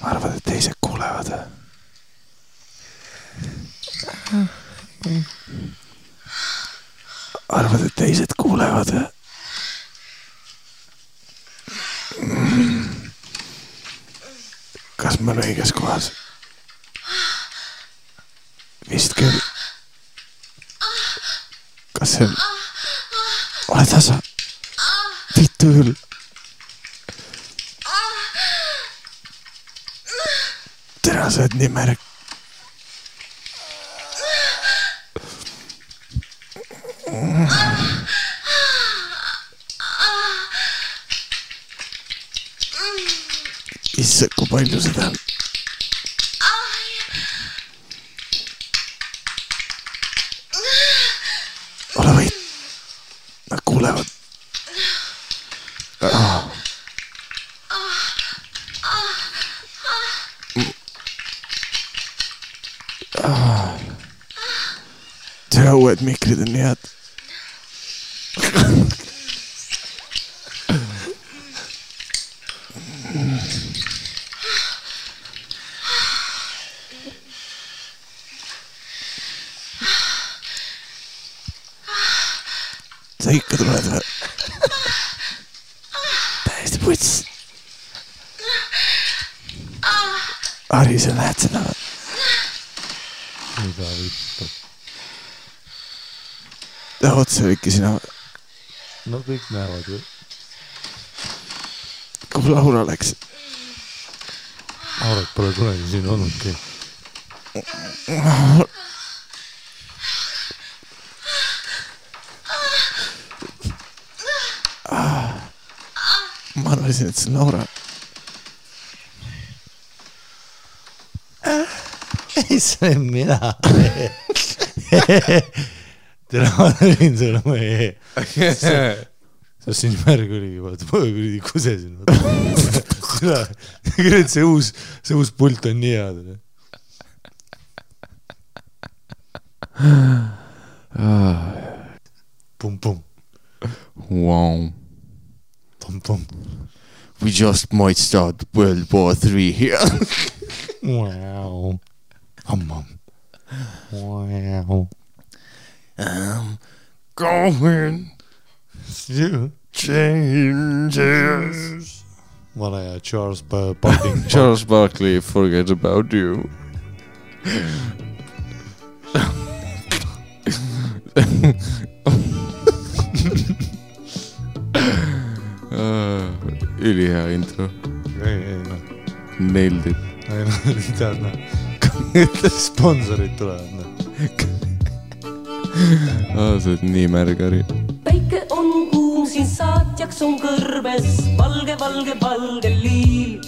Arvad, et teised kuulevad. Arvad, et teised kuulevad. Kas ma olen õiges kohas? Vist küll. Kas see on... Ole tasa. Vittu küll. Tere, sa oled nii märg. Issa, kui palju seda on? Ole võit. Nad kuulevad. Tere, uued mikrid on nii head. Sa ikka tuled või? Täiesti puts. Ari, sa näed seda või? Mida vittu? Ta otsa ikka sina või? No kõik näevad ju. Kui Laura läks? Laurat pole kunagi siin olnudki. Ma arvasin, et see on Laura. Ei, see olen mina. Tere, ma olin sulle meie. See siin märg oligi, vaata, ma kuridi kusesin. See uus pult on nii head. Pum-pum. Wow. Pum-pum. We just might start World War III here. Wow. Hum-hum. Wow. Going You changes. Vana ja Charles Barkley. Charles Barkley, forget about you. Ülihea intro. Ei, noh. Nailed it. Ei, noh, tead, noh. Sponsorid tulevad, noh. Sa oled nii märg, Ari. Päike on kuum, siin saatjaks on kõrbes valge liil.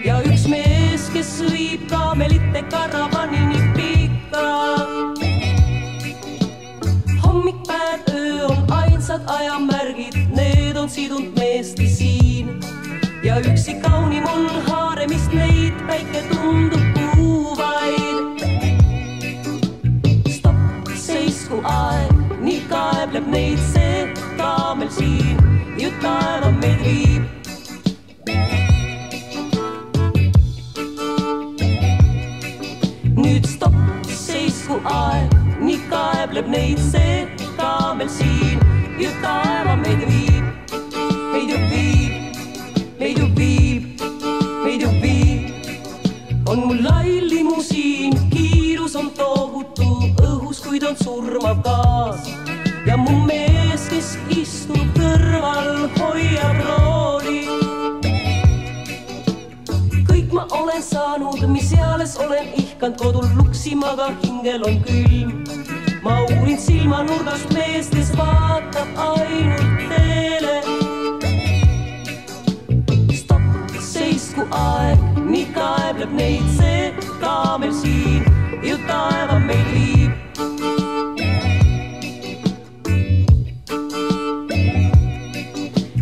Ja üks mees, kes viib kaamelite karavanini pikka. Hommikpäev, öö on ainsad ajamärgid, need on sidunud meesti siin. Ja üksi kaunim on haaremist neid, päike tundub kuuvaid. Stopp, seisku aeg, nii kaebleb neid see kaamel siin, ju taeva meid viib. Nüüd stopp, seisku aeg, nii kaebleb neid see kaamel siin, ju taeva meid viib. Meid ju viib, meid ju viib, meid ju viib. On mul lai limusiin, kiirus on tohutu õhus, kuid on surmav gaas. Ja mu mees, kes istub kõrval, hoiab rooli. Kõik ma olen saanud, mis eales olen ihkand kodul luksimaga, hingel on külm. Ma uurin silmanurgast meest, kes vaatab ainult teele. Stopp, seisku aeg, nii kaebleb neid see kaamel siin, ju taeva meid viib.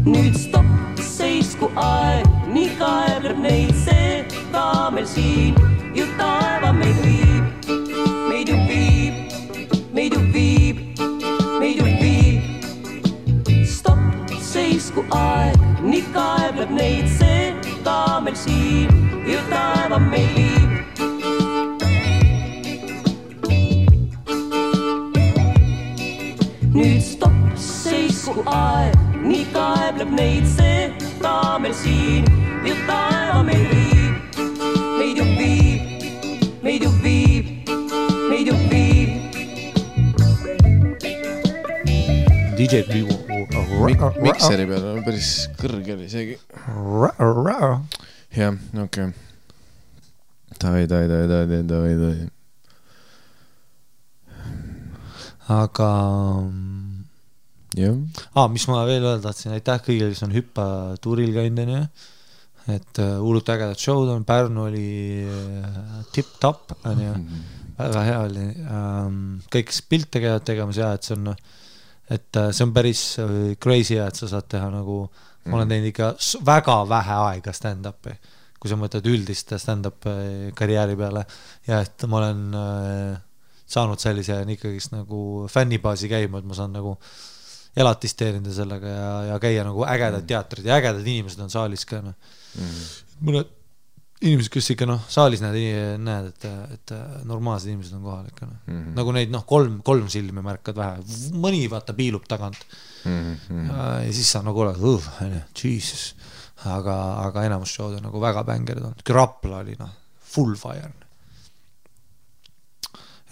Nüüd stopp, seisku aeg, nii kaebleb neid see kaamel siin, ju taeva meid viib. seisku aeg, nii kaebleb neid see ka meil siin ju taeva meil viib. Nüüd stopp, seisku aeg, nii kaebleb neid see ka meil siin ju taeva meil viib. Meid ju viib, meid ju viib, meid ju viib. DJ Mikseri peal on päris kõrge oli seegi. Jah, okei. Davai. Aga Jah. mis ma veel öelda tahtsin, aitäh kõigile, kes on hüppatuuril käinud, et hullult ägedad showd on, Pärnu oli tip-top, väga hea oli, kõik pilte käivad tegemas ja et see on päris crazy, et sa saad teha nagu, ma olen teinud ikka väga vähe aega stand-upi, kui sa mõtled üldist stand-up karjääri peale ja et ma olen saanud sellise ikkagist nagu fännibaasi käima, et ma saan nagu elatist teenida sellega ja käia nagu ägedad teatrid ja ägedad inimesed on saalis ka. Mõned inimesed, kes ikka saalis näed, et normaalsed inimesed on kohal ikka. Nagu neid kolm silmi märkad vähe. Mõni vaata piilub tagant. Ja siis sa nagu oled, Jesus. Aga enamus showd on nagu väga bängerid on. Rapla oli full fire.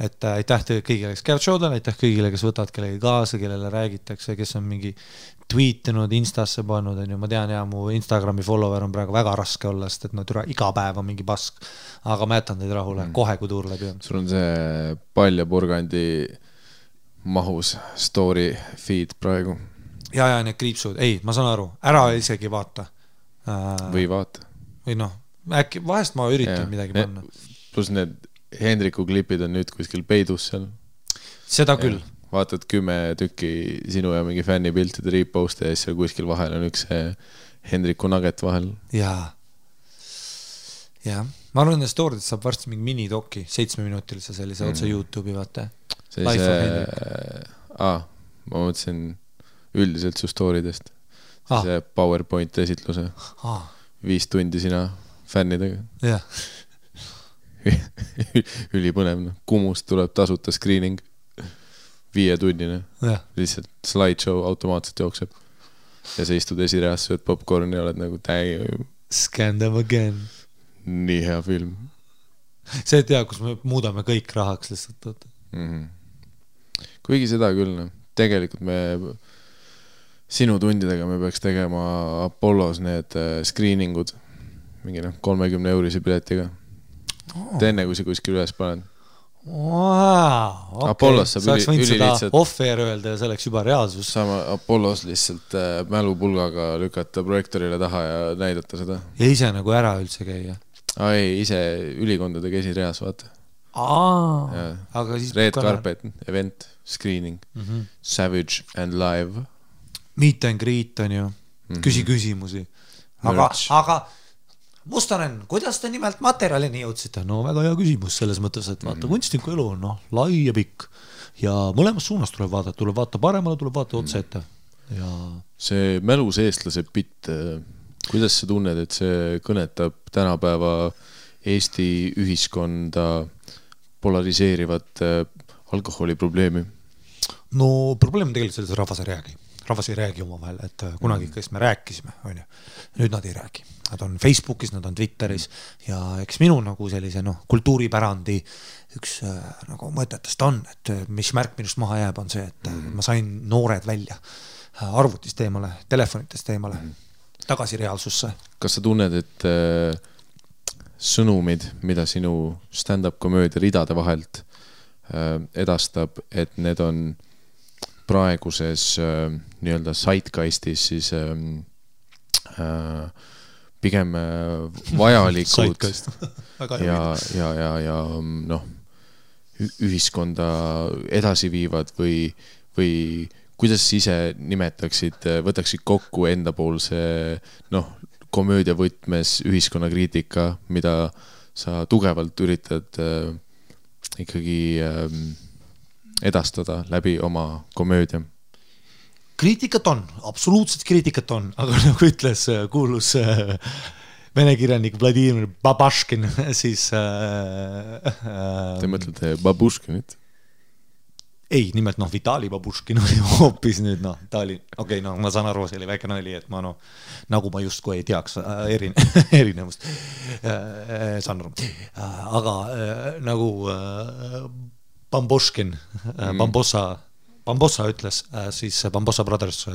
Et aitäh kõigile, kes käivad showdel, aitäh kõigile, kes võtavad kellegi kaasa, kellele räägitakse, kes on mingi tweetinud, instasse pannud, ma tean mu Instagrami follower on praegu väga raske olla, sest et iga päev on mingi pask, aga ma jätan teid rahule, kohe kui tuur läbi on. Sul on see Palja Purgandi mahus story feed praegu. Ja need kriipsud, ma saan aru, ära isegi vaata. Või vaata. Või äkki vahest ma üritan midagi panna. Plus need Hendriku klipid on nüüd kuskil peidus seal. Seda küll. Vaatad 10 tükki sinu ja mingi fännipiltide reposte ja siis seal kuskil vahel on üks Hendriku nugget vahel. Jaa. Ma arvan, et story'd saab varsti mingi minidoki 7-minutilise sellise otse YouTube'i vaata. Ma mõtlesin üldiselt su story'dest. See PowerPoint esitluse. 5 tundi sina fännidega. Jah. Ülipõnev, Kumust tuleb tasuta screening 5-tunnine, lihtsalt slideshow automaatselt jookseb ja sa istud esireas, sööd popcorn ja oled nagu Scan them again. Nii hea film. See tea, kus me muudame kõik rahaks lihtsalt. Kuigi seda küll, tegelikult me sinu tundidega me peaks tegema Apollos need screeningud mingi 30 eurisi piletiga. Enne kui see kuskil üles panen. Apollos saab ülilihtsalt off-air öelda ja see oleks juba reaalsus. Sama Apollos lihtsalt mälupulgaga lükata projektorile taha ja näidata seda. Ja ise nagu ära üldse käia. Ei, ise ülikondadega esireas, vaata. Aga siis Red Carpet, event, screening, Savage and Live. Meet and greet on ju. Küsi küsimusi. Aga Mustonen, kuidas te nimelt materjalini jõudsite? No väga hea küsimus selles mõttes, et vaata, kunstniku elu on lai ja pikk ja mõlemas suunas tuleb vaata paremale, tuleb vaata otse ette. Ja... See mälus eestlase bitt, kuidas sa tunned, et see kõnetab tänapäeva Eesti ühiskonda polariseerivat alkoholiprobleemi? No probleem on tegelikult selles, et rahvas ei räägi oma vahel, et kunagi kes me rääkisime, on ju. Nüüd nad ei räägi. Nad on Facebookis, nad on Twitteris ja eks minu nagu sellise kultuuripärandi üks nagu mõtetest on, et mis märk minust maha jääb on see, et ma sain noored välja arvutist eemale, telefonitest eemale, tagasi reaalsusse. Kas sa tunned, et sõnumid, mida sinu stand-up komöödia ridade vahelt edastab, et need on praeguses nii-öelda zeitgeistis siis pigem vajalikud ja ühiskonda edasi viivad või kuidas ise nimetaksid, võtaksid kokku endapoolse komöödia võtmes ühiskonnakriitika, mida sa tugevalt üritad ikkagi edastada läbi oma komöödia? kriitikat on, absoluutselt kriitikat on, aga nagu ütles kuulus vene kirjanik Vladimir Babaškin, siis Te mõtlete Babuškinit? Ei, nimelt Vitali Babuškin oli hoopis nüüd, ta oli, okei, ma saan aru, see oli väike nali, et ma nagu ma justkui ei teaks erinevust, saan aru, aga nagu Bamboškin, Bambossa ütles, siis Bambossa Brothers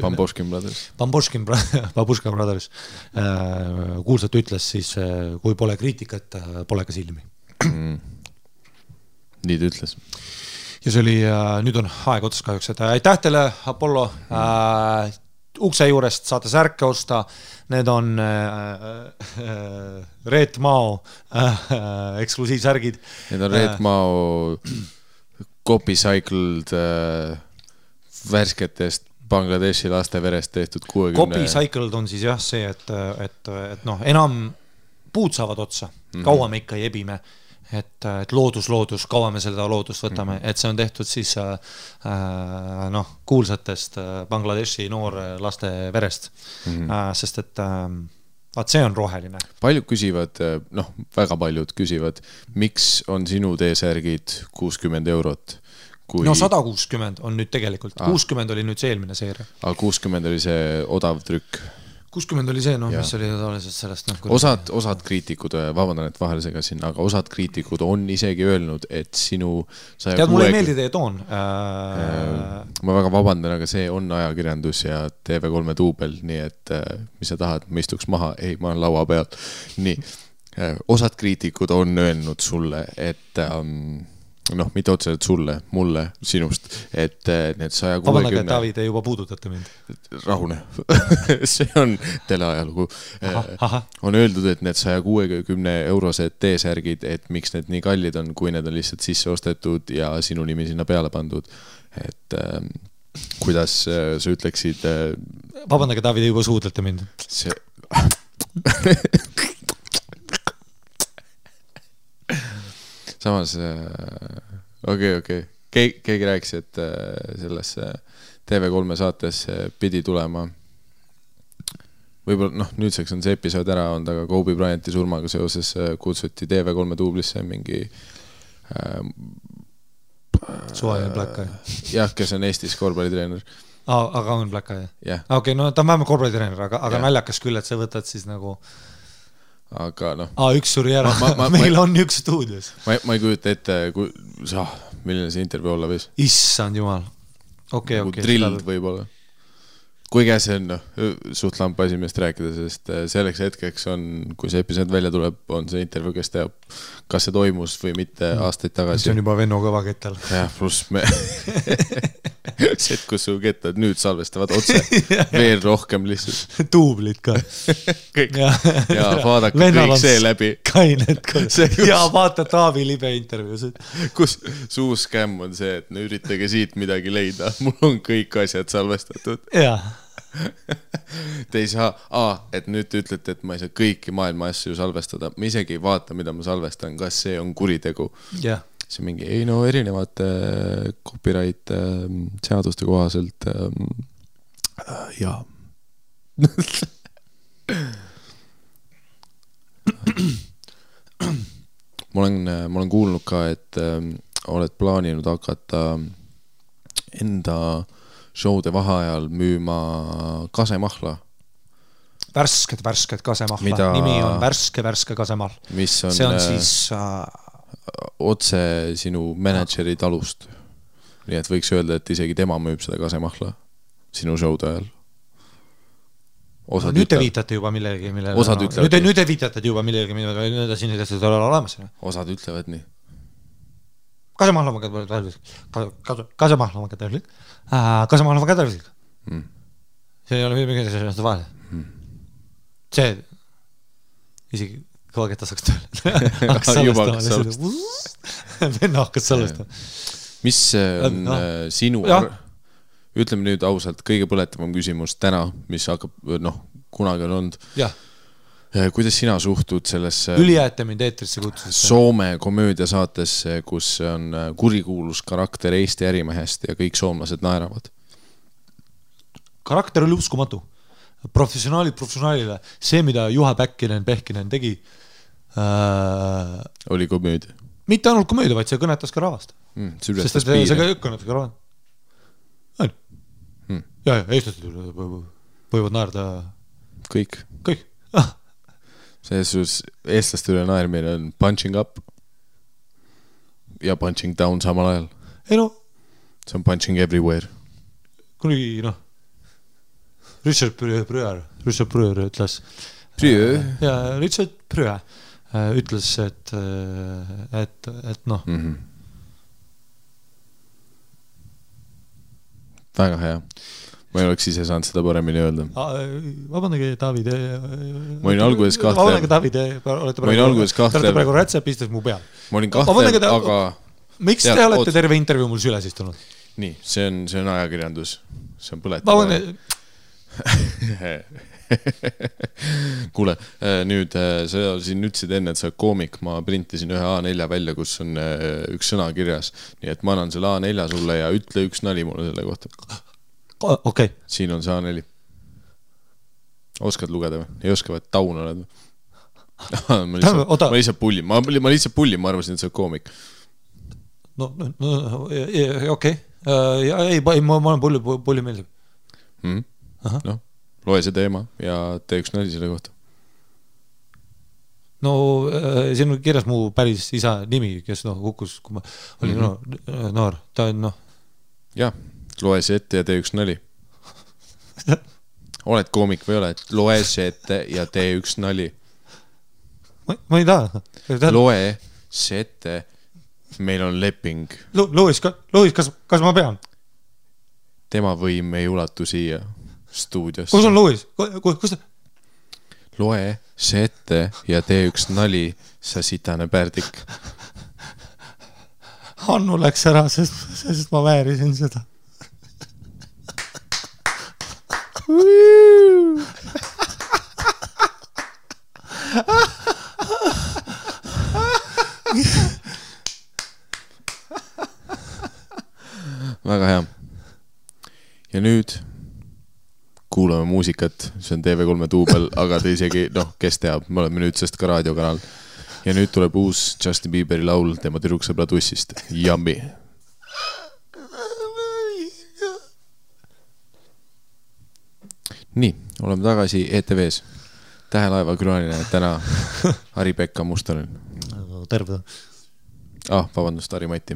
Babuška Brothers kuulsalt ütles siis, kui pole kriitikat, pole ka silmi. Nii ta ütles. Ja see oli, nüüd on aeg otsas kahjuks, et aitäh teile, Apollo, ukse juurest saate särke osta, need on Reet Mao eksklusiivsärgid. Need on Reet Mao copycycled värsketest Bangladeshi laste verest tehtud 60. Copycycled on siis jah see, et enam puud saavad otsa, kaua me ikka ei ebime. Et loodus, kaua me seda loodust võtame, et see on tehtud siis kuulsatest Bangladeshi noor laste verest, sest et vaat see on roheline. Paljud küsivad, väga paljud küsivad, miks on sinu T-särgid 60 eurot? Kui... 160 on nüüd tegelikult, 60 oli nüüd see eelmine seeria. Aga 60 oli see odav trükk? 60 oli see, mis oli tavaliselt sellest. Osad kriitikud, vabandan, et vahele segasin, aga osad kriitikud on isegi öelnud, et sinu... Tead, mulle ei meeldi teie toon. Ma väga vabandan, aga see on ajakirjandus ja TV3 duubel, nii et mis sa tahad, ma istuks maha, ei, ma olen laua peal. Nii, osad kriitikud on öelnud sulle, et... mitte otseselt sulle, mulle, sinust, et need 160... Vabandage, Tavi, te juba puudutate mind. Rahune. See on teleajalugu. On öeldud, et need 160 eurosed T-särgid, et miks need nii kallid on, kui need on lihtsalt sisse ostetud ja sinu nimi sinna peale pandud. Et kuidas sa ütleksid... Vabandage, Tavi, te juba suudlete mind. See... Samas, okei. Keegi rääkis, et selles TV3 saates pidi tulema. Võib-olla, nüüdseks on see episood ära olnud, aga Kobe Bryanti surmaga seoses kutsuti TV3 duublisse mingi... Suajan Black Eye. Jah, kes on Eestis korvpallitreener. Aga on Black Eye? Jah. Okei, ta on vähemalt korvpallitreener, aga naljakas küll, et sa võtad siis nagu... Aga üks suri ära, meil on üks stuudios. Ma ei kujuta ette, milline see intervjuu olla võis. Issand jumal. Okei. Drilled võib-olla. Kuigi see on suht lampa esimest rääkida, sest selleks hetkeks on, kui see episood välja tuleb, on see intervjuu, kes teab, kas see toimus või mitte aastaid tagasi. See on juba Venno kõva kettal. Jah, pluss me... kus su kettad nüüd salvestavad otse veel rohkem lihtsalt. Tuublid ka. Kõik. Ja vaadake kõik see läbi. Kained ka. Ja vaata Taavi libe intervjuusid. Kus suu skämm on see, et üritage siit midagi leida. Mul on kõik asjad salvestatud. Jah. Te ei saa, et nüüd te ütlete, et ma ei saa kõiki maailma asju salvestada. Ma isegi ei vaata, mida ma salvestan, kas see on kuritegu. Jah. See mingi, erinevate copyright seaduste kohaselt jaa. Ma olen kuulnud ka, et oled plaaninud hakata enda showde vaheajal müüma kasemahla. Värsket kasemahla. Nimi on värske kasemahl. See on siis... otse sinu manageeri talust. Nii et võiks öelda, et isegi tema müüb seda kasemahla sinu showde ajal. Nüüd te viitate juba millegi, nüüd te viitate juba millegi, mida siin ei ole olemas. Osad ütlevad nii. Kasemahla ma kätärvislik. See ei ole mingi sellest vahel. See isegi kõvaketta saaks tööle. Venna hakkas salvestama. Mis on sinu... Ütleme nüüd ausalt, kõige põletavam küsimus täna, mis hakkab, kunagi on olnud. Jah. Kuidas sina suhtud sellesse... Ülijääte mind eetrisse kutsusesse. Soome komöödiasaatesse, kus on kurikuulus karakter Eesti ärimehest ja kõik soomlased naeravad? karakter oli uskumatu. Professionaalile. See, mida Juha Pehkinen tegi, oli komöödia. Mitte ainult komöödia, vaid see kõnetas ka rahvast. Sest see kõnetas ka rahvast. Ja, eestlased võivad naerda kõik. Selles eestlaste üle naermine on punching up ja punching down samal ajal. Ei no. See on punching everywhere. Kunagi, Richard Pryor ütles. Ja Richard Pryor ütles, et väga hea. Ma ei oleks ise saanud seda paremini öelda. Vabandage, David. Ma olin alguses kahtlev. Ma olete praegu rätsepistes mu peal. Ma olin kahtlev, aga... Miks te olete terve intervjuu mul süles istunud? Nii, see on ajakirjandus. See on põletamine. Kuule, nüüd sa siin ütlesid enne, et sa koomik. Ma printisin ühe A4 välja, kus on üks sõna kirjas. Nii et ma annan selle A4 sulle ja ütle üks nali mulle selle kohta. Okay. Siin on see A4. Oskad lugeda või? Ei oska, et taun oled või? Ma lihtsalt pullin. Ma arvasin, et sa on koomik. No, okei. Ei, ma olen pulli meeldib. No, loe see teema ja tee üks nali selle kohta. No, siin on kirjas mu päris isa nimi, kes kukkus, kui ma olin noor. Ta on, Jah, loe see ette ja tee üks nali. Oled koomik või ole, et loe see ette ja tee üks nali. Ma ei taha. Loe see ette, meil on leping. Lois, kas ma pean? Tema võim ei ulatu siia stuudiosse. Kus on Lois? Kus ta? Loe see ette ja tee üks nali, sa sitane pärdik. Hannu läks ära, sest ma väärisin seda. Väga hea. Ja nüüd kuulame muusikat, see on TV3 duubel, aga te isegi, kes teab, me oleme nüüd sest ka raadiokanal. Ja nüüd tuleb uus Justin Bieberi laul tema tüdruksõbra tussist. Yummy. Nii, oleme tagasi ETV-s. Tähelaeva külaline täna Harri-Pekka Mustonen. Terve. Vabandust, Harri-Mati.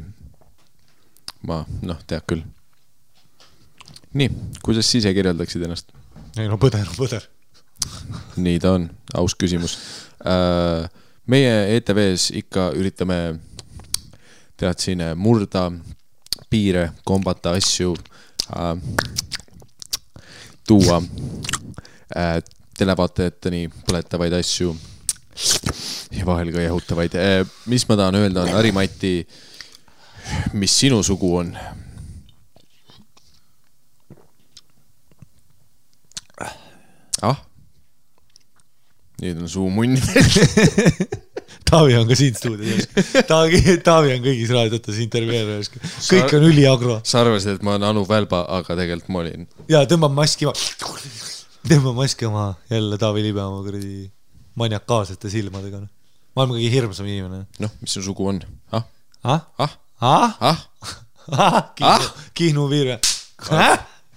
Ma, tead küll. Nii, kuidas ise kirjeldaksid ennast? Ei, põder. Nii ta on, aus küsimus. Meie ETV-s ikka üritame tead siin murda piire, kombata asju, tuua televaatajateni põletavaid asju ja vahel ka jahutavaid. Mis ma tahan öelda on, Harri-Mati, mis sinu sugu on? Nüüd on suu munni. Taavi on ka siin stuudios. Taavi on kõigis raadiotes intervjueerimas. Kõik on üliagro. Sa arvasid, et ma olen Anu Välba, aga tegelikult ma olin. Ja tõmbab maski oma jälle Taavi Libe oma kuradi maniakaalsete silmadega. Ma olen kõige hirmsam inimene. Mis su sugu on? Kihnu viir.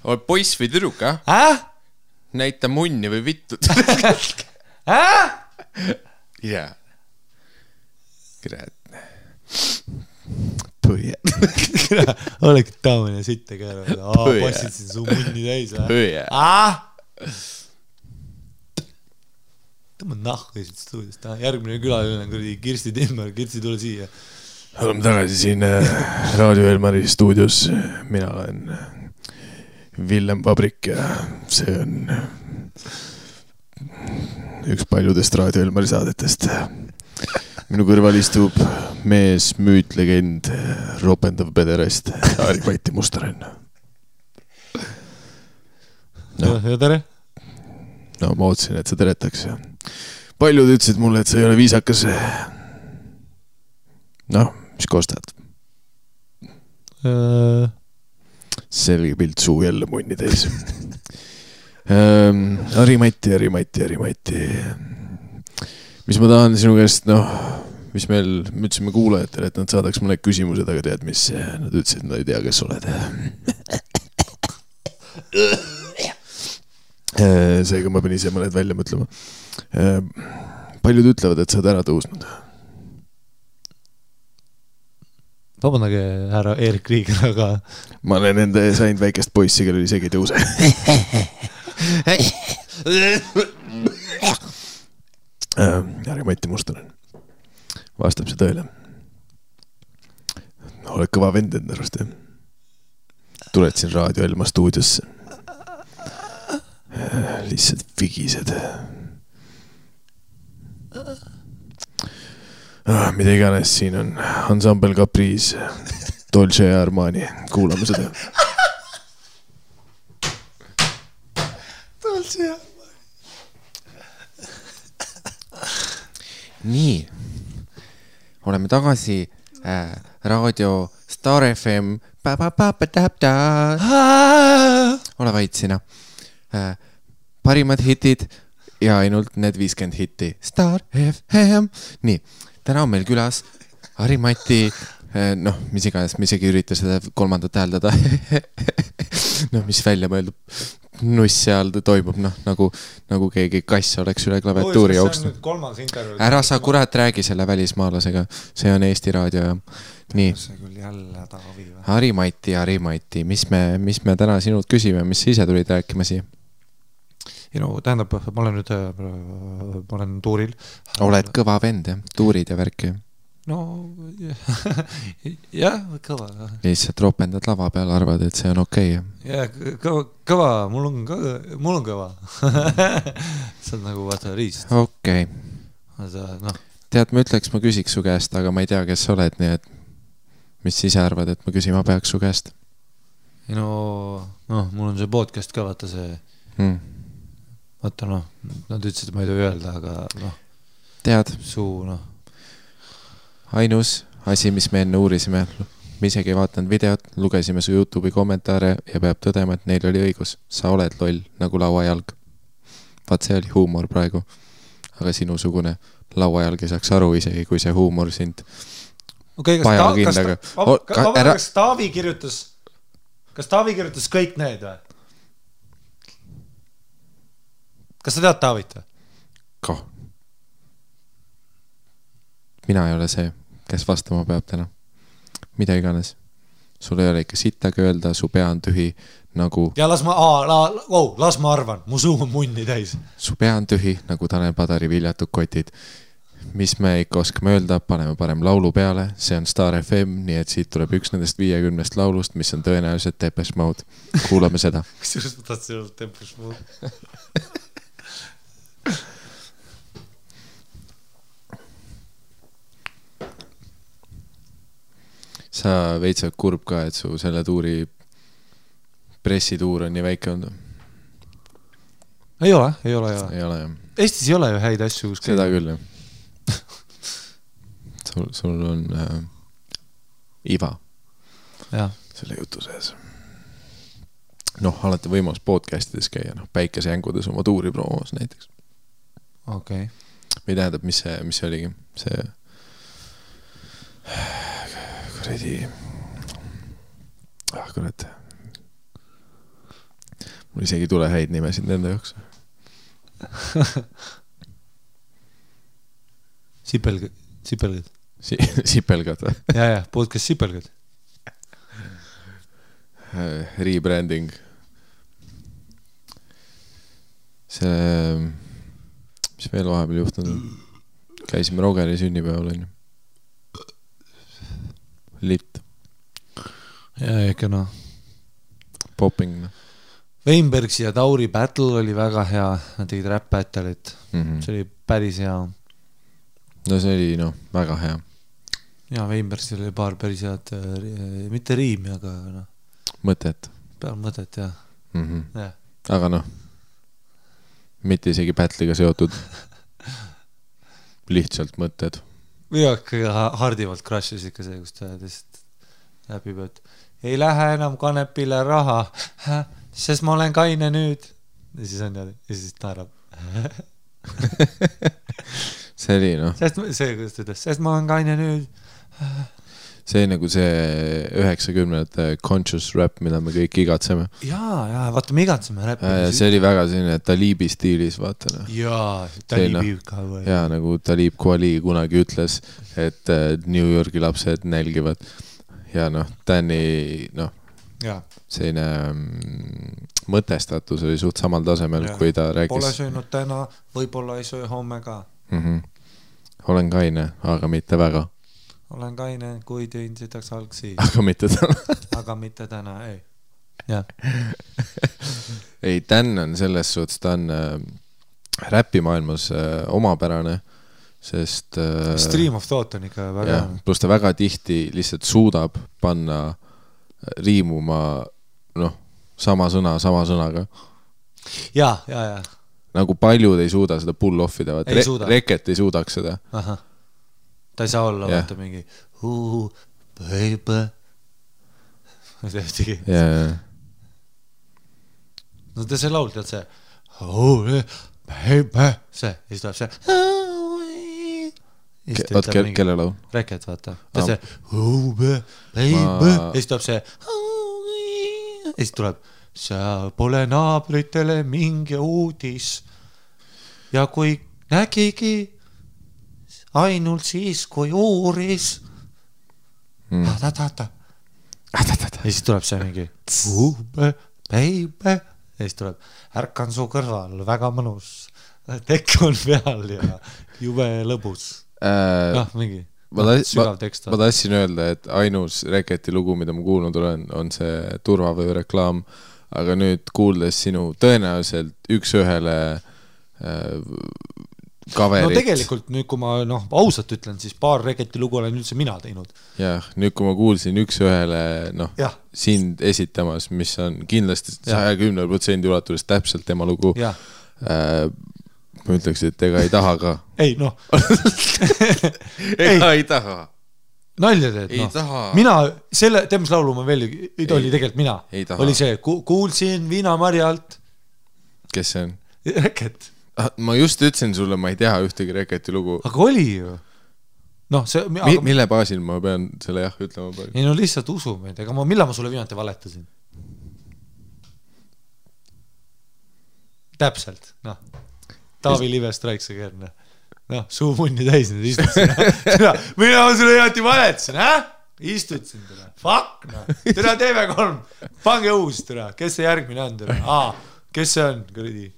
Oled poiss või tüdruk, näita munni või vittud. Jaa. Kurat. Põie. Olegi taamine sitte käärad. Passid siin su munni täis. Põie. Tõmba nahku siit stuudist. Järgmine külaline on Kirsti Timmer. Kirsti, tule siia. Oleme tagasi siin Raadio Elmari stuudios. Mina olen Villem Vabrik ja see on üks paljudest Raadio Elmari saadetest. Minu kõrval istub mees, müüt, legend, ropendav pederast, Harri-Mati Mustonen. Ja tere? Ma ootsin, et sa teretaks. Paljud ütlesid mulle, et sa ei ole viisakas. Mis kostad? Selge pilt suu jälle munni täis. Harimati. Mis ma tahan sinu käest, mis me ütlesime kuulajatele, et nad saadaks mõned küsimused, aga tead, mis nad ütlesid, nad ei tea, kes oled. Seega ma pean ise mõned välja mõtlema. Paljud ütlevad, et sa oled ära tõusnud. Vabandage, härra Erik Riiger, aga... Ma olen enda sain väikest poissi, kellel isegi ei tõuse. Harimati Mustonen. Vastab see tõele. Oled kõva vend enda arust, jah? Tuled siin Raadio Elma stuudiosse. Lihtsalt vigised. Mida iganes siin on. Ensemble Caprice, Dolce ja Armani. Kuulame seda. Dolce ja Armani. Nii. Oleme tagasi raadio Star FM. Ole vait sina. Parimad hitid ja ainult need 50 hitti. Star FM. Nii, täna on meil külas Harimati, mis iganes, me isegi ürita seda kolmandat hääldada. Mis välja mõeldub. Nuss seal toimub, nagu keegi kass oleks üle klaviatuuri jooksnud. Ära sa kurat räägi selle välismaalasega. See on Eesti Raadio ja nii. Harimati, mis me täna sinult küsime, mis ise tulid rääkima siia? Tähendab, ma olen tuuril. Oled kõva vend, jah? Tuurid ja värki. Jah, kõva. Lihtsalt ropendad lava peal, arvad, et see on okei. Jah, kõva, mul on kõva. See on nagu vaata riist. Okei. Tead, ma küsiks su käest, aga ma ei tea, kes sa oled, nii et mis ise arvad, et ma küsima peaks su käest? Mul on see podcast ka, vaata see vaata, nad ütlesid, et ma ei tohi öelda, aga tead, suu, ainus asi, mis me enne uurisime, me isegi ei vaatanud videot, lugesime su YouTube'i kommentaare ja peab tõdema, et neil oli õigus. Sa oled loll, nagu lauajalg. Vaat see oli huumor praegu. Aga sinusugune lauajalg ei saaks aru isegi, kui see huumor sind pajakindaga. Kas Taavi kirjutas kõik need või? Kas sa tead Taavit või? Ka. Mina ei ole see, kes vastama peab täna. Mida iganes. Sul ei ole ikka sittagi öelda, su pea on tühi nagu... Ja las ma arvan, mu suu on munni täis. Su pea on tühi nagu Tanel Padari viljatud kotid. Mis me ikka oskame öelda, paneme parem laulu peale. See on Star FM, nii et siit tuleb üks nendest 50 laulust, mis on tõenäoliselt Depeche Mode. Kuulame seda. Kusjuures ma tahtsin olla Depeche Mode. Sa veitsad kurb ka, et su selle tuuri pressituur on nii väike olnud? Ei ole. Ei ole, jah. Eestis ei ole ju häid asju. Seda küll, jah. Sul on iva selle jutu sees. Alati võimalus podcastides käia, päikesejängudes oma tuuri promos näiteks. Okei. Või tähendab, mis see oligi? See kurat. Mul isegi tule häid nimesid nende jaoks. Sipelgad. Sipelgad või? Ja, podcast Sipelgad. Rebranding. See, mis veel vahepeal juhtunud? Käisime Rogeri sünnipäeval, on ju. Lit. Ja ikka Popping. Weinbergsi ja Tauri battle oli väga hea. Nad tegid rap battle'it. See oli päris hea. No see oli väga hea. Ja Weinbergsil oli paar päris head, mitte riimi, aga mõtet. Peal mõtet, jah. Ja. Aga mitte isegi battle'iga seotud. Lihtsalt mõtted. Ja kõige hardivalt crash'is ikka see, kus ta läbib, et ei lähe enam kanepile raha, sest ma olen kaine nüüd. ja siis on niimoodi ja siis naerab. see oli noh. See, kuidas ta ütles, sest ma olen kaine nüüd. See nagu see 90-ndate conscious rap, mida me kõik igatseme. Jaa, vaata, me igatseme räppi. See oli väga selline Talibi stiilis, vaata. No. Jaa, Talibi ka või. Jaa, nagu Talib Kweli kunagi ütles, et New Yorgi lapsed nälgivad. Ja noh, Danny, noh, selline mõtestatus oli suht samal tasemel, kui ta rääkis. Pole söönud täna, võib-olla ei söö homme ka. Olen kaine, aga mitte väga. Olen kaine, kui tüün sitaks algsi. Aga mitte täna. Aga mitte täna, ei. Jah. Ei, Dan on selles suhtes, ta on räpimaailmas omapärane, sest... Stream of thought on ikka väga... Ja, plus ta väga tihti lihtsalt suudab panna riimuma sama sõnaga. Ja. Nagu paljud ei suuda seda pull-offida. Reket ei suudaks seda. Aha. Ta ei saa olla, vaata mingi baby. Ma ei tehtigi. No ta see laul, tead see baby. See, ja siis tuleb see kelle laul? Reket, vaata. Ta see baby. Ja siis tuleb see ja siis tuleb sa pole naabritele mingi uudis. Ja kui nägigi ainult siis, kui uuris. Ja siis tuleb see mingi baby. Ja siis tuleb ärkan su kõrval, väga mõnus. Tekk on peal ja jube lõbus. Mingi sügav tekst. Ma tahtsin öelda, et ainus Reketi lugu, mida ma kuulnud olen, on see turvavöö reklaam. Aga nüüd kuuldes sinu tõenäoliselt üks-ühele kaverit. No tegelikult nüüd, kui ma ausalt ütlen, siis paar Reketi lugu olen üldse mina teinud. Jah, nüüd kui ma kuulsin üks-ühele sind esitamas, mis on kindlasti 110% ulatuses täpselt tema lugu, ma ütleks, et ega ei taha ka. Ei, ei taha. Nalja teed, Mina, teemas laulu ma veel oli tegelikult mina. Oli see, kuulsin Viinamarjalt. Kes see on? Reket. Ma just ütlesin sulle, ma ei tea ühtegi Reketi lugu. Aga oli ju. Mille baasil ma pean selle ütlema? Ei, lihtsalt usu meid. Ega millal ma sulle viimati valetasin? Täpselt, Taavi Live Strikes Again. Suu munni täis nüüd istutsin. Mina sulle jääti valetasin, istutsin teda. Fuck, teda TV3. Pange uus, teda. Kes see järgmine on, teda? Kes see on, kuridi?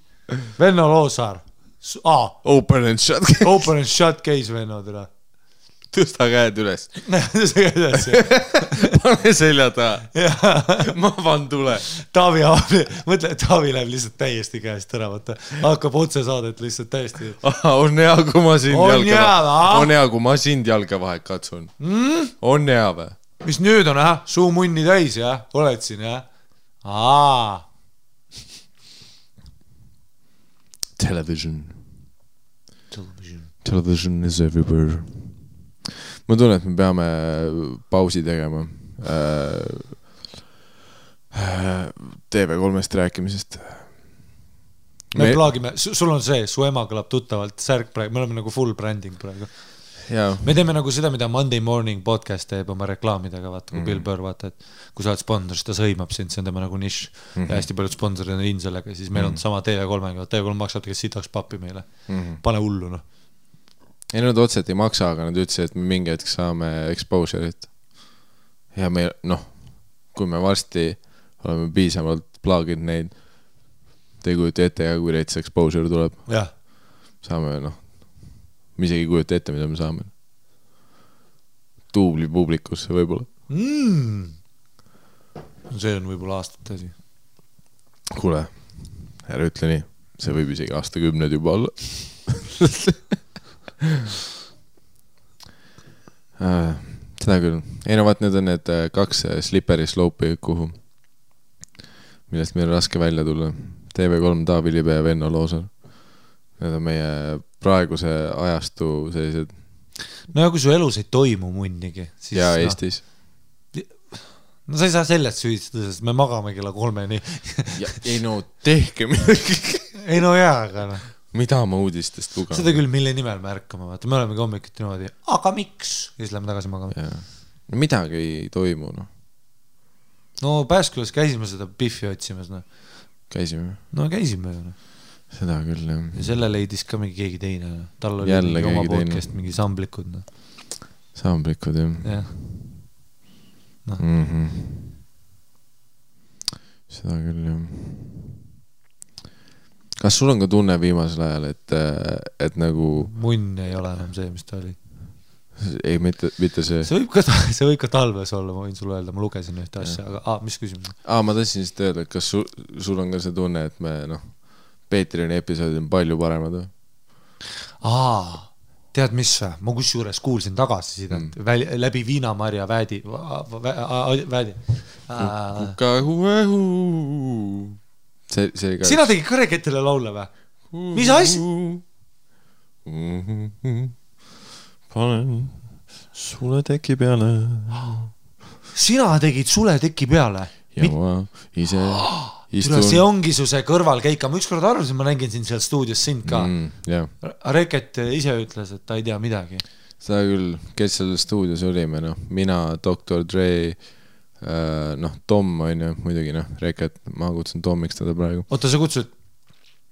Venno Loosaar. Open and shut case, Venno, teda. Tõsta käed üles. Tõsta käed üles. Pane selja taha. Ma van tule. Mõtle, Taavi läheb lihtsalt täiesti käest ära, vaata. Hakkab otse saadet lihtsalt täiesti. On hea, kui ma sind jalga vahe katsun. On hea või? Mis nüüd on, suu munni täis, oled siin, Television is everywhere. Ma tunnen, et me peame pausi tegema TV3-st rääkimisest. Me plaagime, sul on see, su ema kõlab tuttavalt särk praegu, me oleme nagu full branding praegu. Me teeme nagu seda, mida Monday Morning podcast teeb oma reklaamidega, vaata, kui Bill Burr, vaata, et kui sa oled sponsor, siis ta sõimab sind, see on tema nagu nišš ja hästi paljud sponsorid on in sellega, siis meil on sama TV3-ga, TV3 maksab tegelikult sitaks pappi meile. Pane hullu, Ei, nad otseselt ei maksa, aga nad ütlesid, et me mingi hetk saame exposure'it. Ja me, kui me varsti oleme piisavalt plaaginud neid, te ei kujuta ette, kui reits exposure tuleb. Saame, me isegi ei kujuta ette, mida me saame. Tuubli publikusse võib-olla. See on võib-olla aastate asi. Kuule, ära ütle nii. See võib isegi aastakümned juba olla. Seda küll. Ei vaat, need on need 2 slippery slope'i kuhu, millest meil on raske välja tulla. TV3 Taavi Libe ja Venno Loosaar. Need on meie praeguse ajastu sellised. No ja kui su elus ei toimu munnigi, siis ja Eestis. No sa ei saa sellest süüdistada, sest me magame kella 3-ni. Ei no, tehke midagi. Ei no jaa, aga noh. Mida ma uudistest lugan? Seda küll, mille nimel me ärkame, vaata. Me olemegi hommikuti niimoodi, aga miks? Ja siis lähme tagasi magama. No midagi ei toimu, noh. No Pääskülas käisime seda Biffi otsimas, noh. Käisime? No käisime ju, noh. Seda küll, jah. Ja selle leidis ka mingi keegi teine. Tal oli jälle mingi oma teine. podcast, mingi samblikud, noh. Samblikud, jah. Jah. No. Seda küll, jah. Kas sul on ka tunne viimasel ajal, et nagu... Munn ei ole enam see, mis ta oli. Ei, mitte see. See võib ka talves olla, ma võin sulle öelda, ma lugesin ühte asja, aga mis küsimus? Ma tahtsin siis öelda, et kas sul on ka see tunne, et me, noh, Patreoni episoodid on palju paremad või? Tead mis või? Ma kusjuures kuulsin tagasi sidet läbi Viinamarja Väädi. Sina tegid ka Reketile laule või? Mis asja? Panen sule teki peale. Sina tegid sule teki peale? Ja ma ise istun. See ongi su see kõrvalkeika. Ma ükskord arvasin, ma nägin siin seal stuudios sind ka. Reket ise ütles, et ta ei tea midagi. Seda küll, kes seal stuudios olime, noh, mina, Dr. Dre, noh, Tom on ju, muidugi, noh, Reket, ma kutsun Tomiks teda praegu. Oota, sa kutsud?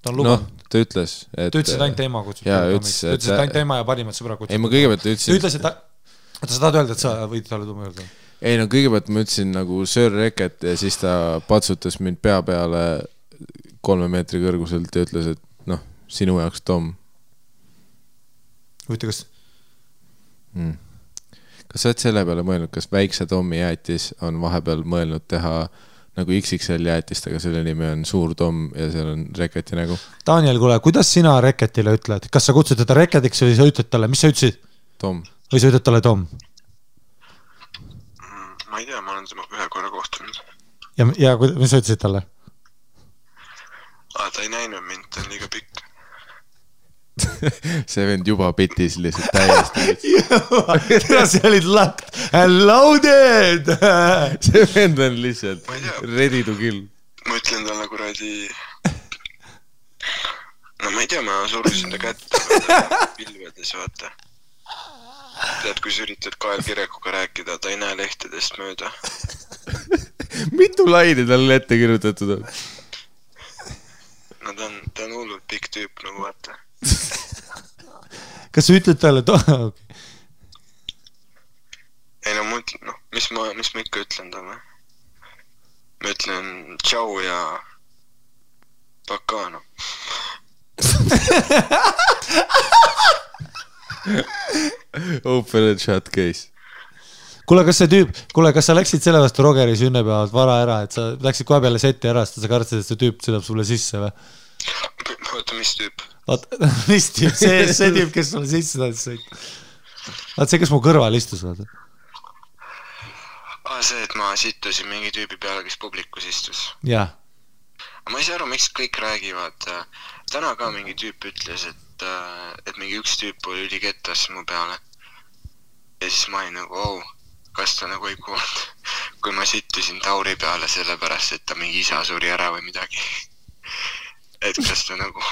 Ta on lubanud. Noh, ta ütles, et... Ta ütles, et ainult ema kutsud. Jaa, ütles, et ainult ema ja parimad sõbra kutsud. Ei, ma kõigepealt ütlesin... Ta ütles, et ta... Oota, sa tahad öelda, et sa võid talle tuuma öelda? Ei, no kõigepealt ma ütlesin nagu Sir Reket ja siis ta patsutas mind pea peale 3 meetri kõrguselt ja ütles, et noh, sinu jaoks Tom. Võite, kas... Kas sa oled selle peale mõelnud, kas väikse Tommi jäätis on vahepeal mõelnud teha nagu XXL jäätist, aga selle nimi on Suur Tom ja seal on Reketi nägu? Daniel, kuule, kuidas sina Reketile ütled? Kas sa kutsud teda Reketiks või sa ütled talle? Mis sa ütlesid? Tom. Või sa ütled talle Tom? Ma ei tea, ma olen tema ühe korra kohtunud. Ja mis sa ütlesid talle? Ta ei näinud mind, ta on liiga pikk. See vend juba pitis lihtsalt täiesti. See olid locked and loaded. See vend on lihtsalt ready to kill. Ma ütlen talle kuradi... No ma ei tea, ma surusin ta kätte pilvedes, vaata. Tead, kui sa üritad Kael Kirekuga rääkida, ta ei näe lehtedest mööda. Mitu laine talle ette kirjutatud on? No ta on hullult pikk tüüp, nagu vaata. Kas sa ütled talle okay. Ei no ma ütlen, noh, mis ma ikka ütlen talle? Ma ütlen tšau ja pakka, noh. Open and shut case. Kuule, kas sa läksid selle vastu Rogeri sünnepäevalt vara ära, et sa läksid kohe peale seti ära, sest sa kartsid, et see tüüp sõidab sulle sisse või? Oota, mis tüüp? Mis tüüp? See tüüp, kes sulle sisse tahtis sõita. Vaat see, kes mu kõrval istus, vaata. See, et ma sittusin mingi tüübi peale, kes publikus istus. Jah. Ma ei saa aru, miks kõik räägivad. Täna ka mingi tüüp ütles, et mingi üks tüüp oli ülikettas mu peale. Ja siis ma olin nagu, kas ta nagu ei kuulnud, kui ma sittusin Tauri peale sellepärast, et ta mingi isa suri ära või midagi. Et kas ta nagu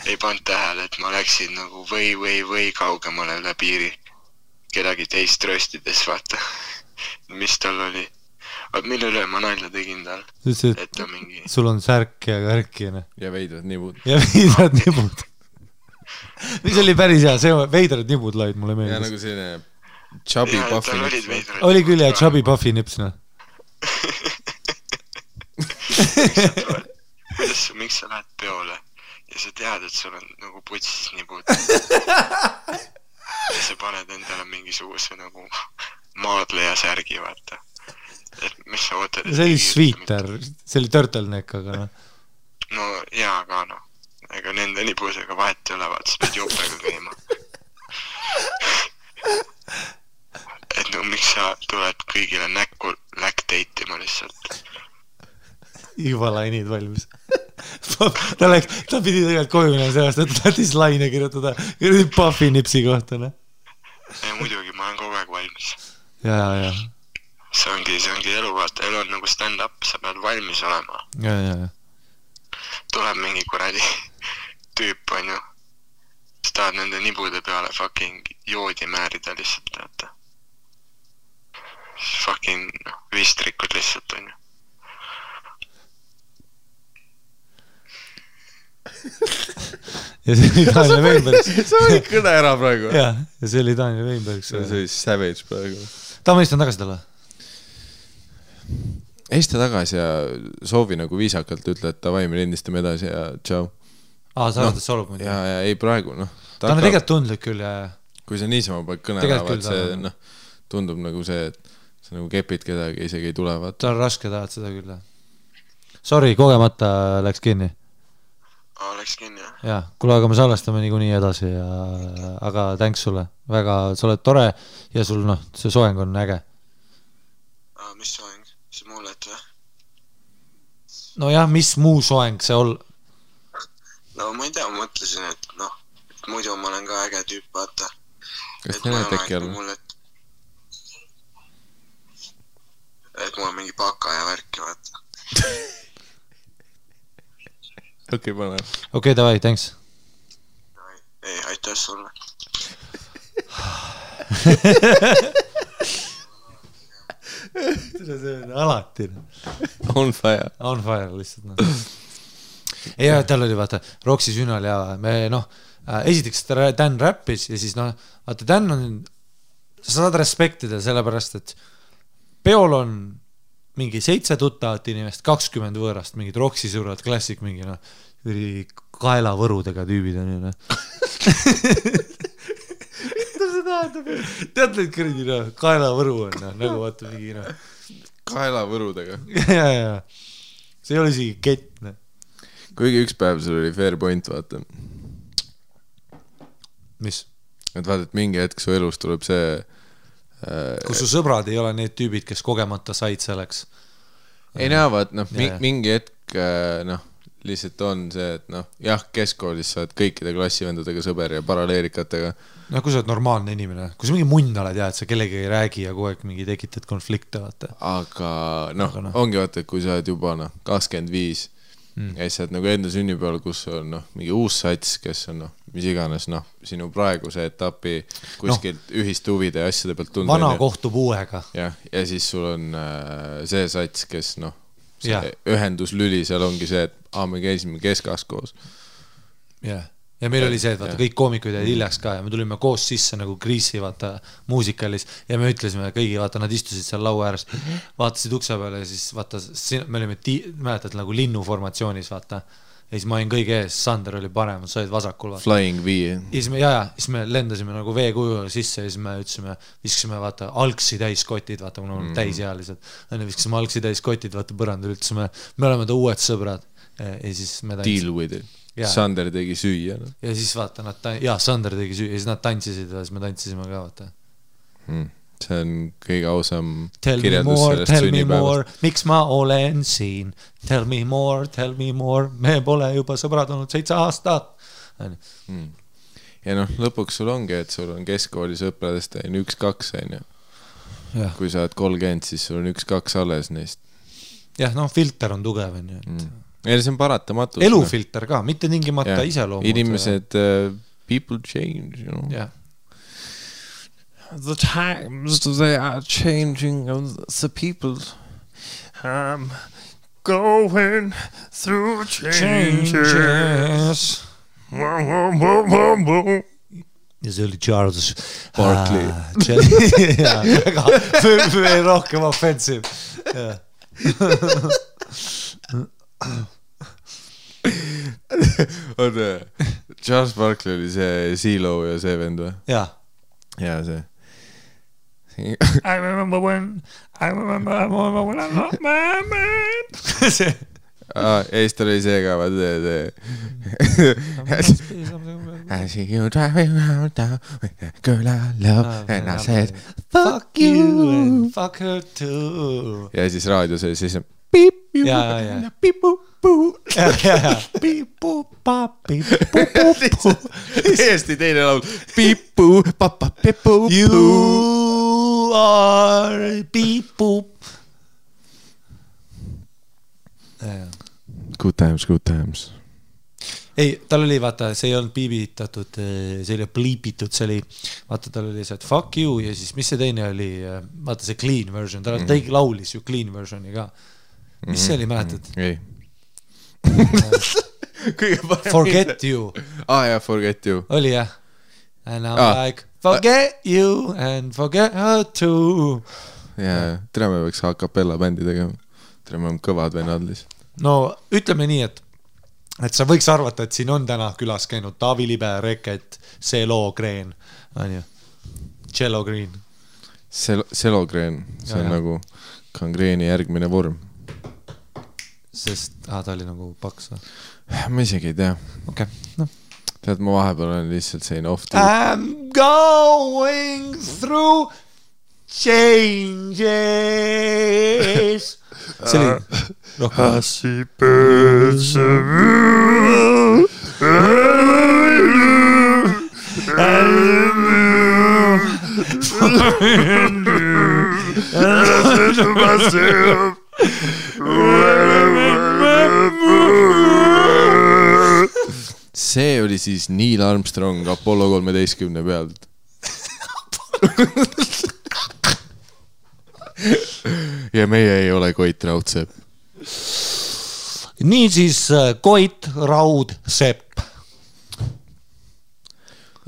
ei pannud tähele, et ma läksin nagu või kaugemale üle piiri kedagi teist röstides, vaata, mis tal oli. Mille üle ma nalja tegin tal? Et ta mingi... Sul on särk ja kärkine. Ja veidrad nibud. Mis oli päris hea, see veidrad nibud laid mulle meeldis. Ja nagu selline chubby puffy nips. Oli küll ja chubby puffy nips, noh. Miks sa lähed peole ja sa tead, et sul on nagu putsis nibud ja sa paned endale mingisuguse nagu maadleja särgi, vaata. Et mis sa ootad? See oli sweeter, see oli turtleneck, aga noh. No jaa, aga noh. Ega nende nibusega vahet ei ole, vaata, sa pead jopega käima. Et no miks sa tuled kõigile näkku läkteitima lihtsalt? Juba lainid valmis. Ta pidi tegelikult koju minema sellest, et tahtis laine kirjutada Puffy nipsi kohta. Ja muidugi, ma olen kogu aeg valmis. Ja. see ongi elu, vaata, elu on nagu stand-up, sa pead valmis olema. Ja. Tuleb mingi kuradi tüüp, on ju. Sa tahad nende nibude peale fucking joodi määrida lihtsalt, teata. Fucking vistrikud lihtsalt, on ju. Ja see oli Daniel Weinberg. Sa olid kõne ära praegu. Ja see oli Daniel Weinberg. See oli savage praegu. Ma istan tagasi talle. Eista tagasi ja soovi nagu viisakalt ütle, et davai, me lindistame edasi ja tšau. Sa arvad, et solub muidu? Ja ei praegu, ta on tegelikult tundlik küll ja... Kui sa niisama paned kõne ära, see tundub nagu see, et sa nagu kepid kedagi, isegi ei tule. Ta on raske, tahad seda küll. Sorry, kogemata läks kinni. Läks kinni, jah. Ja, kuule, aga me salvestame niikuinii edasi, aga thanks sulle. Väga, sa oled tore ja sul, see soeng on äge. Mis soeng? See mullet või? No jah, mis muu soeng see No ma ei tea, ma mõtlesin, et muidu ma olen ka äge tüüp, vaata. Kas te näed äkki all? Et mul on mingi baka ja värki, vaata. Okei, pane. Okei, davai, thanks. Ei, aitäh sulle. See on alati. On fire. On fire, lihtsalt. Ja tal oli, vaata, Roksi sünnal ja me, esiteks Dan räppis ja siis, vaata, Dan on, sa saad respektida sellepärast, et peol on mingi 7 tuttavat inimest, 20 võõrast, mingid Roksi sõbrad, klassik, mingi, kaelavõrudega tüübid on ju, Mida see tähendab? Tead neid kõrdi, kaelavõru on, nagu vaata mingi, Kaelavõrudega. Ja. See ei ole isegi kett, Kuigi üks päev sul oli fair point, vaata. Mis? Et vaata, et mingi hetk su elus tuleb see... Kus su sõbrad ei ole need tüübid, kes kogemata said selleks. Ei näe, vaat, mingi hetk, lihtsalt on see, et jah, keskkoolis sa oled kõikide klassivendadega sõber ja paraleerikatega. Kui sa oled normaalne inimene, kui sa mingi munn oled ja et sa kellegi ei räägi ja kogu aeg mingi tekitad konflikte, vaata. Aga ongi vaata, et kui sa oled juba 25 ja siis sa oled nagu enda sünnipäeval, kus on mingi uus sats, kes on mis iganes sinu praeguse etapi kuskilt ühist huvide ja asjade pealt tunda. Vana kohtub uuega. Ja siis sul on see sats, kes see ühenduslüli seal ongi see, et me käisime keskas koos. Ja meil oli see, et vaata, kõik koomikud jäid hiljaks ka ja me tulime koos sisse nagu Grease'i, vaata, muusikalis ja me ütlesime kõigi, vaata, nad istusid seal laua ääres, vaatasid ukse peale ja siis, vaata, me olime, mäletad, nagu linnuformatsioonis, vaata, ja siis ma olin kõige ees, Sander oli parem, sa olid vasakul, vaata. Flying V. Siis me lendasime nagu veekuju sisse ja siis me ütlesime, viskasime, vaata, algsi täis kotid, vaata, mul on täisealised, viskasime algsi täis kotid, vaata, põrandul, ütlesime, me oleme ta uued sõbrad ja siis me Deal with it. Sander tegi süüa. Ja siis vaata, Sander tegi süüa ja siis nad tantsisid ja siis me tantsisime ka, vaata. See on kõige ausam kirjeldus sellest sünnipäevast. Miks ma olen siin? Tell me more. Me pole juba sõbrad olnud 7 aastat. Ja lõpuks sul ongi, et sul on keskkooli sõpradest 1-2, kui sa oled 30, siis sul on 1-2 alles neist. Jah, filter on tugev, Ja see on paratamatus. Elufilter ka, mitte tingimata iseloomud. Inimesed, people change, The times, they are changing, the people going through changes. Ja see oli Charles Barkley. Väga rohkem offensive. Charles Barkley oli see CeeLo ja see vend või? Ja see I remember when I'm not my man. See Eesti oli see ka, vaat I see you driving around town with a girl I love and I said fuck you and fuck her too. Ja siis raadios oli siis piip, piip-puu-puu. Täiesti teine laul. Piip-puu, papa-pippu-puu. You are beep boop. Good times. Ei, tal oli, vaata, see ei olnud piibitatud, see oli pliipitud, see oli, vaata, tal oli see, et fuck you ja siis mis see teine oli, vaata see clean version, tal tegi laulis ju clean versioni ka. Mis see oli, mäletad? Ei. Forget you. Jaa, Forget you. Oli jah? And I'm like, forget you and forget her too. Jaa, tere me võiks a cappella bändi tegema. Tere me on kõvad vennad lihtsalt. No, ütleme nii, et sa võiks arvata, et siin on täna külas käinud Taavi Libe, Reket, Selo Green, on ju? Cello Green. Selo Green, see on nagu kangreeni järgmine vorm. Sest, ta oli nagu paks. Ma isegi ei tea. Okei, noh. Tead, ma vahepeal olen lihtsalt selline off I'm going through changes. See oli rohkem. Happy see oli siis Neil Armstrong Apollo 13 pealt. Ja meie ei ole Koit Raudsepp. Nii siis Koit Raudsepp.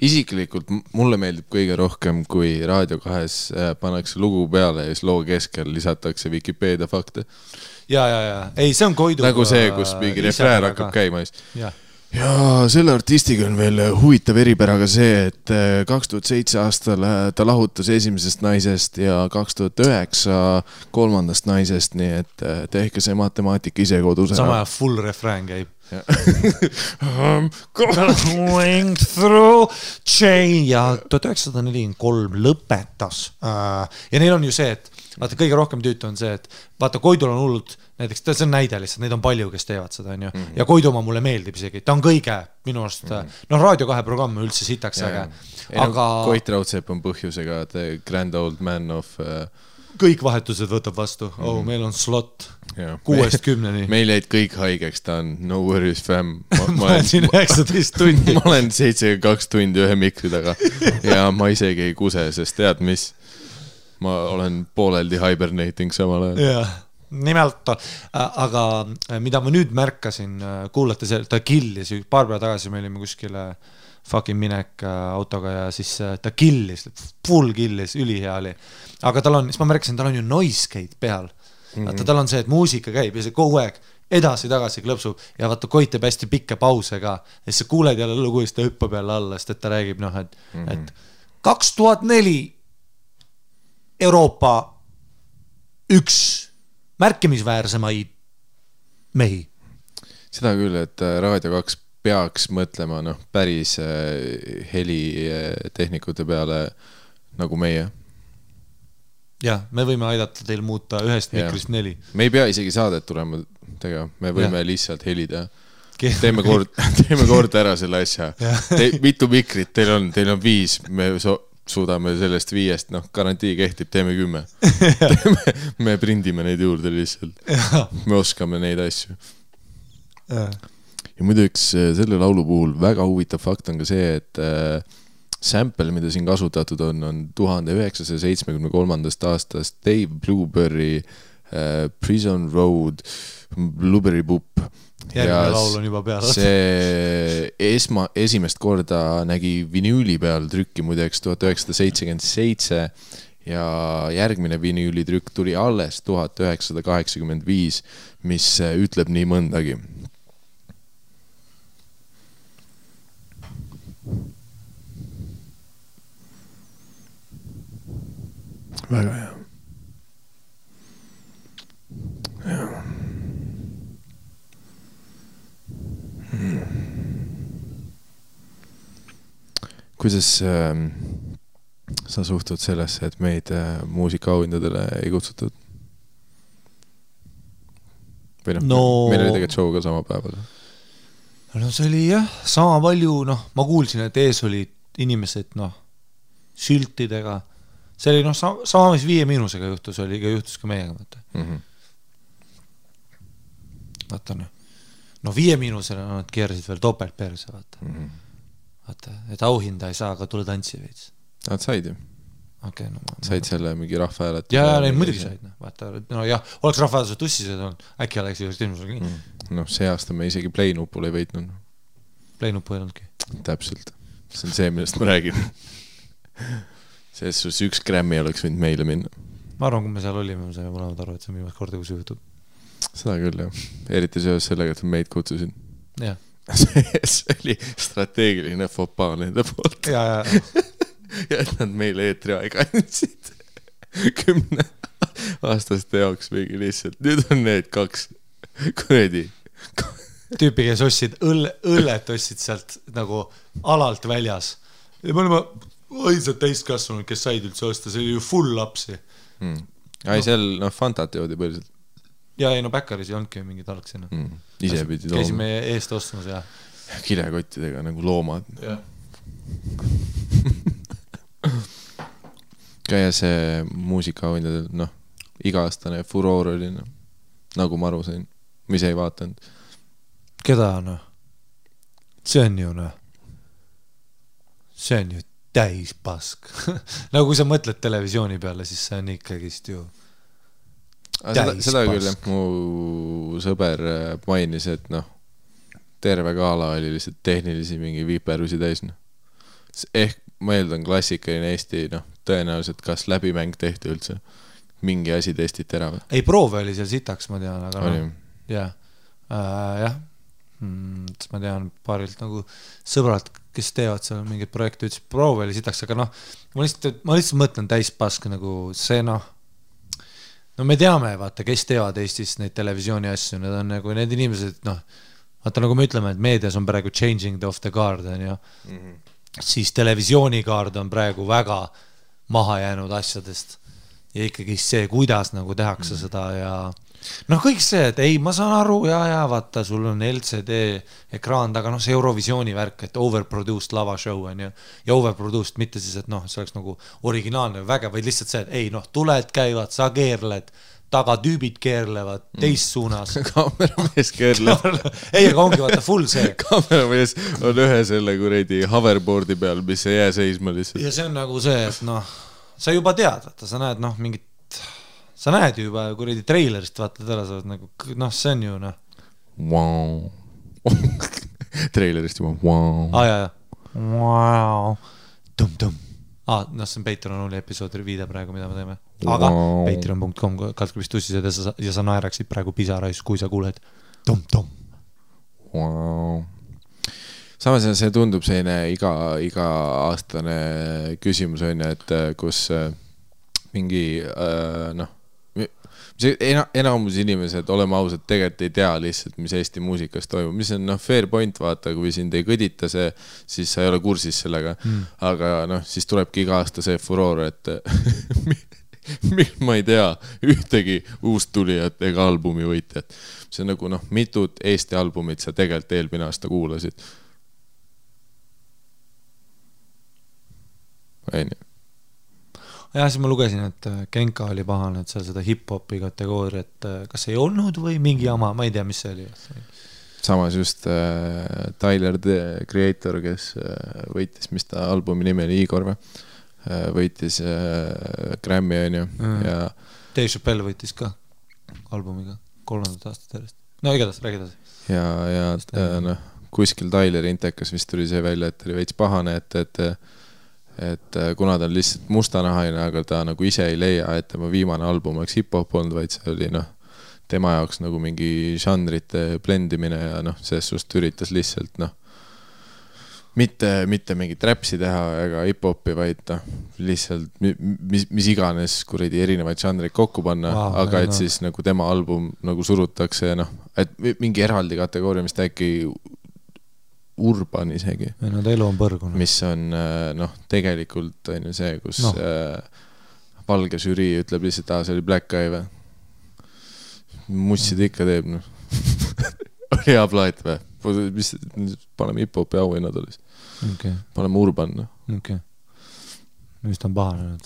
Isiklikult mulle meeldib kõige rohkem, kui Raadio 2 pannakse lugu peale ja siis loo keskel lisatakse Wikipedia fakte. Ja. Ei, see on Koidu. Nagu see, kus mingi refrään hakkab käima. Ja selle artistiga on veel huvitav eripäraga see, et 2007 aastal ta lahutas esimesest naisest ja 2009 kolmandast naisest, nii et tehke see matemaatika ise kodus. Sama full refrään käib. Going through chain ja 1943 lõpetas. Ja neil on ju see, et vaata, kõige rohkem tüütu on see, et vaata, Koidul on hullult, näiteks see on näide lihtsalt, neid on palju, kes teevad seda, on ju. Ja Koiduma mulle meeldib isegi, ta on kõige minu arust, Raadio 2 programm üldse sitaks äge. Aga Koit Raudsepp on põhjusega the grand old man of kõik vahetused võtab vastu. Meil on slot 6-10. Meil jäid kõik haigeks, ta on no worries fam. Ma olen siin 19 tundi. Ma olen 72 tundi ühe mikri taga ja ma isegi ei kuse, sest tead mis? Ma olen pooleldi hibernating samal ajal. Jaa, nimelt, aga mida ma nüüd märkasin, kuulate see, ta killis, paar päeva tagasi me olime kuskile fucking minek autoga ja siis ta killis, full killis, ülihea oli. Aga tal on, siis ma märkasin, tal on ju noise gate peal. Vaata, tal on see, et muusika käib ja see kogu aeg edasi-tagasi klõpsub ja vaata, Koit teeb hästi pikke pause ka. Ja siis sa kuuled jälle lugu, siis ta hüppab jälle alla, sest et ta räägib, et 2004 Euroopa üks märkimisväärsemaid mehi. Seda küll, et Raadio 2 peaks mõtlema päris helitehnikute peale nagu meie. Ja, me võime aidata teil muuta ühest mikrist 4. Me ei pea isegi saadet tulema tegema, me võime lihtsalt helida. Teeme kord ära selle asja. Mitu mikrit teil on 5, me suudame sellest 5, garantii kehtib, teeme 10. Me prindime neid juurde lihtsalt. Me oskame neid asju. Ja muidu üks selle laulu puhul väga huvitav fakt on ka see, et sample, mida siin kasutatud on 1973. aastast Dave Blueberry Prison Road Blueberry Boop. Järgmine laul on juba peal. See esimest korda nägi vinüüli peal trükki muideks 1977 ja järgmine vinüülitrükk tuli alles 1985, mis ütleb nii mõndagi. Väga hea. Kuidas sa suhtud sellesse, et meid muusikaauhindadele ei kutsutud? Või meil oli tegelikult show ka sama päeval. No see oli jah, sama palju, ma kuulsin, et ees olid inimesed, siltidega, see oli noh, sama mis 5 Miinusega juhtus ka meiega, vaata. Vaata noh. No 5 Miinusele nad keerasid veel topelt perse, vaata. Vaata, et auhinda ei saa, aga tule tantsi veits. Nad said ju. Okay, no, said selle mingi rahvahäälet. Ja neid muidugi said, noh. Vaata, no jah, oleks rahvahääletused tussised olnud, äkki oleks just ilmusel nii. Noh, see aasta me isegi Play-nupul ei võitnud. Play-nupu ei olnudki. Täpselt. See on see, millest ma räägin. Selles sus 1 Grammy oleks võinud meile minna. Ma arvan, kui me seal olime, me saime mõlemad aru, et see on viimast korda, kui see juhtub. Seda küll, jah. Eriti seoses sellega, et meid kutsusid. Jah. See oli strateegiline fopa nende poolt. Ja. Ja et nad meile eetri aega andsid 10 aastaste jaoks mingi lihtsalt. Nüüd on need 2 kuredi. Tüüpi, kes ostsid õllet ostsid sealt nagu alalt väljas. Ja me olime ainsad täiskasvanud, kes said üldse osta, see oli ju full lapsi. Ai, seal Fantat joodi põhiliselt. Ja ei, no Bäkkaris ei olnudki mingid algsena. Ise pidi tooma. Käisime eest ostmas ja kilekottidega nagu loomad. Ja. Käia see muusikaauhindadel, noh, iga-aastane furoor oli, noh, nagu ma aru sain, mis ei vaatanud. Keda, noh? See on ju, noh. See on ju täis pask. Nagu kui sa mõtled televisiooni peale, siis see on ikkagist ju seda küll, mu sõber mainis, et noh, terve gala oli lihtsalt tehnilisi mingi viiperusi täis, noh. Ehk ma eeldan klassikaline Eesti, noh, tõenäoliselt kas läbimäng tehti üldse, mingi asi testiti ära või? Ei, proove oli seal sitaks, ma tean, aga oli. No, jah. Ma tean paarilt nagu sõbralt, kes teevad seal mingid projekte, ütles, proove oli sitaks, aga noh, ma lihtsalt mõtlen täispask nagu see, noh, no me teame, vaata, kes teevad Eestis neid televisiooni asju, need on nagu need inimesed, noh, vaata nagu me ütleme, et meedias on praegu changing of the guard, ja siis televisioonikaard on praegu väga maha jäänud asjadest ja ikkagi see, kuidas nagu tehakse seda ja noh, kõik see, et ei, ma saan aru ja vaata, sul on LCD ekraan taga, noh, see Eurovisiooni värk, et overproduced lavashow on ja overproduced mitte siis, et noh, see oleks nagu originaalne väge, vaid lihtsalt see, et ei, noh, tuled käivad, sa keerled, taga tüübid keerlevad teist suunas. Kaameramees keerleb. Ei, aga ongi vaata full see. Kaameramees on ühe selle kuredi hoverboardi peal, mis ei jää seisma lihtsalt. Ja see on nagu see, et noh, sa juba tead, vaata, sa näed noh, mingit, sa näed ju juba kuredi treilerist, vaata, täna sa oled nagu, noh, see on ju noh. Wow. Treilerist juba, wow. Ja. Wow. Tum-tum. No see on Patreon episoodi viide praegu, mida me teeme. Aga patreon.com kaltkubist tussised ja sa naeraksid praegu pisarais, kui sa kuuled tom-tom. Wow. Samas see tundub selline iga aastane küsimus on, et kus mingi noh, enamus inimesed, oleme ausad, tegelikult ei tea lihtsalt, mis Eesti muusikas toimub, mis on fair point, vaata, kui sind ei kõdita see, siis sa ei ole kursis sellega, aga noh, siis tulebki iga aasta see furoor, et ma ei tea ühtegi uust tulijat ega albumi võitjat. See on nagu noh, mitut Eesti albumit sa tegelikult eelmine aasta kuulasid. Ei nii. Ja siis ma lugesin, et Genka oli pahane, et seal seda hip-hopi kategooriat kas ei olnud või mingi jama, ma ei tea, mis see oli. Samas just Tyler, the Creator, kes võitis, mis ta albumi nimi oli, Igor või? Võitis Grammy on ju. Ja Dave Chappelle võitis ka albumiga 3. aastat järjest. No igatahes, räägi edasi. Ja noh, kuskil Tyleri intekas vist tuli see välja, et oli veits pahane, et kuna ta on lihtsalt mustanahaine, aga ta nagu ise ei leia, et tema viimane album oleks hip-hop olnud, vaid see oli noh, tema jaoks nagu mingi žanrite blendimine ja noh, selles suust üritas lihtsalt noh, mitte mingit räpsi teha ega hip-hopi, vaid noh, lihtsalt mis iganes kuradi erinevaid žanreid kokku panna, aga et siis nagu tema album nagu surutakse ja noh, et mingi eraldi kategooria, mis ta äkki urban isegi. No ta elu on põrgunud. Mis on, noh, tegelikult on ju see, kus valge žürii ütleb lihtsalt, see oli Black Guy või? Mussid ikka teeb, noh. Oli hea plaat või? Paneme hip-hopi auhinnad olis. Okay. Paneme urban, noh. Okay. mis ta on pahanenud?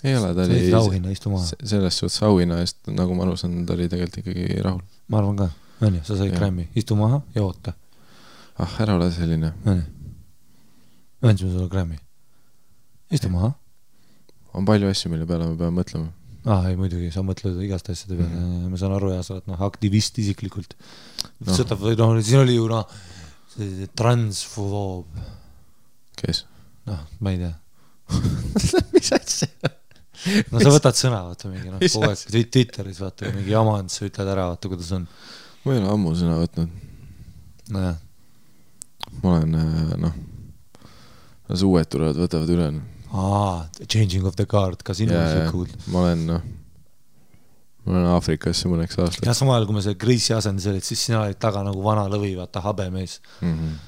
ei ole, ta oli auhinna, istu maha. Selles suhtes auhinna eest, nagu ma alusan, ta oli tegelikult ikkagi rahul. Ma arvan ka, õnni, sa said Grammy, istu maha ja oota. Ära ole selline. Õnni, õndsime sulle Grammy. Istu maha. On palju asju, mille peale me peame mõtlema. Ei, muidugi, sa mõtled igast asjade peale. Ma saan aru ja sa oled aktivist isiklikult. Sõtab, siin oli ju transfoob. Kes? Ma ei tea. Mis asja? Sa võtad sõna, vaata mingi, kogu aeg Twitteris, vaata mingi jamand, sa ütled ära, vaata kuidas on. Ma ei ole ammu sõna võtnud. Nojah. Ma olen, las uued tulevad, võtavad üle. Changing of the guard, ka sinu see cool. Ma olen Aafrikasse mõneks aastaks. Ja samal, kui me see Grease'i asendis olid, siis sina olid taga nagu vana lõvi, vaata, habemees.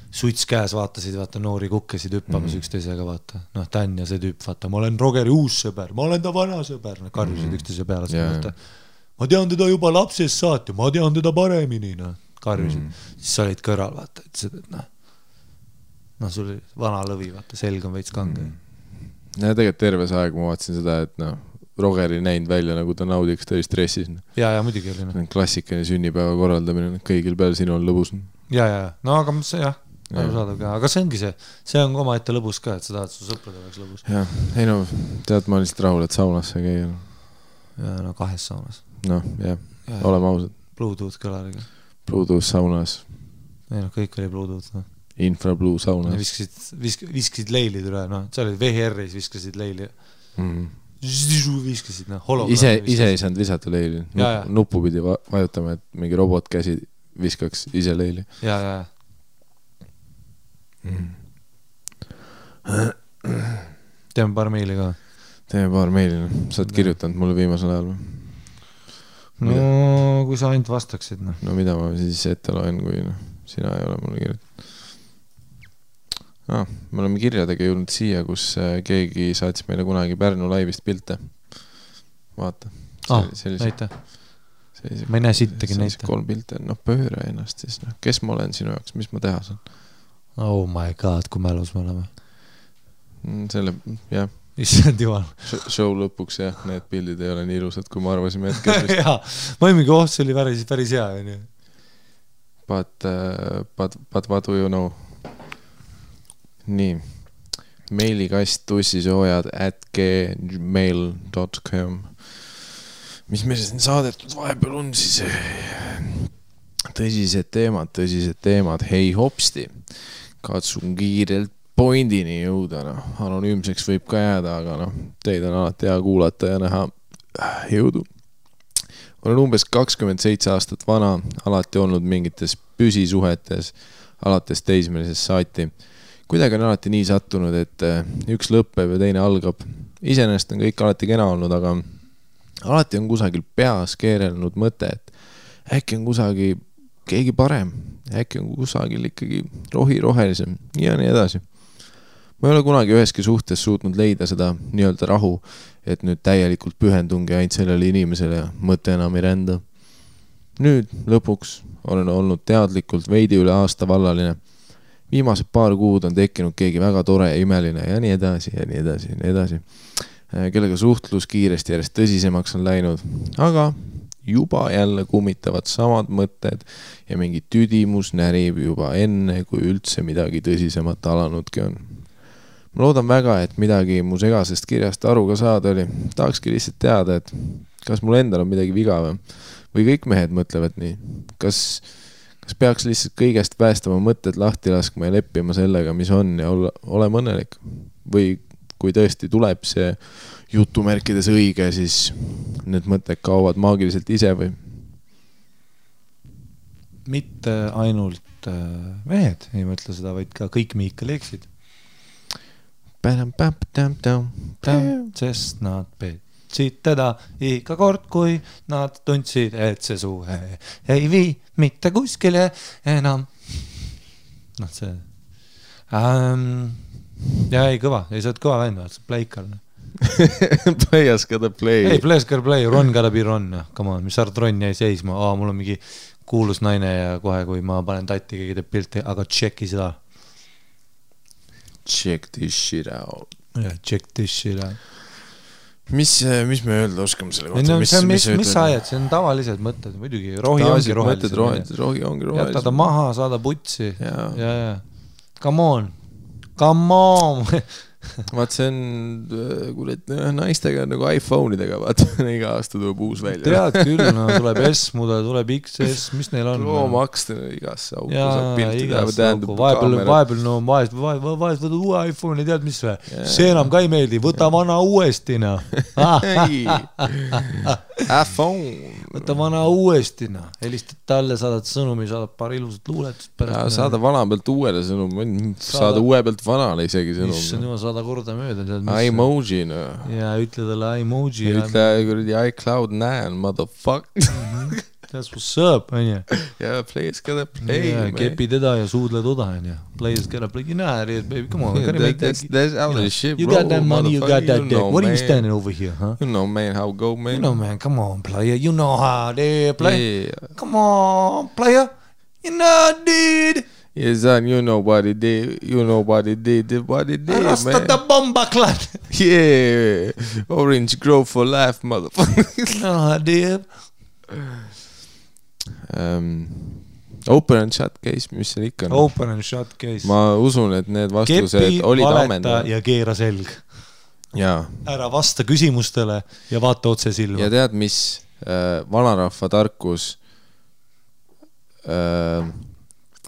Suits käes vaatasid, vaata, noori kukkesid hüppamas üksteisega, vaata. Dan ja see tüüp, vaata, ma olen Rogeri uus sõber, ma olen ta vana sõber. Karjusid üksteise peale, vaata. Ma tean teda juba lapsest saati, ma tean teda paremini, karjusid. Siis sa olid kõrval, vaata, et sul oli vana lõvi, vaata, selg on veits kange. Ja tegelikult terves aeg ma vaatasin seda, et Rogeri näinud välja, nagu ta naudiks, ta oli stressis. Ja muidugi oli. Klassikaline sünnipäeva korraldamine, kõigil peal sinu on lõbus. Ja, no aga see jah, arusaadav ka. Aga see ongi see on oma ette lõbus ka, et sa tahad su sõprade oleks lõbus. Ja, ei no, tead, ma olen lihtsalt rahul, et saunasse käia. Ja, 2 saunas. Oleme ausad. Bluetooth kõlariga. Bluetooth saunas. Ei kõik oli Bluetooth, Infrablue saunas. Viskasid leilid üle, sa olid VHR-is, viskasid leili. Viskasid, Ise ei saanud visata leili. Nuppu pidi vajutama, et mingi robot käsi viskaks ise leili. Ja. Teeme paar meili ka. Sa oled kirjutanud mulle viimasel ajal. No, kui sa ainult vastaksid. No mida ma siis ette loen, kui sina ei ole mulle kirjutanud. Me oleme kirjadega jõudnud siia, kus keegi saatis meile kunagi Pärnu laivist pilte. Vaata. Näita. Ma ei näe sittagi näita. 3 pilte. Pööre ennast siis. Kes ma olen sinu jaoks? Mis ma teha saan? Oh my god, kui mälus me oleme. Selle, jah. Issand jumal. Show lõpuks, jah. Need pildid ei ole nii ilusad, kui ma arvasime hetkest. Jaa, ma mingi see oli päris hea. But what do you know? Nii, meilikast tussisoojad@gmail.com. Mis meil siin saadetud vahepeal on siis? Tõsised teemad. Hei hopsti, katsun kiirelt pointini jõuda. Anonüümseks võib ka jääda, aga teid on alati hea kuulata ja näha. Jõudu. Olen umbes 27 aastat vana, alati olnud mingites püsisuhetes, alates teismelises saati. Kuidagi on alati nii sattunud, et üks lõppeb ja teine algab. Iseenesest on kõik alati kena olnud, aga alati on kusagil peas keerelnud mõte, et äkki on kusagil keegi parem, äkki on kusagil ikkagi rohelisem ja nii edasi. Ma ei ole kunagi üheski suhtes suutnud leida seda nii-öelda rahu, et nüüd täielikult pühendungi ainult sellele inimesele ja mõte enam ei rända. Nüüd lõpuks olen olnud teadlikult veidi üle aasta vallaline. Viimased paar kuud on tekkinud keegi väga tore ja imeline ja nii edasi. Kellega suhtlus kiiresti järjest tõsisemaks on läinud, aga juba jälle kummitavad samad mõtted ja mingi tüdimus närib juba enne, kui üldse midagi tõsisemat alanudki on. Ma loodan väga, et midagi mu segasest kirjast aru ka saada oli. Tahakski lihtsalt teada, et kas mul endal on midagi viga või kõik mehed mõtlevad nii. Kas peaks lihtsalt kõigest päästama mõtted lahti laskma ja leppima sellega, mis on ja olema õnnelik? Või kui tõesti tuleb see jutumärkides õige, siis need mõtted kaovad maagiliselt ise või? Mitte ainult mehed ei mõtle seda, vaid ka kõik Miikal eksid. Sest nad petsid teda iga kord, kui nad tundsid, et see suhe ei vii mitte kuskile enam. See ja ei kõva, ei saad kõva vend, see pleikal. Players gotta play. Ei, players gotta play, Ron gotta be Ron. Come on, mis sa arvad, Ron jäi seisma? Mul on mingi kuulus naine ja kohe, kui ma panen tatti, keegi teeb pilti, aga checki seda. Check this shit out. Check this shit out. Mis me öelda oskame selle kohta? Mis sa ajad? See on tavalised mõtted, muidugi. Rohi ongi rohelised. Rohi ongi rohelised. Jäta ta maha, saada putsi. Ja. Come on. Vaat see on, kuulet, naistega nagu iPhone'idega, vaat iga aasta tuleb uus välja. Tead küll, no tuleb S-mudel, tuleb XS, mis neil on? Pro-Max igasse auku saab pilti läheb, vahepeal no vahest võtad uue iPhone'i, tead mis või? See enam ka ei meeldi, võta vana uuesti, no. iPhone. Võta vana uuesti, no. Helistad talle, saadad sõnumi, saadad paar ilusat luuletust pärast. Saada vana pealt uuele sõnum, saada uue pealt vanale isegi sõnum. Issand jumal, saada korda mööda. Emoji, no. Ja ütle talle emoji. Ütle kuradi iCloud9, motherfucker. That's what's up, on ju. Yeah, players gotta play, man. Kepi teda ja suudle toda, on ju. Players gotta play. You know how it is, baby. Come on. That's out of shit, bro. You got that money, you got that dick. What are you standing over here, huh? You know, man, how it go, man. You know, man, come on, player. You know how they play. Come on, player. You know, dude. Yes, son, you know what it did. You know what it did, man. Rasta the bomba clan. Yeah. Orange Grove for life, motherfucker. You know how it did. Open and shut case, mis seal ikka on? Open and shut case. Ma usun, et need vastused olid ammendavad. Ja keera selg. Jaa. Ära vasta küsimustele ja vaata otse silma. Ja tead, mis vanarahva tarkus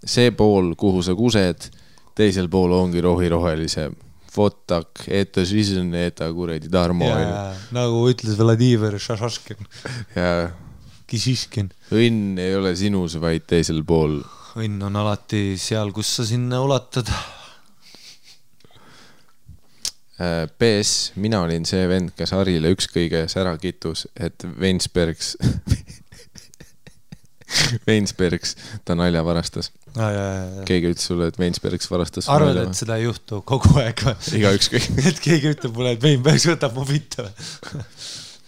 see pool, kuhu sa kused, teisel pool ongi rohelise. Fotak, eta žižen, eta kuredi Tarmo. Nagu ütles Vladimir Šašaškin. Jaa. Kisiškin. Õnn ei ole sinus, vaid teisel pool. Õnn on alati seal, kus sa sinna ulatad. PS, mina olin see vend, kes Harile ükskõiges ära kitus, et Vensbergs ta nalja varastas. Keegi ütles sulle, et Vensbergs varastas. Arvad, et seda ei juhtu kogu aeg või? Iga ükskõik. Et keegi ütleb mulle, et Vensbergs võtab mu pitta.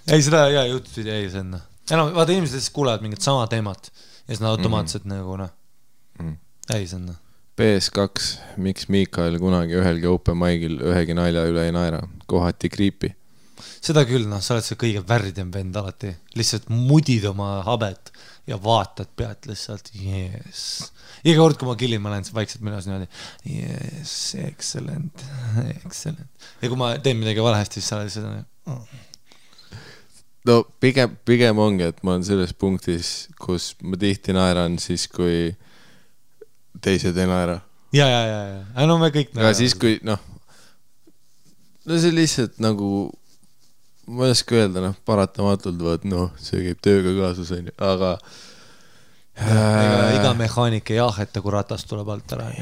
Ei, seda juhtus, ei senna. Vaata, inimesed siis kuulevad mingit sama teemat ja siis nad automaatselt nagu, ei senna. PS2, miks Miikael kunagi ühelgi open mic'il ühegi nalja üle ei naera? Kohati kriipi. Seda küll, sa oled see kõige värdem vend alati. Lihtsalt mudid oma habet ja vaatad pealt lihtsalt, yes. Iga kord, kui ma killin, ma lähen vaikselt minas niimoodi, yes, excellent. Ja kui ma teen midagi valesti, siis sa oled seda No pigem ongi, et ma olen selles punktis, kus ma tihti naeran siis, kui teised ei naera. Ja. No me kõik naerame. Aga siis, kui, no see lihtsalt nagu, ma ei oska öelda, paratamatult võt, see käib tööga kaasus, aga iga mehaanik ei aheta, kui ratas tuleb alt ära.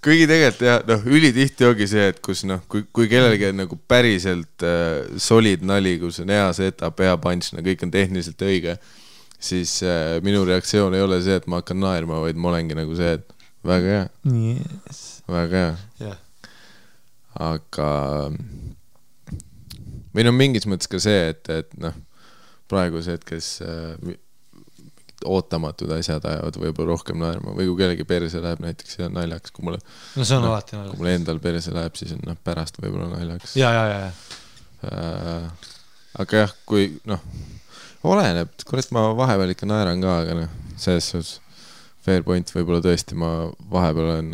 Kuigi tegelikult ülitihti ongi see, et kus kui kellelgi on nagu päriselt solid nali, kus on hea setup, hea punch, kõik on tehniliselt õige, siis minu reaktsioon ei ole see, et ma hakkan naerma, vaid ma olengi nagu see, et väga hea. Yes. Väga hea. Yeah. Aga meil on mingis mõttes ka see, et praegu see, et kes ootamatud asjad ajavad võib-olla rohkem naerma või kui kellegi perse läheb näiteks ja naljaks, kui mulle see on alati naljaks. Kui mulle endal perse läheb, siis on pärast võib-olla naljaks. Ja. Aga jah, kui oleneb, kurat ma vahepeal ikka naeran ka, aga selles suhtes fair point võib-olla tõesti ma vahepeal olen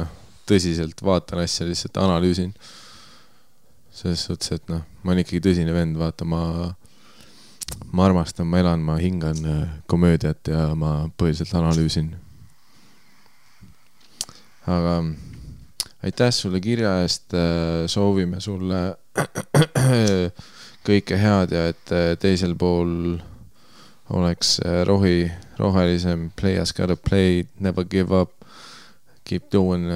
tõsiselt vaatan asja, lihtsalt analüüsin selles suhtes, et ma olen ikkagi tõsine vend, vaata ma armastan, ma elan, ma hingan komöödiat ja ma põhiliselt analüüsin. Aga aitäh sulle kirja eest, soovime sulle kõike head ja et teisel pool oleks rohelisem, play as gotta play, never give up, keep doing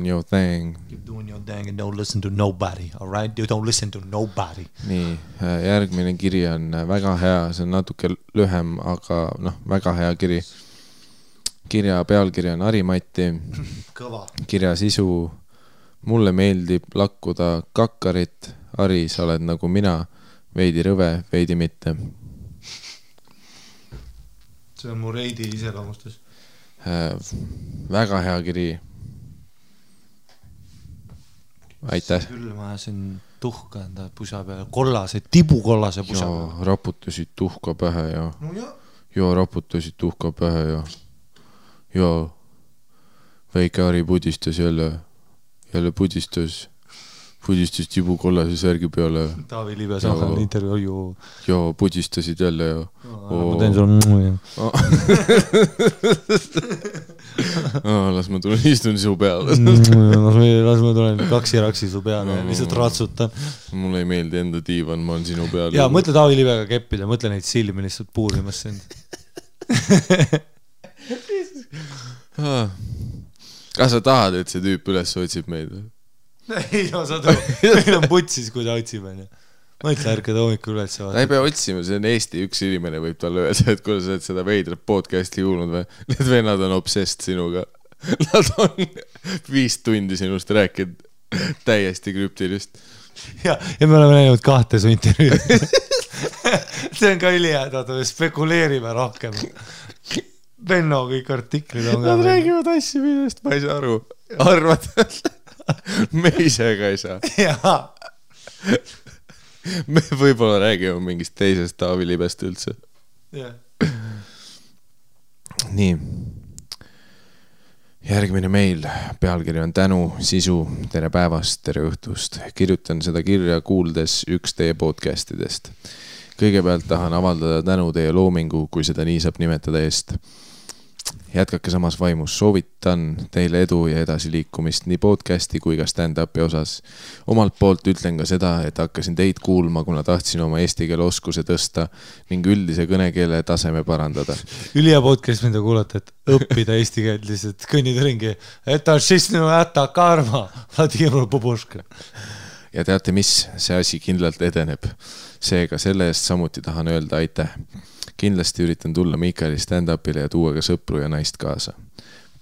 your thing. Keep doing your thing and don't listen to nobody, all right? You don't listen to nobody. Nii, järgmine kiri on väga hea, see on natuke lühem, aga väga hea kiri. Kirja pealkiri on Harimati. Kõva. Kirja sisu, mulle meeldib lakkuda kakkarit. Hari, sa oled nagu mina, veidi rõve, veidi mitte. see on mu reidi iseloomustus. Väga hea kiri. Aitäh. Küll ma ajasin tuhka enda pusa peale, kollase, tibukollase pusa peale. Raputasid tuhka pähe ja No ja. Joo, raputasid tuhka pähe ja väike Ari pudistas jälle pudistas tibukollase särgi peale. Taavi Liive samal intervjuu. Ja pudistasid jälle ja ma teen sulle las ma tulen istun su peale. las ma tulen kaksiraksi su peale ja lihtsalt ratsutan. Mulle ei meeldi enda diivan, ma olen sinu peal. Ja mõtle Taavi Liivega keppida, mõtle neid silmi lihtsalt puurimas sind. Kas sa tahad, et see tüüp üles otsib meid? Ei, no sa tõu. Meil on putsis, kui ta otsib. Mõtle ärkada hommikul üles. Ta ei pea otsima, see on Eesti üks inimene võib talle öelda, et kui sa oled seda veidrat podcasti kuulnud või, need vennad on obsessed sinuga. Nad on 5 tundi sinust rääkinud täiesti krüptilist. Ja me oleme näinud 2 su intervjuud. See on ka ülihädad, spekuleerime rohkem. Benno kõik artiklid on. Nad räägivad asju, millest ma ei saa aru. Arvad, me ise ka ei saa. Jaa. Me võib-olla räägime mingist teisest Taavi Libest üldse. Nii. Järgmine meil. Pealkiri on tänu, sisu, tere päevast, tere õhtust. Kirjutan seda kirja kuuldes üks teie podcastidest. Kõigepealt tahan avaldada tänu teie loomingu, kui seda nii saab nimetada eest. Jätkake samas vaimus, soovitan teile edu ja edasiliikumist nii podcasti kui ka stand-upi osas. Omalt poolt ütlen ka seda, et hakkasin teid kuulma, kuna tahtsin oma eesti keele oskuse tõsta ning üldise kõnekeele taseme parandada. Ülija podcast, mida kuulata, et õppida eesti keelt lihtsalt kõnnid ringi. Et on šistinu äta karma, Vladimir Poboška. Ja teate mis, see asi kindlalt edeneb. Seega selle eest samuti tahan öelda aitäh. Kindlasti üritan tulla Miikali stand-upile ja tuua ka sõpru ja naist kaasa.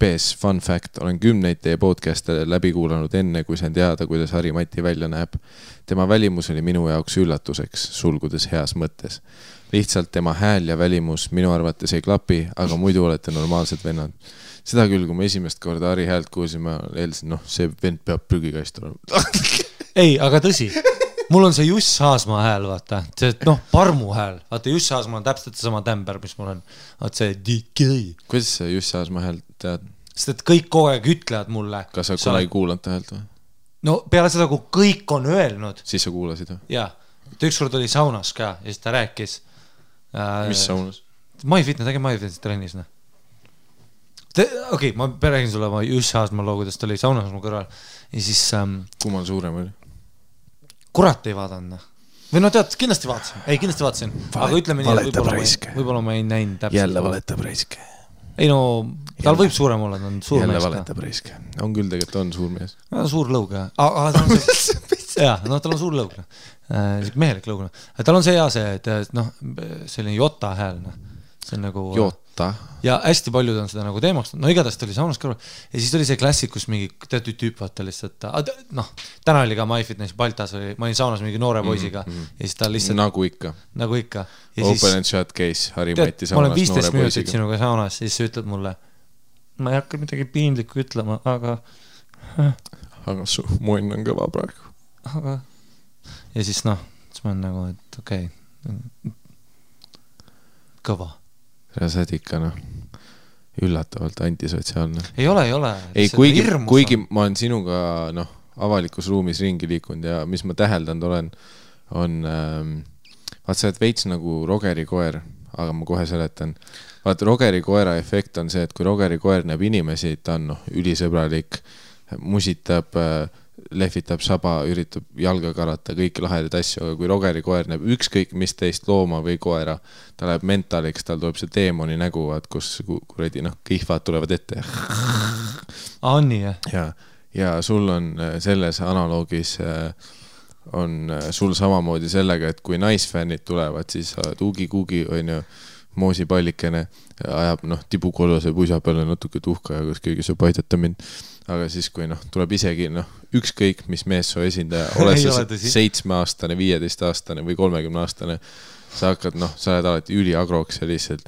PS, fun fact, olen 10 teie podcast'e läbi kuulanud enne, kui sain teada, kuidas Harri-Mati välja näeb. Tema välimus oli minu jaoks üllatuseks, sulgudes heas mõttes. Lihtsalt tema hääl ja välimus minu arvates ei klapi, aga muidu olete normaalsed vennad. Seda küll, kui ma esimest korda Harri häält kuulsime, eeldasin, see vend peab prügikast olema. Ei, aga tõsi. Mul on see Juss Haasmaa hääl, vaata. See, parmu hääl. Vaata, Juss Haasmaa on täpselt sama tämber, mis mul on. Vaata see DK. Kuidas sa Juss Haasmaa hääl tead? Sest et kõik kogu aeg ütlevad mulle. Kas sa kunagi kuulanud ta häält või? No peale seda, kui kõik on öelnud. Siis sa kuulasid või? Jaa. Ükskord oli saunas ka ja siis ta rääkis. Mis saunas? MyFitness, äge MyFitness trennis. Okei, ma räägin sulle oma Juss Haasmaa loo, kuidas ta oli saunas mu kõrval. Ja siis... Kummal suurem oli? Kurat ei vaadanud. Või no tead, kindlasti vaatasin. Ei, kindlasti vaatasin. Aga ütleme nii, võib-olla ma ei näinud täpselt. Jälle valetab raiske. Ei no, tal võib suurem olla, ta on suur mees. Jälle valetab raiske. On küll tegelikult, on suur mees. Suur lõug, jah. No tal on suur lõug. Mehelik lõug. Tal on see hea see, et selline jota hääl. See on nagu... Jota. Ja hästi paljud on seda nagu teemaks. No igatahes ta oli saunas kõrval. Ja siis oli see klassikus mingi teatud tüüp vaata lihtsalt. Täna oli ka MyFitness Baltas, ma olin saunas mingi noore poisiga. Ja siis ta lihtsalt... Nagu ikka. Open and shut case, Harri-Mati saunas noore poisiga. Ma olen 15 minutit sinuga saunas, siis sa ütled mulle, ma ei hakka midagi piinlikku ütlema, aga... Aga su munn on kõva praegu. Aga... Ja siis siis ma olen nagu, et okei. Kõva. Sa oled ikka üllatavalt antisotsiaalne. Ei ole. Ei, kuigi ma olen sinuga avalikus ruumis ringi liikunud ja mis ma täheldanud olen, on vaat sa oled veits nagu Rogeri koer, aga ma kohe seletan. Vaat Rogeri koera efekt on see, et kui Rogeri koer näeb inimesi, ta on ülisõbralik, musitab, lehvitab saba, üritab jalga karata, kõiki lahedaid asju, aga kui Rogeri koer näeb ükskõik mis teist looma või koera, ta läheb mentaliks, tal tuleb see deemoni nägu, kus kuredi kihvad tulevad ette. On nii, jah? Ja sul on selles analoogis on sul samamoodi sellega, et kui naisfännid tulevad, siis tuugi-kuugi on ju moosipallikene, ajab tibukollase puisa peale natuke tuhka ja kas keegi saab aidata mind. Aga siis kui tuleb isegi ükskõik mis meessoo esindaja, oled sa 7-aastane, 15-aastane või 30-aastane, sa hakkad, sa oled alati üliagroks ja lihtsalt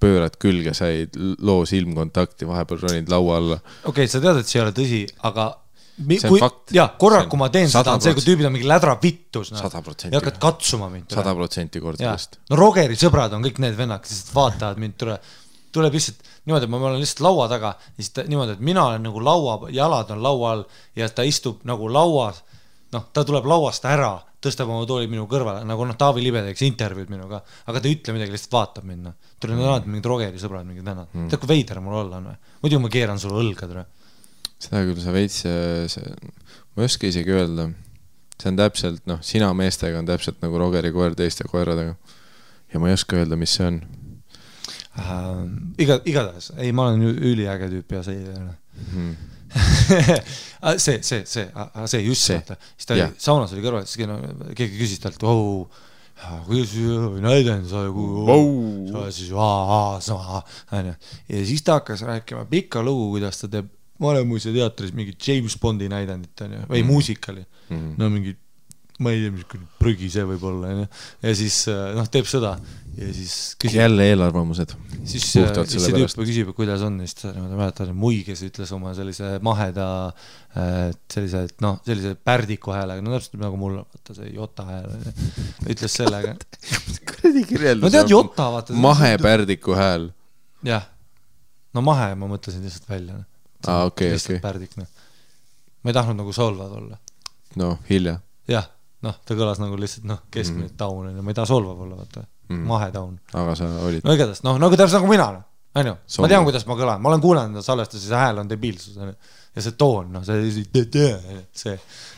pöörad külge, sa ei loo silmkontakti, vahepeal ronid laua alla. Okei, sa tead, et see ei ole tõsi, aga see on fakt. Korra, kui ma teen seda, on see, kui tüübid on mingi lädra vittus. 100%. Ja hakkad katsuma mind. 100% kordadest. No Rogeri sõbrad on kõik need vennad, kes vaatavad mind, tuleb lihtsalt niimoodi, et ma olen lihtsalt laua taga, siis niimoodi, et mina olen nagu laua, jalad on laua all ja ta istub nagu lauas, ta tuleb lauast ära, tõstab oma tooli minu kõrvale, nagu Taavi Libe teeks intervjuud minuga, aga ta ei ütle midagi, lihtsalt vaatab minna. Tuleb alati mingid Rogeri sõbrad, mingid vennad. Tead, kui veider mul olla on või? Muidu ma keeran sulle õlga, tere. Seda küll sa veits, ma ei oska isegi öelda. See on täpselt, sina meestega on täpselt nagu Rogeri koer teiste koeradega. Ja ma ei oska öelda, mis see on. Igatahes, ei, ma olen üliäge tüüp ja see see just see, siis ta oli, saunas oli kõrval, siis keegi küsis talt, kuidas näidend sa siis ja siis ta hakkas rääkima pikka lugu, kuidas ta teeb Vanemuise teatris mingi James Bondi näidendit või muusikali, mingi ma ei tea, mis prügi see võib olla ja siis teeb seda ja siis küsib, jälle eelarvamused siis see tüüp küsib, kuidas on siis ta mäletan, Mui, kes ütles oma sellise maheda sellise pärdiku häälega, täpselt nagu mul vaata see Jota hääl ütles sellega kuradi kirjeldus no tead Jota vaata mahepärdiku hääl jah, no mahe ma mõtlesin lihtsalt välja okei pärdik ma ei tahtnud nagu solvad olla hilja jah ta kõlas nagu lihtsalt keskmine taun, ma ei taha solvav olla, vaata, mahetaun. Aga sa olid. No igatahes, nagu täpselt nagu mina, ma tean, kuidas ma kõlan, ma olen kuulanud salvestus, see hääl on debiilsus, ja see toon, see,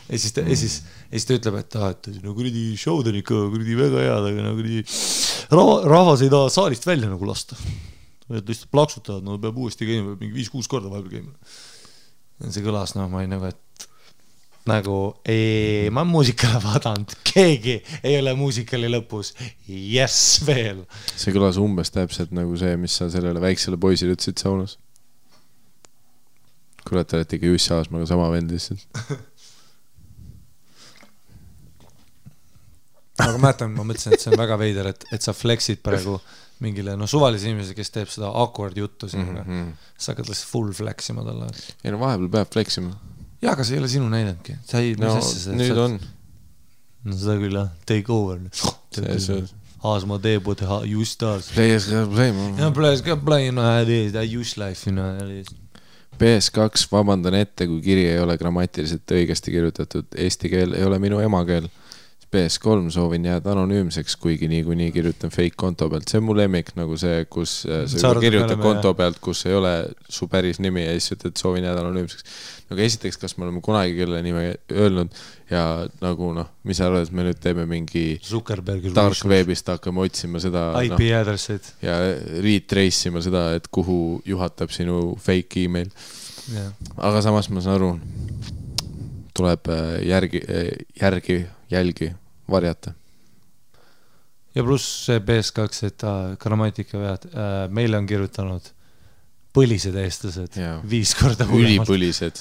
ja siis ta ütleb, et kuridi showd on ikka kuridi väga head, aga rahvas ei taha saalist välja nagu lasta. Et lihtsalt plaksutavad, peab uuesti käima, mingi 5-6 korda vahepeal käima. See kõlas, ma ei nagu, et nagu ma muusikale vaadanud, keegi ei ole muusikali lõpus yes veel. See kõlas umbes täpselt nagu see, mis sa sellele väiksele poisile ütlesid saunas. Kurat, olete ikka Jussi Aasmaga sama vend lihtsalt. Aga mäletan, ma mõtlesin, et see on väga veider, et sa flexid praegu mingile suvalise inimese, kes teeb seda awkward juttu sinuga. Sa hakkad lihtsalt full flexima talle. Ei vahepeal peab flexima. Jaa, aga see ei ole sinu näidendki. Nüüd on. No seda küll, take over. Aasma teebud, just aas. Players got play. Players got play, just life. PS2, vabandan ette, kui kiri ei ole grammatiliselt õigesti kirjutatud. Eesti keel ei ole minu emakeel. PS3 soovin jääda anonüümseks, kuigi nii kirjutan fake konto pealt. See on mu lemmik, nagu see, kus sa kirjutab konto pealt, kus ei ole su päris nimi ja siis ütled, et soovin jääda anonüümseks. Nagu esiteks, kas me oleme kunagi kelle nime öelnud ja nagu mis sa arvad, et me nüüd teeme mingi dark webist hakkame otsima seda IP addressid ja retrace ima seda, et kuhu juhatab sinu fake email. Aga samas ma saan aru, tuleb jälgi varjata. Ja pluss see PS2, et grammatika vead, meile on kirjutanud põlised eestlased 5 korda hullemalt. Ülipõlised.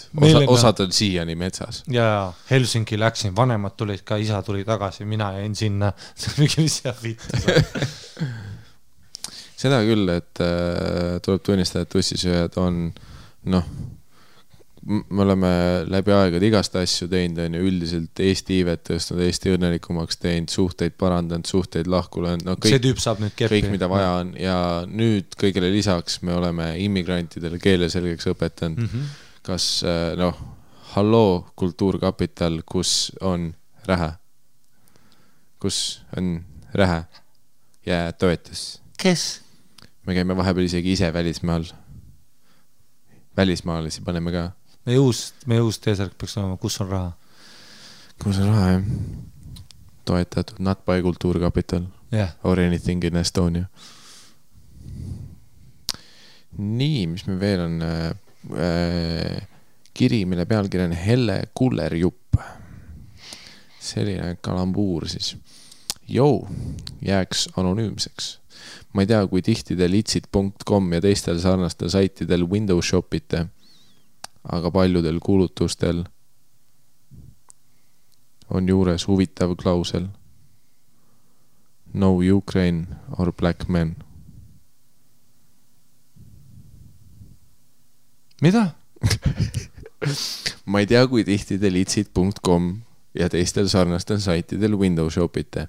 Osad on siiani metsas. Ja Helsinki läksin, vanemad tulid ka, isa tuli tagasi, mina jäin sinna. Mis jääb vittu. Seda küll, et tuleb tunnistada, et ussisööjad on me oleme läbi aegad igast asju teinud, üldiselt Eesti iivet tõstnud, Eesti õnnelikumaks teinud, suhteid parandanud, suhteid lahku löönud, see tüüp saab nüüd keppi. Kõik, mida vaja on ja nüüd kõigele lisaks me oleme immigrantidele keele selgeks õpetanud. Kas, halloo kultuurkapital, kus on Rähe? Kus on Rähe? Ja toetus. Kes? Me käime vahepeal isegi ise välismaal. Välismaalisi paneme ka. Meie uus teesärk peaks olema, kus on raha? Kus on raha, jah. Toetatud Not by Kultuurkapital or anything in Estonia. Nii, mis me veel on kiri, mille pealkiri on Helle Kullerjupp. Selline kalambuur siis. Jääks anonüümseks. Ma ei tea, kui tihti te litsid.com ja teistel sarnastel saitidel Windows shopite, aga paljudel kuulutustel on juures huvitav klausel. No Ukraine or Black Men. Mida? Ma ei tea, kui tihti te litsid.com ja teistel sarnastel saitidel Windows shopite,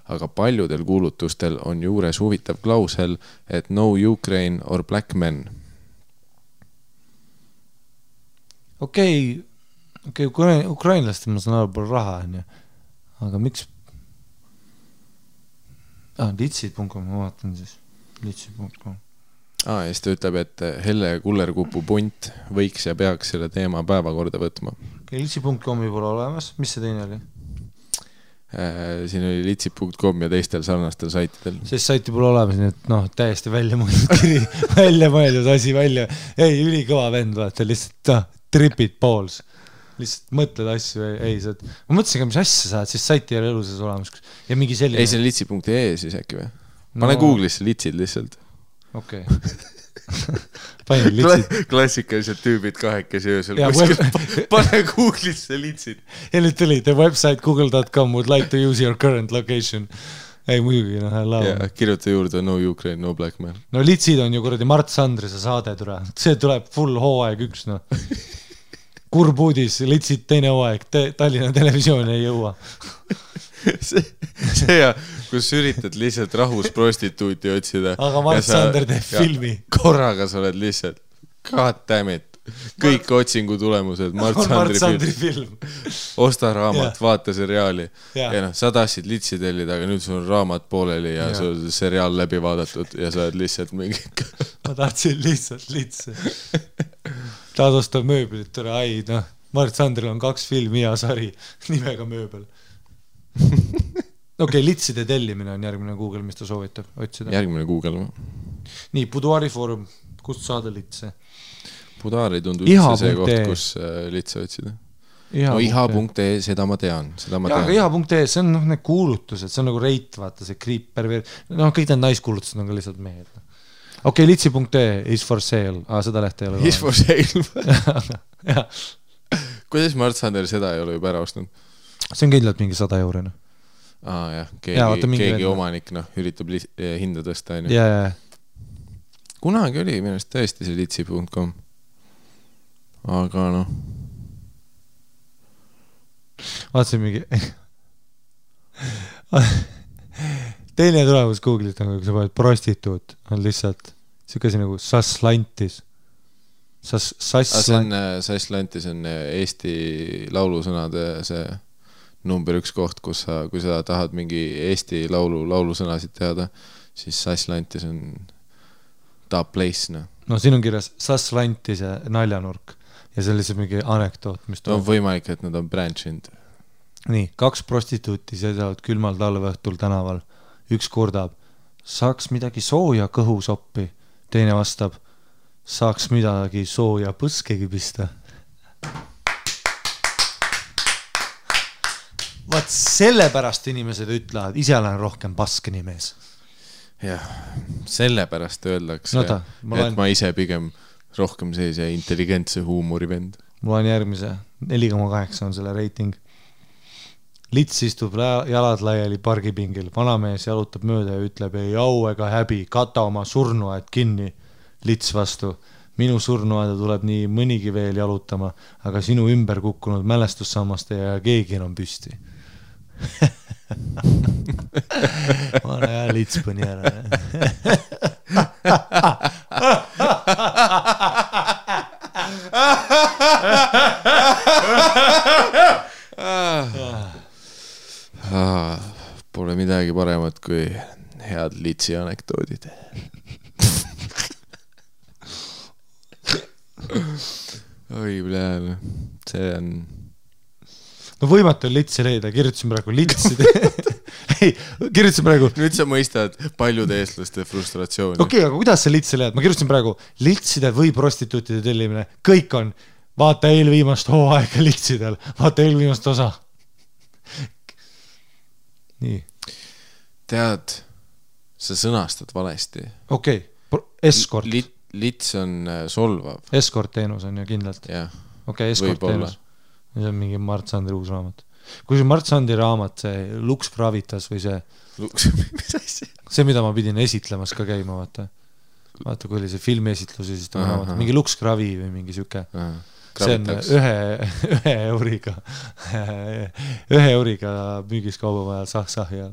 aga paljudel kuulutustel on juures huvitav klausel, et no Ukraine or Black Men. Okei, ukrainlastel ma saan aru palju raha, aga miks? Litsid.com, ma vaatan siis. Litsid.com. Ja siis ta ütleb, et Helle Kullerkupu punt võiks ja peaks selle teema päevakorda võtma. Litsi.com-i pole olemas, mis see teine oli? Siin oli litsi.com ja teistel sarnastel saitidel. Sest saiti pole olemas, nii et täiesti välja mõeldud kiri, välja mõeldud asi välja. Ei, ülikõva vend, vaata, lihtsalt tripid balls. Lihtsalt mõtled asju, ma mõtlesin ka, mis asja saad, siis saiti ei ole eluses olemas. Ja mingi selline... Ei, see on litsi.ee siis äkki või? Pane Google'isse litsid lihtsalt. Okei. Panin litsid. Klassikalised tüübid kahekesi öösel. Pane Google'isse litsid. Ja nüüd tuli, the website google.com would like to use your current location. Ei, muidugi, laua. Kirjuta juurde no Ukraine, no Black Man. No litsid on ju kuradi Mart Sandrise saade tule. See tuleb full hooaeg 1, Kurb uudis, litsid teine hooaeg, Tallinna televisioon ei jõua. See ja, kus üritad lihtsalt rahus prostituuti otsida. Aga Mart Sander teeb filmi. Korraga sa oled lihtsalt, god damn it. Kõik otsingu tulemused, Mart Sandri film. Osta raamat, vaata seriaali. Ja sa tahtsid litsi tellida, aga nüüd sul on raamat pooleli ja sul on seriaal läbi vaadatud ja sa oled lihtsalt mingi... Ma tahtsin lihtsalt litsi. Tahad osta mööbelit, Mart Sandril on 2 filmi ja sari nimega mööbel. Okei, litside tellimine on järgmine Google, mis ta soovitab otsida. Järgmine Google. Nii, Buduari foorum, kust saada litse? Buduari tundub üldse see koht, kus litse otsida. No iha.ee, seda ma tean. Aga iha.ee, see on need kuulutused, see on nagu reit, vaata, see kriip perver... kõik need naiskuulutused on ka lihtsalt mehed. Okei, litsi.ee is for sale. Seda lehte ei ole. Is for sale. Kuidas Mart Sander seda ei ole juba ära ostnud? See on kindlalt mingi 100 €. Jah, keegi omanik üritab hinda tõsta. Kunagi oli minust tõesti see litsi.com. Aga vaatasin mingi teine tulemus Google'it on, kui sa paned prostituut, on lihtsalt siukesi nagu Sasslantis. Sasslantis on Eesti laulusõnade see number 1 koht, kui sa tahad mingi Eesti laulusõnasid teada, siis Sasslantis on top place. No siin on kirjas Sasslantis ja naljanurk ja see on lihtsalt mingi anekdoot, mis on võimalik, et nad on branchinud. Nii, 2 prostituuti seisavad külmal talveõhtul tänaval. Üks kurdab, saaks midagi sooja kõhusoppi. Teine vastab, saaks midagi sooja põskegi pista. Vaat sellepärast inimesed ütlevad, ise olen rohkem paskeni mees. Jah, sellepärast öeldakse, et ma ise pigem rohkem sellise intelligentse huumori vend. Mul on järgmise, 4,8 on selle reiting. Lits istub jalad laiali pargipingil, vanamees jalutab mööda ja ütleb, ei au ega häbi, kata oma surnuaed kinni. Lits vastu, minu surnuaeda tuleb nii mõnigi veel jalutama, aga sinu ümber kukkunud mälestussammaste ja keegi on püsti. Ma olen hea lits põni ära. Pole midagi paremat kui head litsi anekdoodid. Oi, blääl, see on... No võimatu on litsi leida, kirjutasin praegu litsid. Ei, kirjutasin praegu... Nüüd sa mõistad paljude eestlaste frustratsiooni. Okei, aga kuidas sa litsi leid? Ma kirjutasin praegu litside või prostituutide tellimine. Kõik on, vaata eelviimast hooaega litsidel, vaata eelviimast osa. Nii. Tead, sa sõnastad valesti. Okei, escort. Lits on solvav. Escort teenus on ju kindlalt. Jah. Okei, escort teenus. See on mingi Mart Sandri uus raamat. kui see Mart Sandi raamat, see Lux Gravitas või see mis asja? see, mida ma pidin esitlemas ka käima, vaata kui oli see filmiesitlus ja siis ta raamat, mingi Lux Gravi või mingi siuke see on ühe euriga müügis kaubamajal sah ja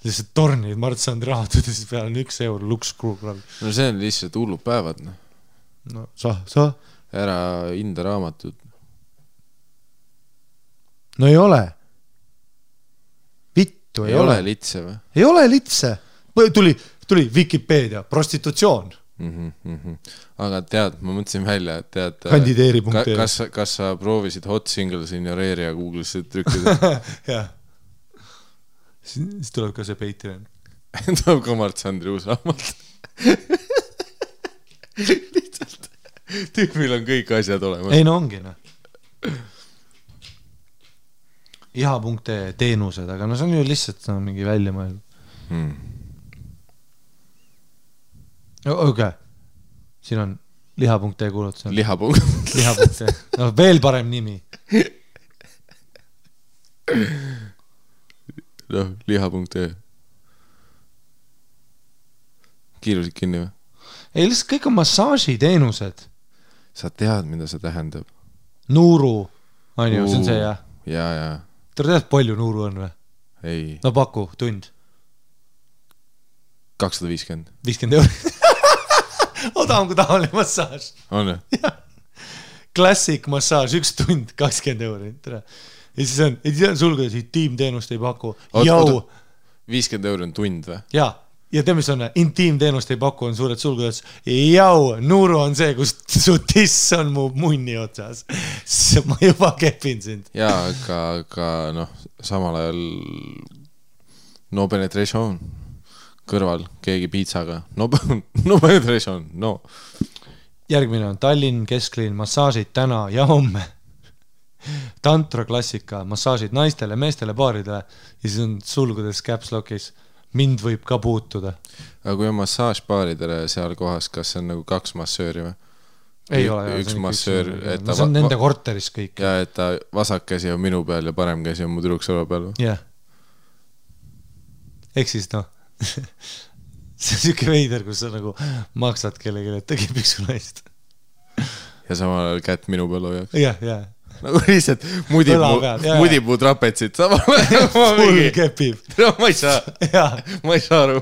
lihtsalt tornid Mart Sandi raamatud ja siis peal on 1 eur Lux Gravi. No see on lihtsalt hullud päevad, noh. No sah. Ära hinda raamatud. No ei ole. Vittu, ei ole. Litse või? Ei ole litse. Tuli Wikipedia, prostitutsioon. Aga tead, ma mõtlesin välja, et tead kandideeri.ee kas sa proovisid Hot Singles in your area Google'isse trükkida? jah. Siis tuleb ka see Patreon. Tuleb ka Mart Sandri uus raamat. Lihtsalt tüüpil on kõik asjad olemas. Ei, no ongi, noh. Iha.ee teenused, aga no see on ju lihtsalt mingi välja mõelnud. Okay. Siin on liha.ee kuulutus. Liha.ee. No veel parem nimi. No, liha.ee. Kiirusid kinni või? Ei, lihtsalt kõik on massaažiteenused. Sa tead, mida see tähendab? Nuuru. On ju, see on see, jah? Ja. Te tead, palju nuuru on või? Ei. No paku, tund. 250. 50 €. Odavam kui tavaline massaaž. On ju? Classic massaaž, 1 tund, 20 €. Ja siis on sulgudes, intiimteenust ei paku. 50 € on tund või? Ja tead, mis on, intiimteenust ei paku, on suured sulgudes. Nuuru on see, kus su tiss on mu munni otsas. Ma juba kepin sind. Ja, aga noh, samal ajal no penetration kõrval, keegi piitsaga. No penetration, no. Järgmine on Tallinn, Kesklinn, massaažid täna ja homme. Tantra klassika, massaažid naistele, meestele, paaridele ja siis on sulgudes caps lockis. Mind võib ka puutuda. Aga kui on massaaž paaridele seal kohas, kas see on nagu 2 massööri või? Ei ole. Üks massöör. See on nende korteris kõik. Ja, et ta vasak käsi on minu peal ja parem käsi on mu tüdruksõla peal. Jah. Ehk siis noh, see on siuke veider, kus sa nagu maksad kellegi, et ta kipik su naist. Ja samal ajal kätt minu peal hoiaks. Jah. Nagu lihtsalt mudib mu trapetsit samal ajal. Full kepib. Ma ei saa aru.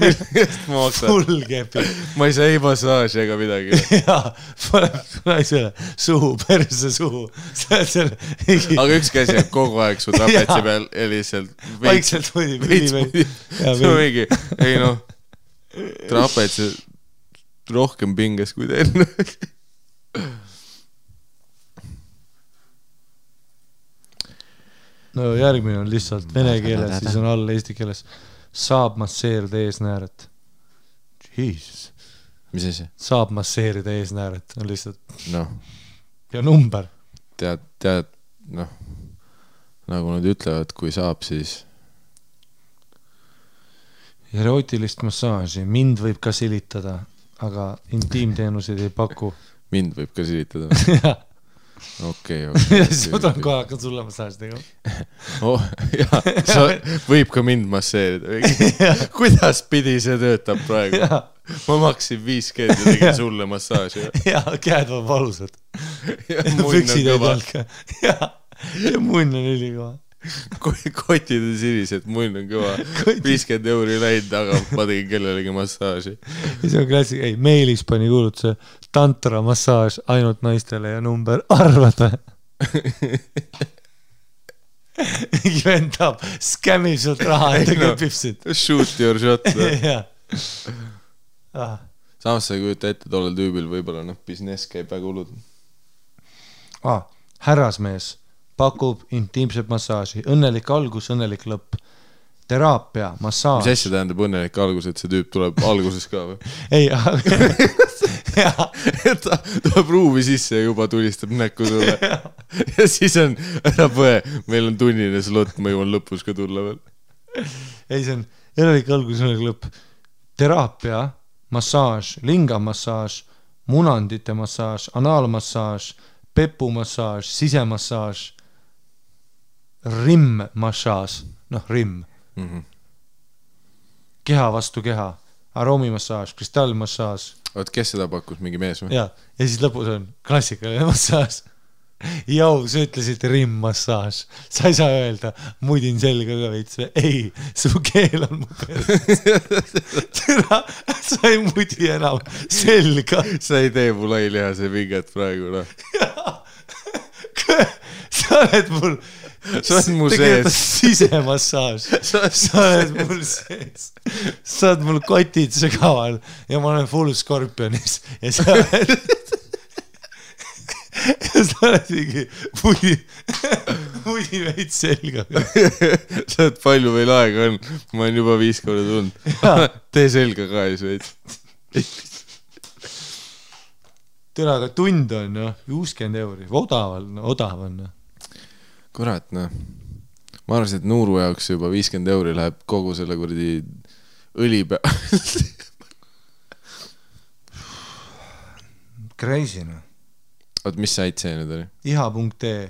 Millest ma maksan? Full kepib. Ma ei saa ei massaaži ega midagi. Jaa, paneb naisele suhu, perse suhu. Aga üks käsi on kogu aeg su trapetsi peal ja lihtsalt vaikselt mudib. See on mingi, ei noh, trapetsi rohkem pinges kui teine. No järgmine on lihtsalt vene keeles, siis on all eesti keeles. Saab masseerida eesnääret. Jesus. Mis asi? Saab masseerida eesnääret, on lihtsalt. Noh. Ja number. Tead, noh, nagu nad ütlevad, kui saab, siis. Erootilist massaaži. Mind võib ka silitada, aga intiimteenuseid ei paku. Mind võib ka silitada? Jah. Okei. Siis ma tulen kohe hakkan sulle massaaži tegema. Jaa, sa võib ka mind masseerida. Kuidas pidi see töötab praegu? Ma maksin 5G ja tegin sulle massaaži. Jaa, käed on valusad. Püksid ei talka. Ja munn on ülikoha. Kotid on sinised, munn on kõva. 50 € läinud, aga ma tegin kellelegi massaaži. Ja see on klassik, ei, Meilis pani kuulutuse tantra massaaž ainult naistele ja number arvad või? Mingi vendab, skämmib sult raha, et ta köpib sind. Shoot your shot. Ah. Samas sa ei kujuta ette tollel tüübil võib-olla business käib väga hullud. Härrasmees pakub intiimset massaaži. Õnnelik algus, õnnelik lõpp. Teraapia, massaaž. Mis asja tähendab õnnelik algus, et see tüüp tuleb alguses ka või? Ei, ta tuleb ruumi sisse ja juba tulistab näkku sulle. Ja siis on, ära põe, meil on tunnine slot, ma jõuan lõpus ka tulla veel. Ei, see on õnnelik algus, õnnelik lõpp. Teraapia, massaaž, lingamassaaž, munandite massaaž, analmassaaž, pepumassaaž, sisemassaaž. rim-massaaž, rim. Keha vastu keha, aroomimassaaž, kristallmassaaž. Oot, kes seda pakkus, mingi mees või? Ja siis lõpus on klassikaline massaaž. Jau, sa ütlesid rim-massaaž. Sa ei saa öelda, mudin selga ka veits. Ei, su keel on mu peres. Türa, sa ei mudi enam selga. Sa ei tee mu lailihase vinget praegu, noh. Sa oled mul... Sa oled mu sees. Sisemassaaž. Sa oled mul sees. Sa oled mul kotid sügaval ja ma olen full Scorpionis ja sa oled... ja sa oled mingi mudi veid selga. Sa oled palju veel aega on. Ma olen juba 5 korda tulnud. Tee selga ka ees veid. Tere, aga tund on 60 euri. Odav on. Kurat, noh. Ma arvasin, et Nuuru jaoks juba 50 euri läheb kogu selle kuradi õli Crazy, noh. Oot, mis sait see nüüd oli? iha.ee.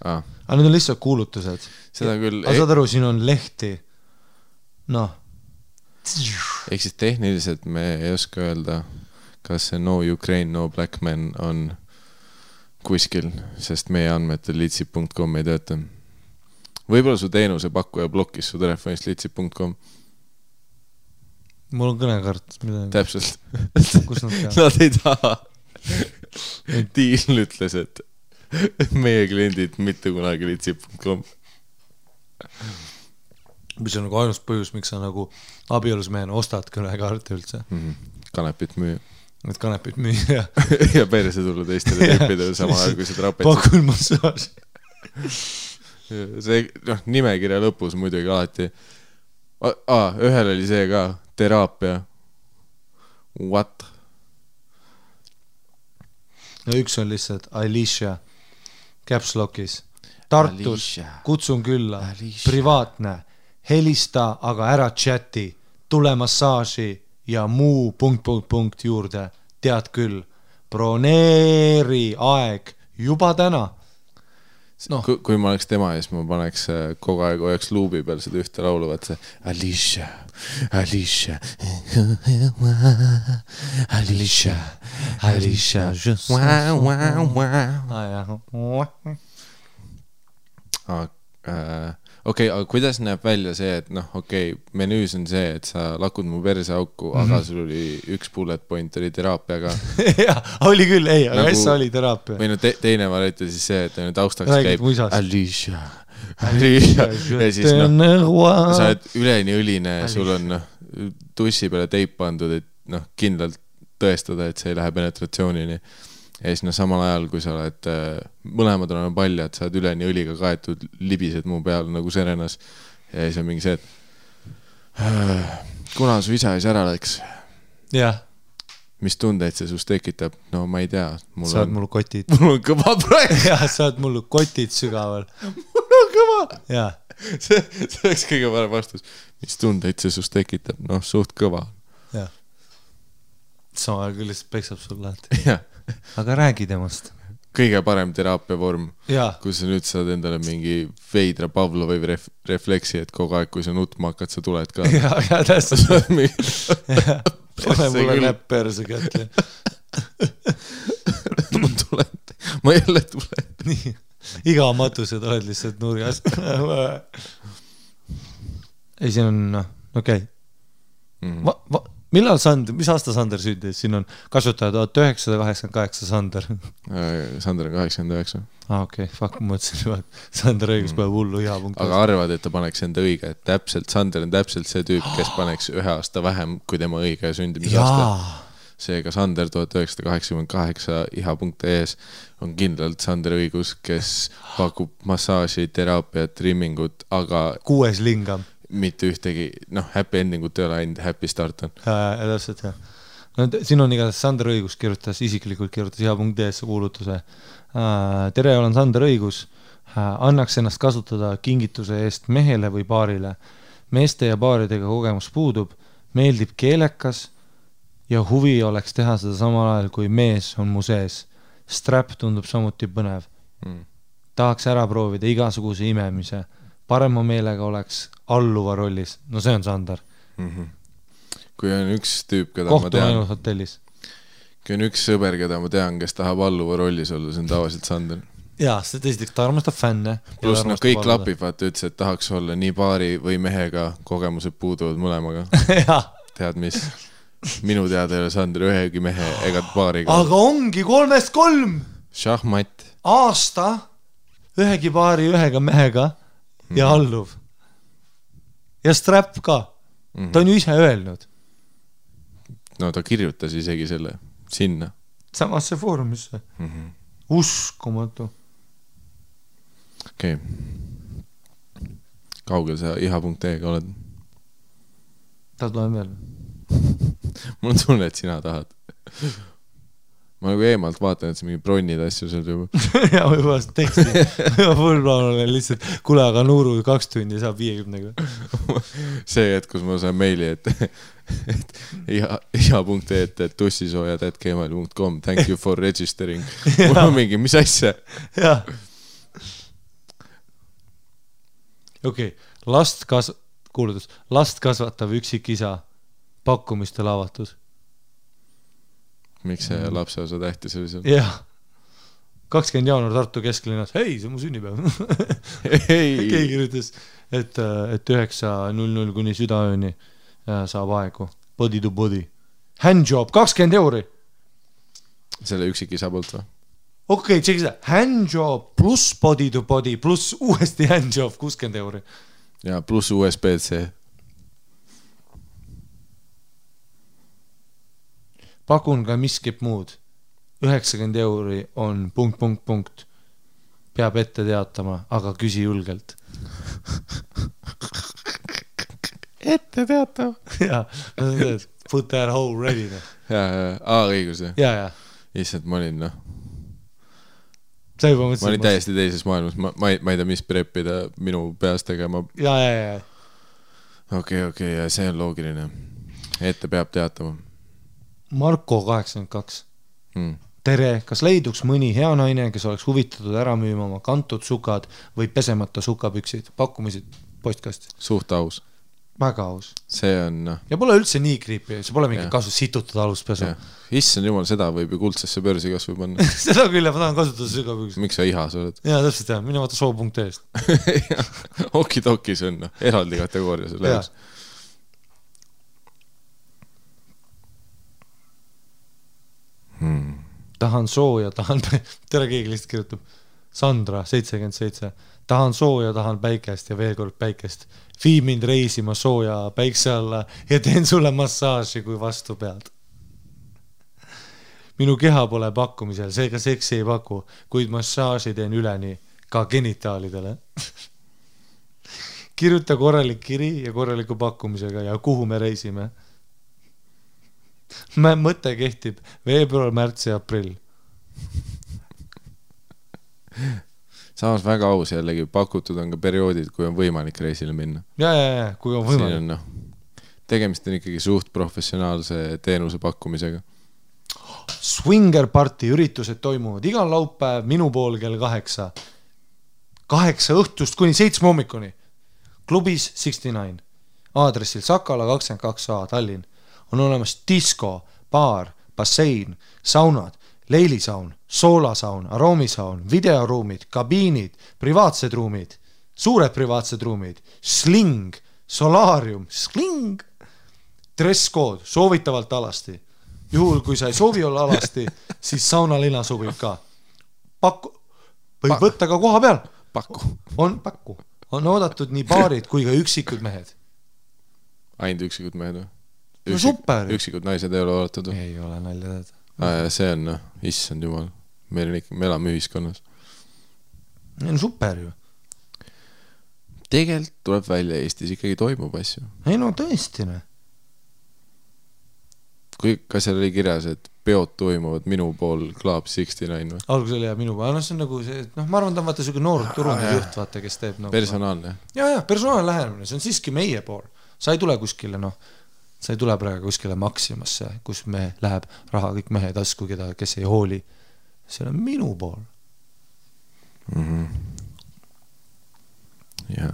Aga need on lihtsalt kuulutused. Seda küll... Aga saad aru, siin on lehti. Ehk siis tehniliselt me ei oska öelda, kas see No Ukraine, No Black Men on kuskil, sest meie andmetel litsi.com ei tööta. Võib-olla su teenuse pakkuja blokis su telefonist litsi.com. Mul on kõnekart. Täpselt. Kus nad teavad? Nad ei taha. Tiil ütles, et meie kliendid mitte kunagi litsi.com. Mis on nagu ainus põhjus, miks sa nagu abielus mehena ostad kõnekaarte üldse. Kanepit müüa. Need kanepit müüa. Ja perse tulla teistele tüüpidele samal ajal, kui seda rapetsid. Pakul massaaž. See nimekirja lõpus muidugi alati. Ühel oli see ka, teraapia. What? No üks on lihtsalt Alicia Caps Lockis. Tartus, kutsun külla, privaatne, helista, aga ära chati, tule massaaži ja muu ... juurde, tead küll, broneeri aeg juba täna. Kui ma oleks tema ees, ma paneks kogu aeg hoiaks luubi peal seda ühte laulu, vaat see Alicia, Alicia, Alicia, Alicia, okei, aga kuidas näeb välja see, et menüüs on see, et sa lakud mu perse auku, aga sul oli üks bullet point oli teraapiaga. Jah, oli küll, ei, aga ässa oli teraapia. Või teine variant oli siis see, et taustaks käib Alicia, Alicia, ja siis sa oled üleni õline, sul on tussi peale teip pandud, et kindlalt tõestada, et see ei lähe penetratsioonini. Ja siis samal ajal, kui sa oled mõlemad oleme paljad, sa oled üleni õliga kaetud, libised mu peal nagu serenas. Ja siis on mingi see, et kuna su isa ära läks? Jah. Mis tundeid see sust tekitab? No ma ei tea. Saad mul kotid. Mul on kõva praegu. Jah, saad mul kotid sügaval. Mul on kõva. Jah. See oleks kõige parem vastus. Mis tundeid see sust tekitab? Suht kõva. Jah. Sama aeg lihtsalt peksab sul lahti. Jah. Aga räägi temast. Kõige parem teraapia vorm, kus sa nüüd saad endale mingi veidra Pavlovi refleksi, et kogu aeg, kui sa nutma hakkad, sa tuled ka. Ja täpselt. Pane mulle näpp perse kätte. Ma tulen. Ma jälle tulen. Nii. Iga matused oled lihtsalt nurjas. Ei, siin on, okei. Millal Sander, mis aasta Sander sündis? Siin on kasutaja 1988 Sander. Sander on 89. Okei, fuck, ma mõtlesin, Sander õigus päev hullu hea punkt. Aga arvad, et ta paneks enda õige, et täpselt, Sander on täpselt see tüüp, kes paneks 1 aasta vähem kui tema õige sündimisaasta. Seega Sander 1988 iha.ee-s on kindlalt Sander õigus, kes pakub massaaži, teraapiat, trimmingut, aga 6 lingam. Mitte ühtegi, happy endingut ei ole ainult happy start on. Täpselt, jah. No, siin on igatahes Sander Õigus isiklikult kirjutas iha.ee-sse kuulutuse. Tere, olen Sander Õigus. Annaks ennast kasutada kingituse eest mehele või paarile. Meeste ja paaridega kogemus puudub, meeldib keelekas ja huvi oleks teha seda samal ajal, kui mees on mu sees. Strap tundub samuti põnev. Tahaks ära proovida igasuguse imemise. parema meelega oleks alluva rollis. No see on Sander. Kui on üks tüüp, keda Kohtun ma tean, ainult hotellis. kui on üks sõber, keda ma tean, kes tahab alluva rollis olla, see on tavaliselt Sander. Jaa, see tõesti, ta armastab fänne. Plus kõik klapib, vaata ütles, et tahaks olla nii paari või mehega, kogemused puuduvad mõlemaga. Tead mis? Minu teada ei ole Sander ühegi mehe ega paariga. Aga ongi 3-3 Šahmat. aasta ühegi paari ühega mehega ja alluv. Ja strap ka. Ta on ju ise öelnud. No ta kirjutas isegi selle sinna. Samasse foorumisse. Uskumatu. Okei. Kaugel sa iha.ee-ga oled? Ta tuleb veel. Mul on tunne, et sina tahad. Ma nagu eemalt vaatan, et see mingi bronnid asju seal juba. Ja võib-olla teksti. Full plaan olen lihtsalt, kuule, aga Nuuru 2 tundi saab 50-ga. See hetk, kus ma saan meili, et iha.ee, et tussisoojad@gmail.com thank you for registering. Mul on mingi, mis asja? Jah. Okei, last kasvatav üksik isa pakkumistel avatud. Miks see lapse osa tähtis oli seal? Jah. 20 jaanuar Tartu kesklinnas. Hei, see on mu sünnipäev. Keegi kirjutas, et 9.00 kuni südaööni saab aegu. Body to body. Handjob, 20 €. Selle üksik isa poolt või? Okei, tšeki seda. Handjob pluss body to body pluss uuesti handjob 60 €. Ja pluss USB-C. Pakun ka miskip muud. 90 € on ... Peab ette teatama, aga küsi julgelt. Ette teatav. Jaa, put that hole ready. Õigus. Jaa. Issand, ma olin Sa juba mõtlesid. Ma olin täiesti teises maailmas. Ma ei tea, mis preppida minu peas tegema. Jaa. Okei, ja see on loogiline. Ette peab teatama. Marko 82. Tere, kas leiduks mõni hea naine, kes oleks huvitatud ära müüma oma kantud sukad või pesemata sukapüksid? Pakkumisid postkast. Suht aus. Väga aus. See on... Ja pole üldse nii kriipi, see pole mingi kasu situtada aluspesu. Issand jumal, seda võib ju kuldsesse börsi kasvu panna. Seda küll, ma tahan kasutada sukapüksid. Miks sa ihas oled? Jaa, täpselt jah, mine vaata soo.ee-st. Okidokis on eraldi kategooria selle jaoks. Tahan sooja, tere keegi lihtsalt kirjutab. Sandra, 77. Tahan sooja, tahan päikest ja veel kord päikest. Vii mind reisima sooja päikse alla ja teen sulle massaaži, kui vastu pead. Minu keha pole pakkumisel, seega seksi ei paku, kuid massaaži teen üleni ka genitaalidele. Kirjuta korralik kiri ja korraliku pakkumisega ja kuhu me reisime. Mõte kehtib veebruar, märts ja aprill. Samas väga aus jällegi, pakutud on ka perioodid, kui on võimalik reisile minna. Ja, kui on võimalik. Siin on, tegemist on ikkagi suht professionaalse teenuse pakkumisega. Swinger party üritused toimuvad igal laupäev minu pool kell 8. 8 õhtust kuni 7 hommikuni. Klubis 69. Aadressil Sakala 22A Tallinn. On olemas disko, baar, bassein, saunad, leilisaun, soolasaun, aroomisaun, videoruumid, kabiinid, privaatsed ruumid, suured privaatsed ruumid, sling, solaarium, sling, dress-code, soovitavalt alasti. Juhul, kui sa ei soovi olla alasti, siis saunalina sobib ka. Võib võtta ka koha peal. Pakku. On oodatud nii baarid kui ka üksikud mehed. Ainult üksikud mehed või? No super. Üksikud naised ei ole oodatud? Ei ole nalja teada. See on, issand jumal. Me elame ühiskonnas. No super ju. Tegelikult tuleb välja Eestis ikkagi toimub asju. Ei no tõesti. Kas seal oli kirjas, et peod toimuvad minu pool Club 69 või? Algus oli minu pool. See on nagu see, ma arvan, ta on vaata selline noor turune juht, vaata, kes teeb personaalne. Ja, personaalne lähenemine. See on siiski meie pool. Sa ei tule kuskile, sa ei tule praegu kuskile Maximasse, kus me läheb raha kõik mehe tasku, kes ei hooli. See on minu pool. ja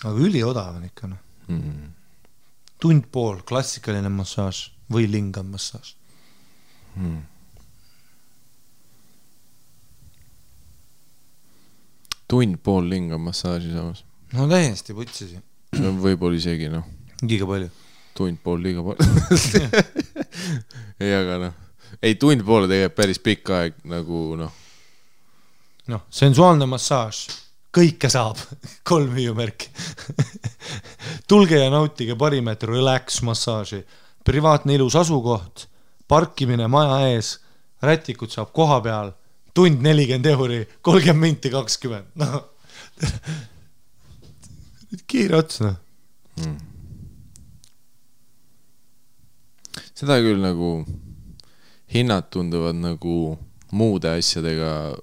aga üliodav on ikka noh. Tund pool klassikaline massaaž või lingam massaaž. Tund pool lingam massaaži samas. No täiesti putsisi. Võib-olla isegi noh. Liiga palju. Tund pool liiga palju. Ei, aga noh. Ei, tund poole tegelikult päris pikk aeg nagu noh. Noh, sensuaalne massaaž. Kõike saab. 3 hüüumärki. Tulge ja nautige parimeetri relax massaaži. Privaatne ilus asukoht. Parkimine maja ees. Rätikud saab koha peal. Tund 40 euri. 30 minti 20. No. Kiire ots, noh. Seda küll nagu hinnad tunduvad nagu muude asjadega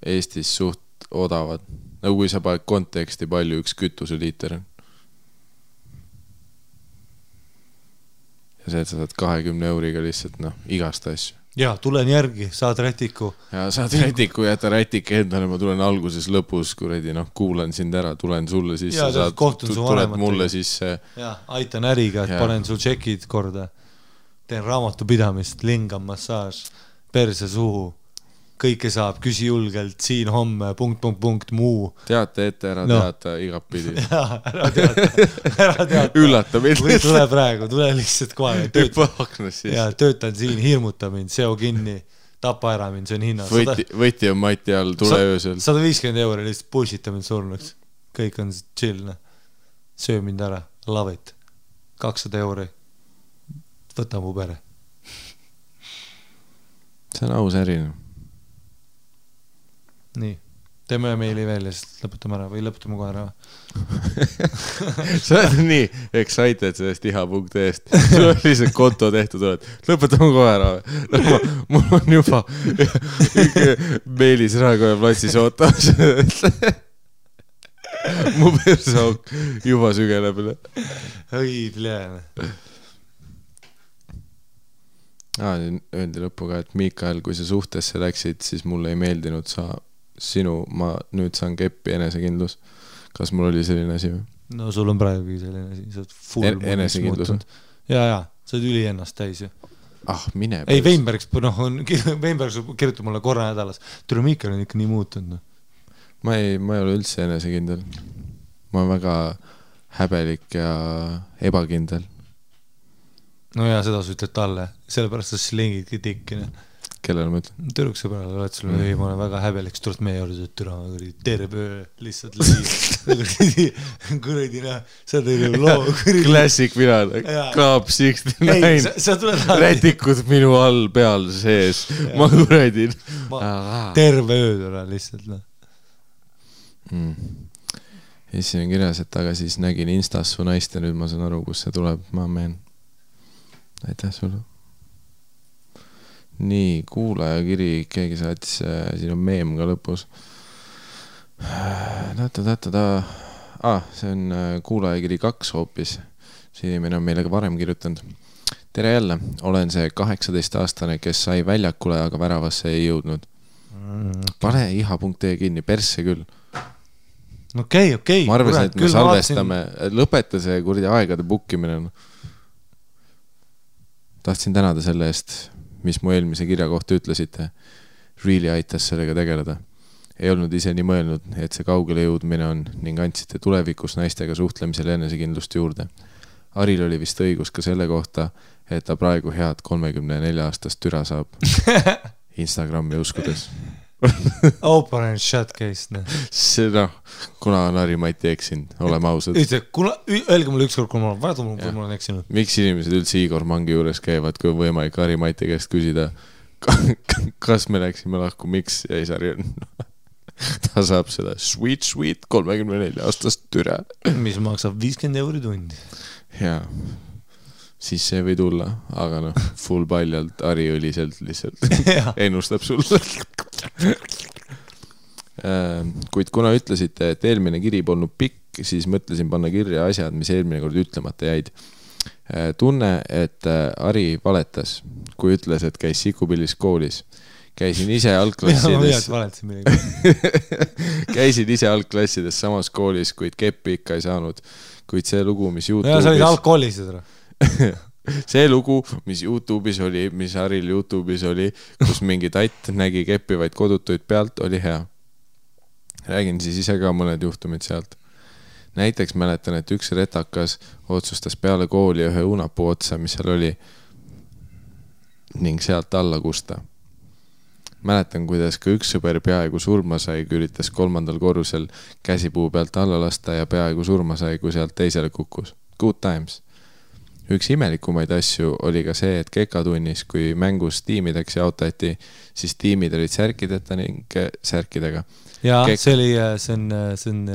Eestis suht odavad. Nagu kui sa paned konteksti palju üks kütuseliiter. Ja see, et sa saad 20 euriga lihtsalt noh, igast asju. Ja, tulen järgi, saad rätiku. Ja saad rätiku, jäta rätik endale, ma tulen alguses lõpus, kuredi, noh, kuulan sind ära, tulen sulle sisse, ja, saad, tuled mulle sisse. Ja, aitan äriga, et panen sul tšekid korda. Teen raamatupidamist, lingam massaaž, perse suhu. Kõike saab, küsi julgelt, siin homme, ... muu. Teate ette, ära teata igap pidi. Ja, ära teata. Üllata mind. Või tule praegu, tule lihtsalt kohe. Ja, töötan siin, hirmuta mind, seo kinni, tapa ära mind, see on hinna. Võti on mati all, tule öösel. 150 euri lihtsalt pushita mind surnuks. Kõik on chill. Söö mind ära, love it. 200 euri. Võta mu pere. See on aus äri. Nii, teeme meili veel ja siis lõputame ära või lõputame kohe ära. Sa oled nii excited sellest iha.est. Sul on lihtsalt konto tehtud, oled. Lõputame kohe ära. Mul on juba meilis Raekoja platsis ootamas. Mu persauk juba sügeleb. Õi, pljääne. Öeldi lõppu ka, et Mikael, kui sa suhtesse läksid, siis mulle ei meeldinud ma nüüd saan keppi enesekindlus. Kas mul oli selline asi või? No sul on praegu selline asi, sa oled full enesekindlus. Ja, sa oled üli ennast täis ju. Mine. Ei, Weinbergs kirjutab mulle korra nädalas. Tule Mikael on ikka nii muutunud. Ma ei ole üldse enesekindel. Ma olen väga häbelik ja ebakindel. No ja seda sa ütled talle, sellepärast sa slingidki tikkine. Kellele ma ütlen? Türukse peale, oled sulle, ei, ma olen väga häbelik, tuled meie juurde, türa, terve öö, lihtsalt lii. Kuradi näha, sa teed loo. Klassik mina, Club 69. Rätikud minu all peal sees. Ma kuradin. Terve öö türa lihtsalt. Ja siis on kirjas, et aga siis nägin Instas su naist ja nüüd ma saan aru, kus see tuleb. Ma meen. Aitäh sulle. Nii, kuulaja kiri, keegi saatis, siin on meem ka lõpus. See on kuulaja kiri 2 hoopis. See inimene on meile ka varem kirjutanud. Tere jälle, olen see 18-aastane, kes sai väljakule, aga väravasse ei jõudnud. Pane iha.ee kinni, persse küll. Okei. Ma arvasin, et me salvestame, lõpeta see kurdi aegade bukkimine. Tahtsin tänada selle eest, mis mu eelmise kirja kohta ütlesite. Really aitas sellega tegeleda. Ei olnud ise nii mõelnud, et see kaugele jõudmine on ning andsite tulevikus naistega suhtlemisel enesekindlust juurde. Aril oli vist õigus ka selle kohta, et ta praegu head 34-aastast türa saab Instagrami uskudes. Open and shut case. See kuna on Harri-Mati eksinud, oleme ausad. Öelge mulle ükskord, kui ma olen eksinud. Miks inimesed üldse Igor Mangi juures käivad, kui on võimalik Harri-Mati käest küsida, kas me läksime lahku, miks jäi Sari on? Ta saab seda sweet 34-aastast türa. Mis maksab 50 euri tundi. Jaa. Siis see või tulla, aga full paljalt Harri-õliselt lihtsalt ennustab sulle. Kuid kuna ütlesite, et eelmine kiri polnud pikk, siis mõtlesin panna kirja asjad, mis eelmine kord ütlemata jäid. Tunne, et Harri valetas, kui ütles, et käis Sikupillis koolis. käisin ise algklassides samas koolis, kuid keppi ikka ei saanud. Kuid see lugu, mis YouTube'is... sa olid algkoolis seda? See lugu, mis YouTube'is oli, mis Haril YouTube'is oli, kus mingi tatt nägi keppivaid kodutuid pealt, oli hea. Räägin siis ise ka mõned juhtumid sealt. Näiteks mäletan, et üks retakas otsustas peale kooli ühe unapuu otsa, mis seal oli, ning sealt alla kusta. Mäletan, kuidas ka üks sõber peaaegu surma sai, kui üritas 3. korrusel käsipuu pealt alla lasta ja peaaegu surma sai, kui sealt teisele kukkus. Good times. Üks imelikumaid asju oli ka see, et kekatunnis, kui mängus tiimideks jaotati, siis tiimid olid särkideta ning särkidega. Ja see on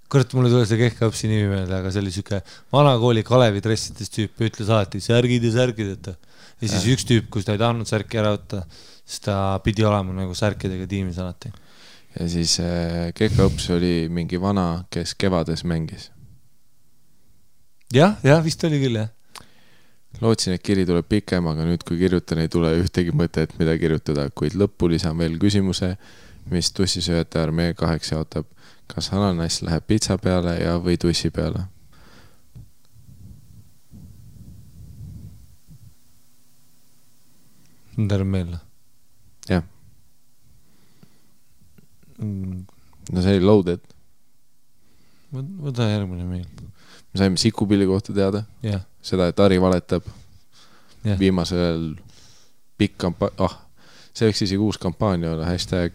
kõrt, mulle tuli see kehkaõpsi nimi meelde, aga see oli siuke vanakooli Kalevi dressides tüüp, ütles alati särgid ja särgideta. Ja siis üks tüüp, kus ta ei tahtnud särki ära võtta, siis ta pidi olema nagu särkidega tiimis alati. Ja siis kehkaõps oli mingi vana, kes kevades mängis. Ja, vist oli küll, jah. Lootsin, et kiri tuleb pikem, aga nüüd kui kirjutan, ei tule ühtegi mõtet, mida kirjutada, kuid lõppu lisan veel küsimuse, mis tussisööjate armee 2 jaotab. Kas ananass läheb pitsa peale ja või tussi peale? Terve meelde. Jah. No see oli loaded. Võta järgmine meil. Me saime Sikupilli kohta teada. Yeah. Seda, et Ari valetab. Yeah. Viimasel pikk see võiks isegi uus kampaania olla, hashtag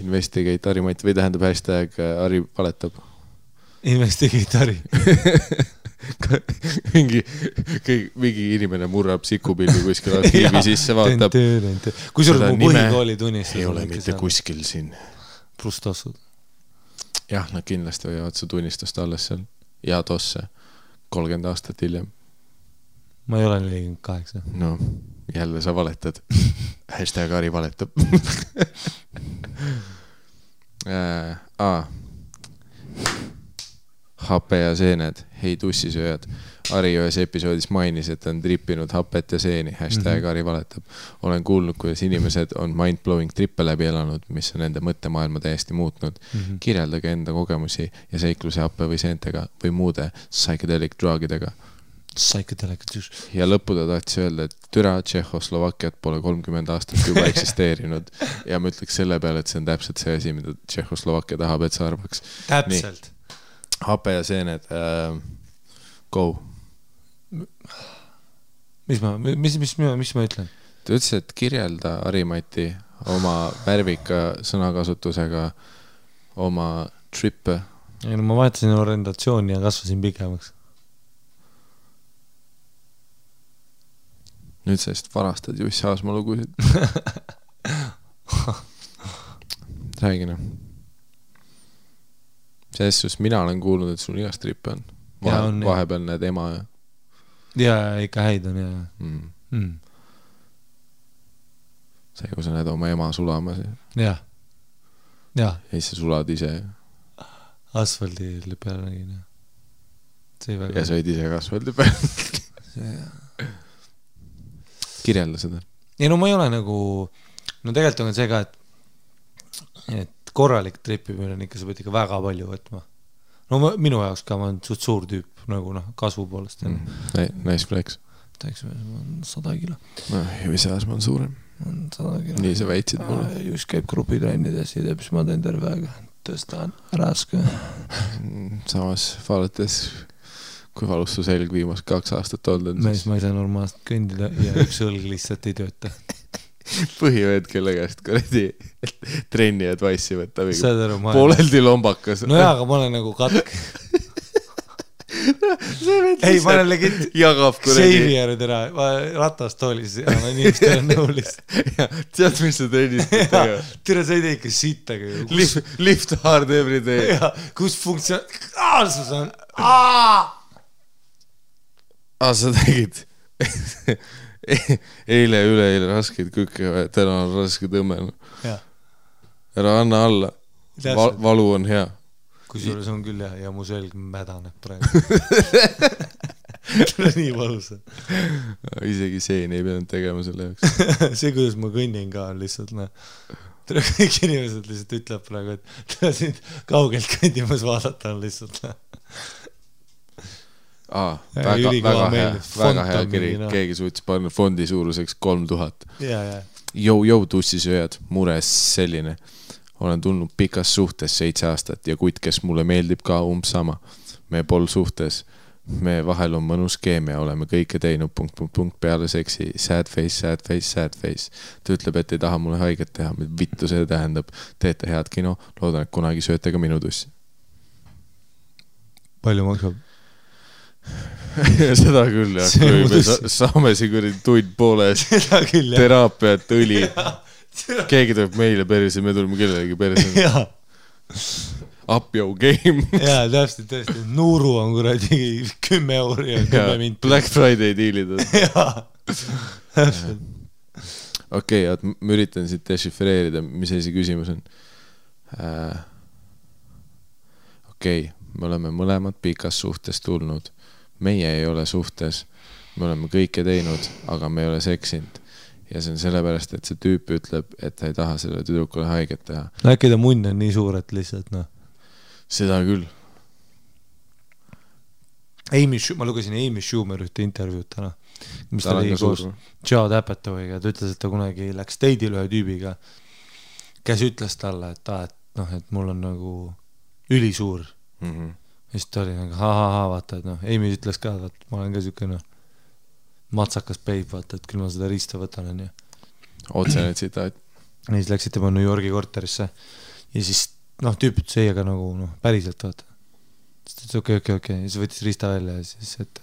investigate Ari Mati või tähendab hashtag Ari valetab. Investigate Ari. mingi inimene murrab Sikupilli kuskil arhiivi sisse, vaatab. Kui sul mu põhikooli tunnistas? Ei ole mitte kuskil siin. Plustossud. Jah, nad kindlasti võivad su tunnistust alles seal. Ja tosse 30 aastat hiljem. Ma ei ole 48. No, jälle sa valetad. Hashtag Ari valetab. Hape ja seened. Hei tussisööjad. Ari ühes episoodis mainis, et on trippinud hapet ja seeni. Hashtag Ari valetab. Olen kuulnud, kuidas inimesed on mind-blowing trippe läbi elanud, mis on nende mõttemaailma täiesti muutnud. Kirjeldage enda kogemusi ja seikluse happe või seentega või muude psychedelic drugidega. Ja lõppu ta tahtis öelda, et türa Tšehhoslovakkiat pole 30 aastat juba eksisteerinud ja ma ütleks selle peale, et see on täpselt see asi, mida Tšehhoslovakkia tahab, et sa arvaks. Täpselt. Nii. Hape ja seened. Go. Mis ma ütlen? Ta ütles, et kirjelda Harimati oma värvika sõnakasutusega oma trippe. Ja no ma vaatasin orientatsiooni ja kasvasin pikemaks. Nüüd sest varastad Jussi Aasma lugusid. Räägina. Sest mina olen kuulnud, et sul igast trippe on. Vahepeal need ema ja... Ja ikka häid on, ja. See, kui sa näed oma ema sulama. Ja. Ja siis sa sulad ise. Asfaldi peale nägin. Ja sa olid ise ka asfaldi peale. Ja. Kirjelda seda. Ja no ma ei ole nagu, no tegelikult on see ka, et korralik tripimine on ikka, sa pead ikka väga palju võtma. No minu jaoks ka, ma olen suur tüüp, nagu kasvu poolest. Nice flex. Täiks, ma on 100 kilo. Jussi Aasma on suurem. 100 kilo. Nii sa väitsid mulle. Just käib grupitrennides ja teeb, siis ma teen terve aega. Tõstan raske. Samas vaadates... Kui valus su selg viimast 2 aastat olnud? Mees, ma ei saa normaalselt kõndida ja üks õlg lihtsalt ei tööta. Põhivõed, kelle käest kuradi trenni advice'i võtta. Pooleldi lombakas. No jaa, aga ma olen nagu katk. Ei, ma olen legit Xavierid ära, ratast toolis ja ma inimestel on nõulis. Tead, mis sa trennist teha? Tere, sa ei tee ikka sittagi. Lift hard every day. Kus funktsionaalsus on? Sa tegid eile ja üleeile raskeid kükke, täna on raske tõmme. Ära anna alla. Valu on hea. Kusjuures on küll ja mu selg mädaneb praegu. nii valus. Isegi seeni ei pidanud tegema selle jaoks. See, kuidas ma kõnnin ka on lihtsalt, kõik inimesed lihtsalt ütleb praegu, et ta siin kaugelt kõndimas vaadata on lihtsalt. Väga hea kiri, keegi suutis panna fondi suuruseks 3000. Jou, tussisööjad, mures selline. Olen tulnud pikas suhtes 7 aastat ja kuid, kes mulle meeldib ka sama. Me pol suhtes, me vahel on mõnus keemia, oleme kõike teinud ... peale seksi, sad face. Ta ütleb, et ei taha mulle haiget teha, vittu see tähendab. Teete head kino, loodan, et kunagi sööte ka minu tussi. Palju maksab? Seda küll, jah. Kui me saame siin tund pooles teraapiat, õli. Keegi tuleb meile perse, me tuleme kellelegi perse. Up your game. Jaa, tõesti. Nuuru on kuradi 10 euri ja 10 minti. Black Friday diilid. Jaa, täpselt. Okei, ma üritan siit dešifreerida, mis see küsimus on. Okei, me oleme mõlemad pikas suhtes tulnud. Meie ei ole suhtes. Me oleme kõike teinud, aga me ei ole seksinud. Ja see on sellepärast, et see tüüp ütleb, et ta ei taha selle tüdrukule haiget teha. Äkki ta munn on nii suur, et lihtsalt, Seda küll. Ma lugesin Amy Schumer ühte intervjuud täna, mis ta oli koos Judd Apatowiga, ta ütles, et ta kunagi läks date'il ühe tüübiga, kes ütles talle, et mul on nagu ülisuur. Ja siis ta oli nagu vaata, et Amy ütles ka, et ma olen ka siuke matsakas peib, vaata, et küll ma seda riista võtan. Otsene tsitaat. Ja siis läksid tema New Yorgi korterisse ja siis tüüp ütles ei, aga nagu päriselt, vaata. Siis okei. Ja siis võttis riista välja ja siis, et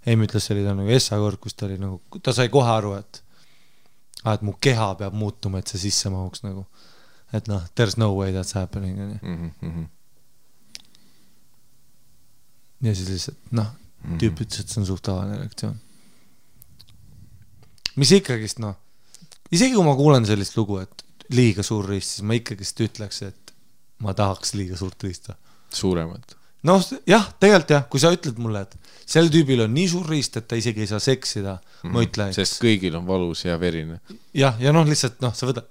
Amy ütles, see oli ta nagu essakord, kus ta oli nagu, ta sai kohe aru, et mu keha peab muutuma, et see sisse mahuks nagu. Et there's no way that's happening. Ja siis lihtsalt, tüüp ütles, et see on suht tavaline reaktsioon. Mis ikkagist, isegi kui ma kuulen sellist lugu, et liiga suur riist, siis ma ikkagist ütleks, et ma tahaks liiga suurt riista. Suuremat. Jah, tegelikult jah, kui sa ütled mulle, et sel tüübil on nii suur riist, et ta isegi ei saa seksida, ma ütlen. Sest kõigil on valus ja verine. Ja lihtsalt, sa võtad,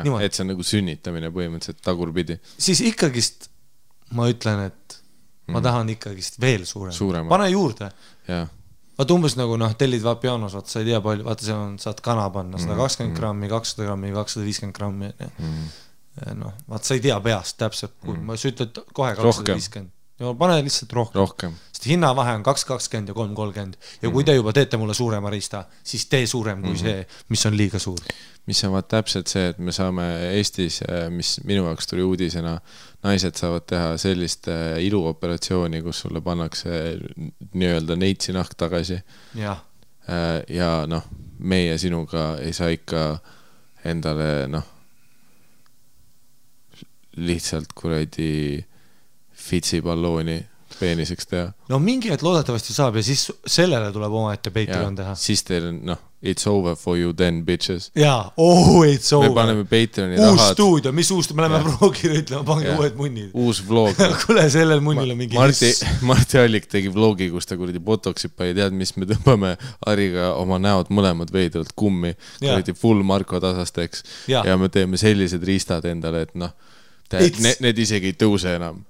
niimoodi. Et see on nagu sünnitamine põhimõtteliselt tagurpidi. Siis ikkagist ma ütlen, et ma tahan ikkagist veel suurem. Pane juurde. Jah. Vaata umbes nagu tellid pianos, vaata sa ei tea palju, vaata see on, saad kana panna 120 grammi, 200 grammi, 250 grammi. Vaata sa ei tea peast täpselt, kui sa ütled kohe 250. Ja pane lihtsalt rohkem. Sest hinnavahe on 220 ja 330. Ja kui te juba teete mulle suurema riista, siis tee suurem kui see, mis on liiga suur. Mis on täpselt see, et me saame Eestis, mis minu jaoks tuli uudisena, naised saavad teha sellist iluoperatsiooni, kus sulle pannakse nii-öelda neitsi nahk tagasi. Ja meie sinuga ei saa ikka endale lihtsalt kuradi fitsipallooni peeniseks teha. Mingi hetk loodetavasti saab ja siis sellele tuleb oma ette Patreon teha. Siis teil on, it's over for you then, bitches. Jaa, it's over. Me paneme Patreoni uus stuudio, mis uus, me läheme vlogile ütlema, pange uued munnid. Uus vlog. Kule, sellel munnil on mingi Marti Allik tegi vlogi, kus ta kuradi botoxip ei tead, mis me tõmbame Ariga oma näod mõlemad veidralt kummi. Kuradi full Marko tasasteks. Ja me teeme sellised riistad endale, et need isegi ei tõuse enam.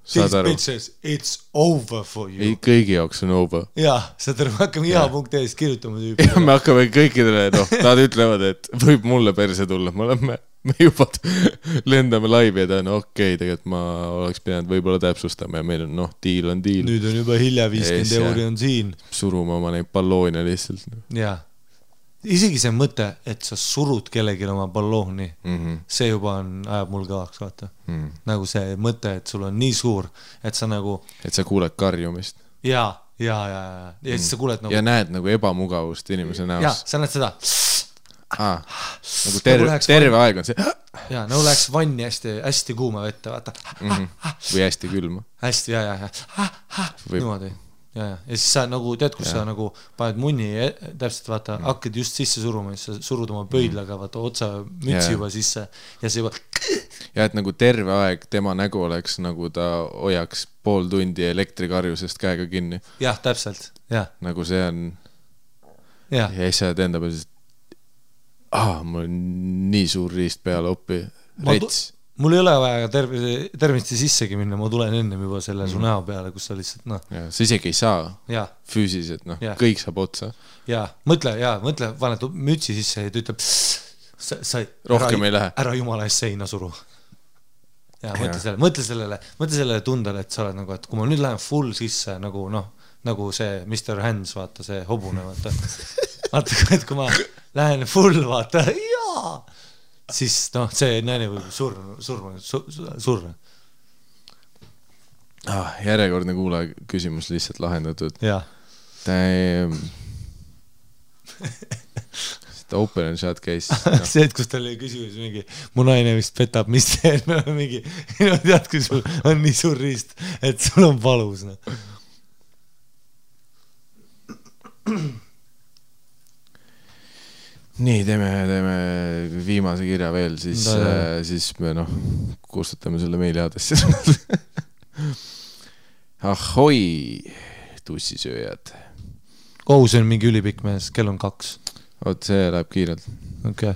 Bitches, it's over for you. Kõigi jaoks on over. Jaa, seda hakkame iha.eest kirjutama tüüpi. Ja me hakkame kõikidele, nad ütlevad, et võib mulle perse tulla. Me juba lendame laivi ja okei, tegelikult ma oleks pidanud võib-olla täpsustama ja meil on, diil on diil. Nüüd on juba hilja 50 euri on siin. Surume oma neid balloone lihtsalt. Jaa. Isegi see mõte, et sa surud kellegi oma ballooni, see juba ajab mul kõvaks, vaata. Nagu see mõte, et sul on nii suur, et sa nagu... Et sa kuuled karjumist. Ja siis sa kuuled nagu... Ja näed nagu ebamugavust inimese näos. Ja, sa näed seda... Nagu terve aeg on see... Ja, nagu läheks vanni hästi kuuma vette, vaata. Või hästi külma. Hästi, niimoodi. Ja siis sa nagu, tead, kus sa nagu paned munni, täpselt vaata, hakkad just sisse suruma, siis sa surud oma pöidlaga, vaata otsa mütsi juba sisse ja see juba... ja et nagu terve aeg tema nägu oleks nagu ta hoiaks pool tundi elektrikarjusest käega kinni. Jah, täpselt, jah. Nagu see on ja siis sa enda peal mul on nii suur riist peale oppi rets. Mul ei ole vaja tervenisti sissegi minna, ma tulen ennem juba selle su näo peale, kus sa lihtsalt sa isegi ei saa füüsiliselt, kõik saab otsa. Mõtle, paned mütsi sisse ja ta ütleb sa rohkem ei lähe. Ära jumala eest seina suru. Mõtle sellele tundele, et sa oled nagu, et kui ma nüüd lähen full sisse nagu see Mr. Hands, vaata see hobune, vaata, et kui ma lähen full, vaata, siis see naine võib surra. Järjekordne kuulaja küsimus lihtsalt lahendatud. Open and shut case. See, et kus tal oli küsimus mingi, mu naine vist petab, mis see mingi, tead, kui sul on nii suur riist, et sul on valus. Nii, teeme viimase kirja veel, siis me kustutame selle meiliaadressi. Ahoi, tussisööjad. See on mingi ülipikk mees, kell on 2. Oot, see läheb kiirelt. Okay.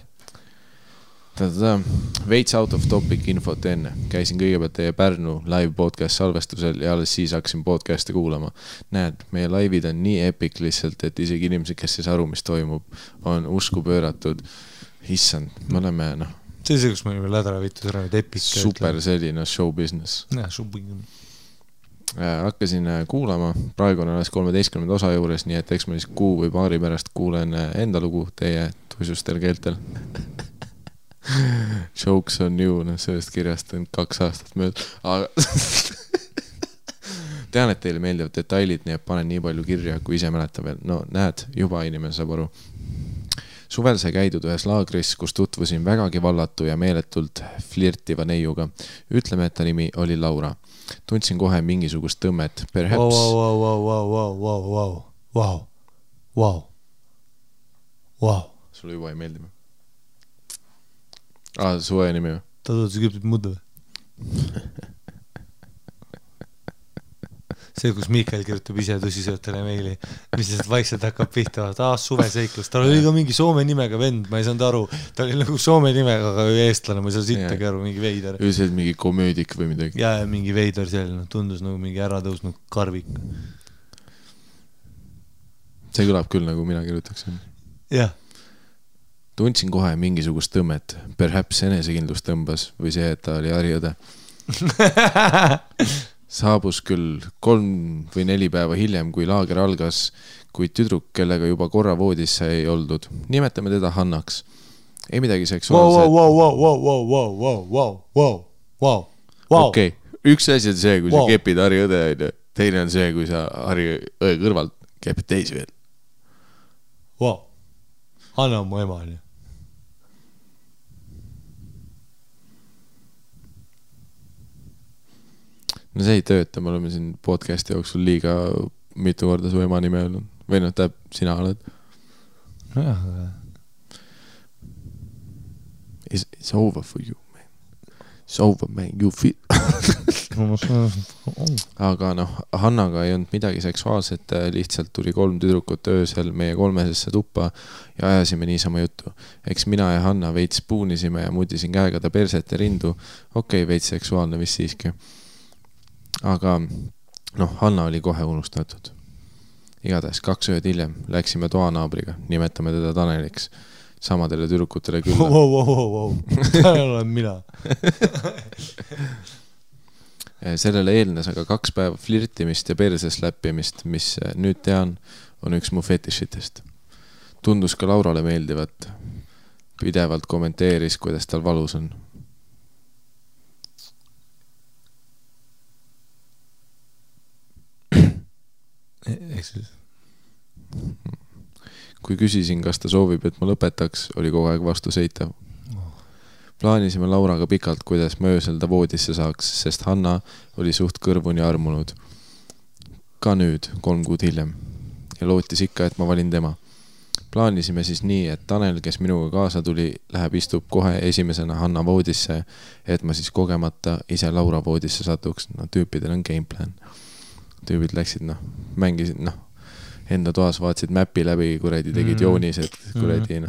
Veits out of topic infot enne. Käisin kõigepealt teie Pärnu live podcast salvestusel ja alles siis hakkasin podcasti kuulama. Näed, meie laivid on nii epic lihtsalt, et isegi inimesed, kes ei saa aru, mis toimub, on usku pööratud. Issand, me oleme, See see, kus me olime lädra viitud ära, need epic. Super selline show business. Show business. Hakkasin kuulama, praegu on alles 13. osa juures, nii et eks ma siis kuu või paari pärast kuulen enda lugu teie tuisustel keeltel. Jokes on you, sellest kirjast on 2 aastat mööda. Aga tean, et teile meeldivad detailid, nii et panen nii palju kirja, kui ise mäleta veel. Näed, juba inimene saab aru. Suvel sai käidud ühes laagris, kus tutvusin vägagi vallatu ja meeletult flirtiva neiuga. Ütleme, et ta nimi oli Laura. Tundsin kohe mingisugust tõmmet. Perhaps... Wow. Sulle juba ei meeldi. Suve nimi. Ta tõotas küpsib mudu. See, kus Mikael kirjutab ise tõsisöötele meili, mis lihtsalt vaikselt hakkab pihta. Suve seiklus. Tal oli ka mingi Soome nimega vend, ma ei saanud aru. Ta oli nagu Soome nimega, aga eestlane, ma ei saa sittagi aru, mingi veider. See oli mingi komöödik või midagi. Ja mingi veider selline, tundus nagu mingi äratõusnud karvik. See kõlab küll, nagu mina kirjutaksin. Jah. Tundsin kohe mingisugust tõmmet. Perhaps enesekindlus tõmbas või see, et ta oli harjõde. Saabus küll 3 või 4 päeva hiljem, kui laager algas, kuid tüdruk, kellega juba korra voodis ei oldud. Nimetame teda Hannaks. Ei midagi seksuaalset. Okei, üks asi on see, kui sa kepid harjõde, teine on see, kui sa harjõe kõrvalt kepid teisi veel. Hanna on mu ema, nii. See ei tööta, me oleme siin podcasti jooksul liiga mitu korda su ema nime öelnud. Või sina oled. It's over for you, man. It's over, man. You feel... Aga Hannaga ei olnud midagi seksuaalset, lihtsalt tuli 3 tüdrukut öösel meie 3-sesse tuppa ja ajasime niisama juttu. Eks mina ja Hanna veits puunisime ja mudisin käega ta perset ja rindu. Okei, veits seksuaalne vist siiski. Aga Hanna oli kohe unustatud. Igatahes 2 ööd hiljem läksime toanaabriga, nimetame teda Taneliks, samadele tüdrukutele külla. Tanel olen mina. Sellele eelnes aga 2 päeva flirtimist ja perses läppimist, mis nüüd tean, on üks mu fetišitest. Tundus ka Laurale meeldivat. Pidevalt kommenteeris, kuidas tal valus on. Kui küsisin, kas ta soovib, et ma lõpetaks, oli kogu aeg vastu seitav. Plaanisime Lauraga pikalt, kuidas ma öösel ta voodisse saaks, sest Hanna oli suht kõrvuni armunud. Ka nüüd, 3 kuud hiljem. Ja lootis ikka, et ma valin tema. Plaanisime siis nii, et Tanel, kes minuga kaasa tuli, läheb istub kohe esimesena Hanna voodisse, et ma siis kogemata ise Laura voodisse satuks. No tüüpidel on gameplan. Tüübid läksid, mängisid, enda toas vaatasid mäppi läbi, kuredi tegid joonised, kuredi,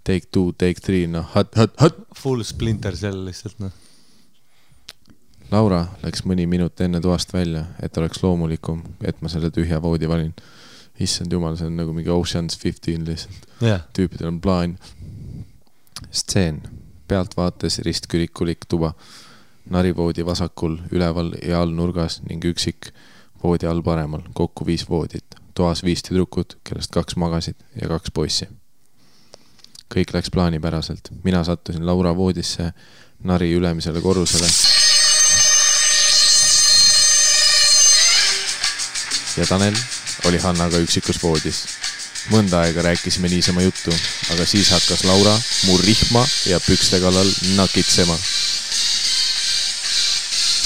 take 2, take 3, hot. Full Splinter Cell lihtsalt, Laura läks mõni minut enne toast välja, et oleks loomulikum, et ma selle tühja voodi valin. Issand jumal, see on nagu mingi Ocean's 15 lihtsalt. Yeah. Tüüpidel on plaan. Stseen. Pealt vaates ristkürikulik tuba. Narivoodi vasakul, üleval ja all nurgas ning üksik voodi all paremal. Kokku 5 voodit. Toas 5 tüdrukut, kellest 2 magasid ja 2 poissi. Kõik läks plaanipäraselt. Mina sattusin Laura voodisse, nari ülemisele korrusele. Ja Tanel oli Hannaga üksikus voodis. Mõnda aega rääkisime niisama juttu, aga siis hakkas Laura mu rihma ja pükste kallal nakitsema.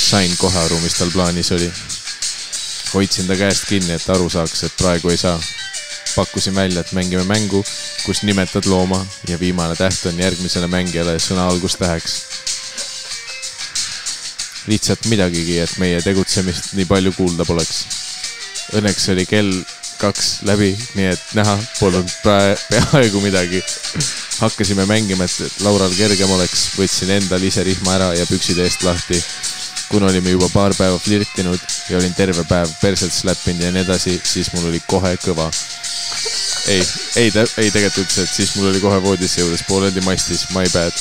Sain kohe aru, mis tal plaanis oli. Hoidsin ta käest kinni, et aru saaks, et praegu ei saa. Pakkusin välja, et mängime mängu, kus nimetad looma ja viimane täht on järgmisele mängijale sõna algustäheks. Lihtsalt midagigi, et meie tegutsemist nii palju kuulda poleks. Õnneks oli kell 2 läbi, nii et näha polnud peaaegu midagi. Hakkasime mängima, et Laural kergem oleks, võtsin endal ise rihma ära ja püksid eest lahti. Kuna olime juba paar päeva flirtinud ja olin terve päev perselt släppinud ja nii edasi, siis mul oli kohe kõva. Ei tegelikult üldse, et siis mul oli kohe voodisse juures pooleldi mastis, my bad.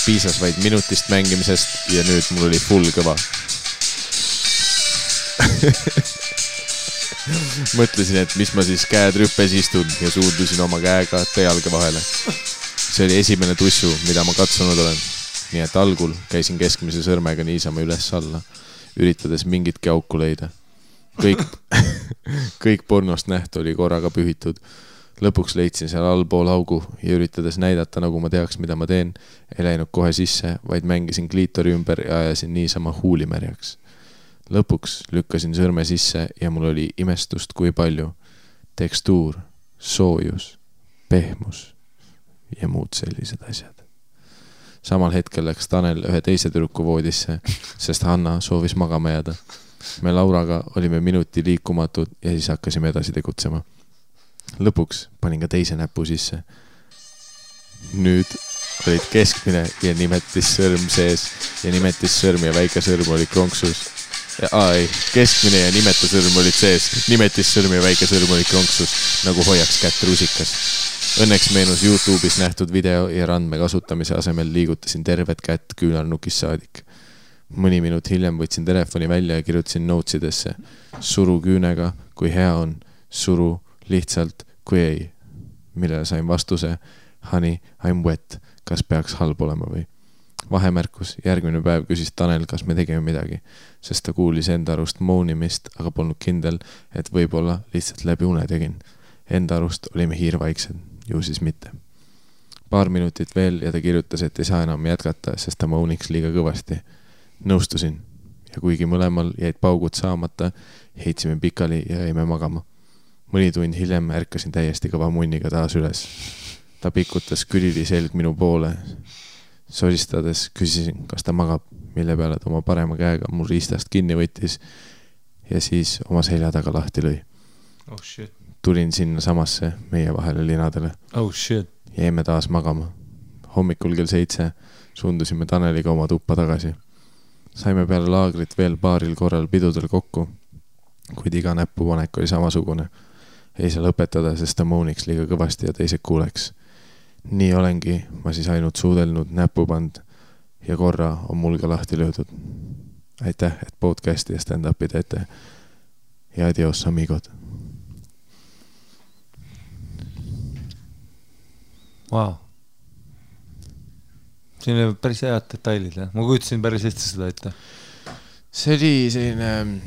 Piisas vaid minutist mängimisest ja nüüd mul oli full kõva. Mõtlesin, et mis ma siis käed rüppes istun ja suundusin oma käega jalge vahele. See oli esimene tussu, mida ma katsunud olen. Nii et algul käisin keskmise sõrmega niisama üles alla, üritades mingitki auku leida. Kõik pornost nähtu oli korraga pühitud. Lõpuks leidsin seal allpool augu ja üritades näidata, nagu ma teaks, mida ma teen, ei läinud kohe sisse, vaid mängisin kliitori ümber ja ajasin niisama huulimärjaks. Lõpuks lükkasin sõrme sisse ja mul oli imestust kui palju. Tekstuur, soojus, pehmus ja muud sellised asjad. Samal hetkel läks Tanel ühe teise tüdruku voodisse, sest Hanna soovis magama jääda. Me Lauraga olime minuti liikumatud ja siis hakkasime edasi tegutsema. Lõpuks panin ka teise näpu sisse. Nüüd olid keskmine ja nimetissõrm sees ja nimetissõrm ja väike sõrm oli kronksus. Keskmine ja nimetusõrm olid sees, nimetissõrm ja väike sõrm oli kronksus, nagu hoiaks kätt rusikas. Õnneks meenus YouTube'is nähtud video ja randme kasutamise asemel liigutasin tervet kätt küünarnukis saadik. Mõni minut hiljem võtsin telefoni välja ja kirjutasin notesidesse. Suru küünega, kui hea on, suru lihtsalt, kui ei. Millele sain vastuse, honey, I'm wet, kas peaks halb olema või? Vahemärkus, järgmine päev küsis Tanel, kas me tegime midagi, sest ta kuulis enda arust moonimist, aga polnud kindel, et võib-olla lihtsalt läbi une tegin. Enda arust olime hiirvaiksed, ju siis mitte. Paar minutit veel ja ta kirjutas, et ei saa enam jätkata, sest ta mooniks liiga kõvasti. Nõustusin ja kuigi mõlemal jäid paugud saamata, heitsime pikali ja jäime magama. Mõni tund hiljem ärkasin täiesti kõva munniga taas üles. Ta pikutas külili selg minu poole. Soristades küsisin, kas ta magab, mille peale ta oma parema käega mul riistast kinni võttis ja siis oma selja taga lahti lõi. Oh shit. Tulin sinna samasse meie vahele linadele. Oh shit. Jäime taas magama. Hommikul kell 7 suundusime Taneliga oma tuppa tagasi. Saime peale laagrit veel paaril korral pidudel kokku, kuid iga näpupanek oli samasugune. Ei saa lõpetada, sest ta mooniks liiga kõvasti ja teised kuuleks. Nii olengi, ma siis ainult suudelnud näpupand ja korra on mul ka lahti löödud. Aitäh, et podcasti ja stand-upi teete. Ja adios, amigod. Wow. Siin oli päris head detailid, jah? Ma kujutasin päris hästi seda ette. See oli selline...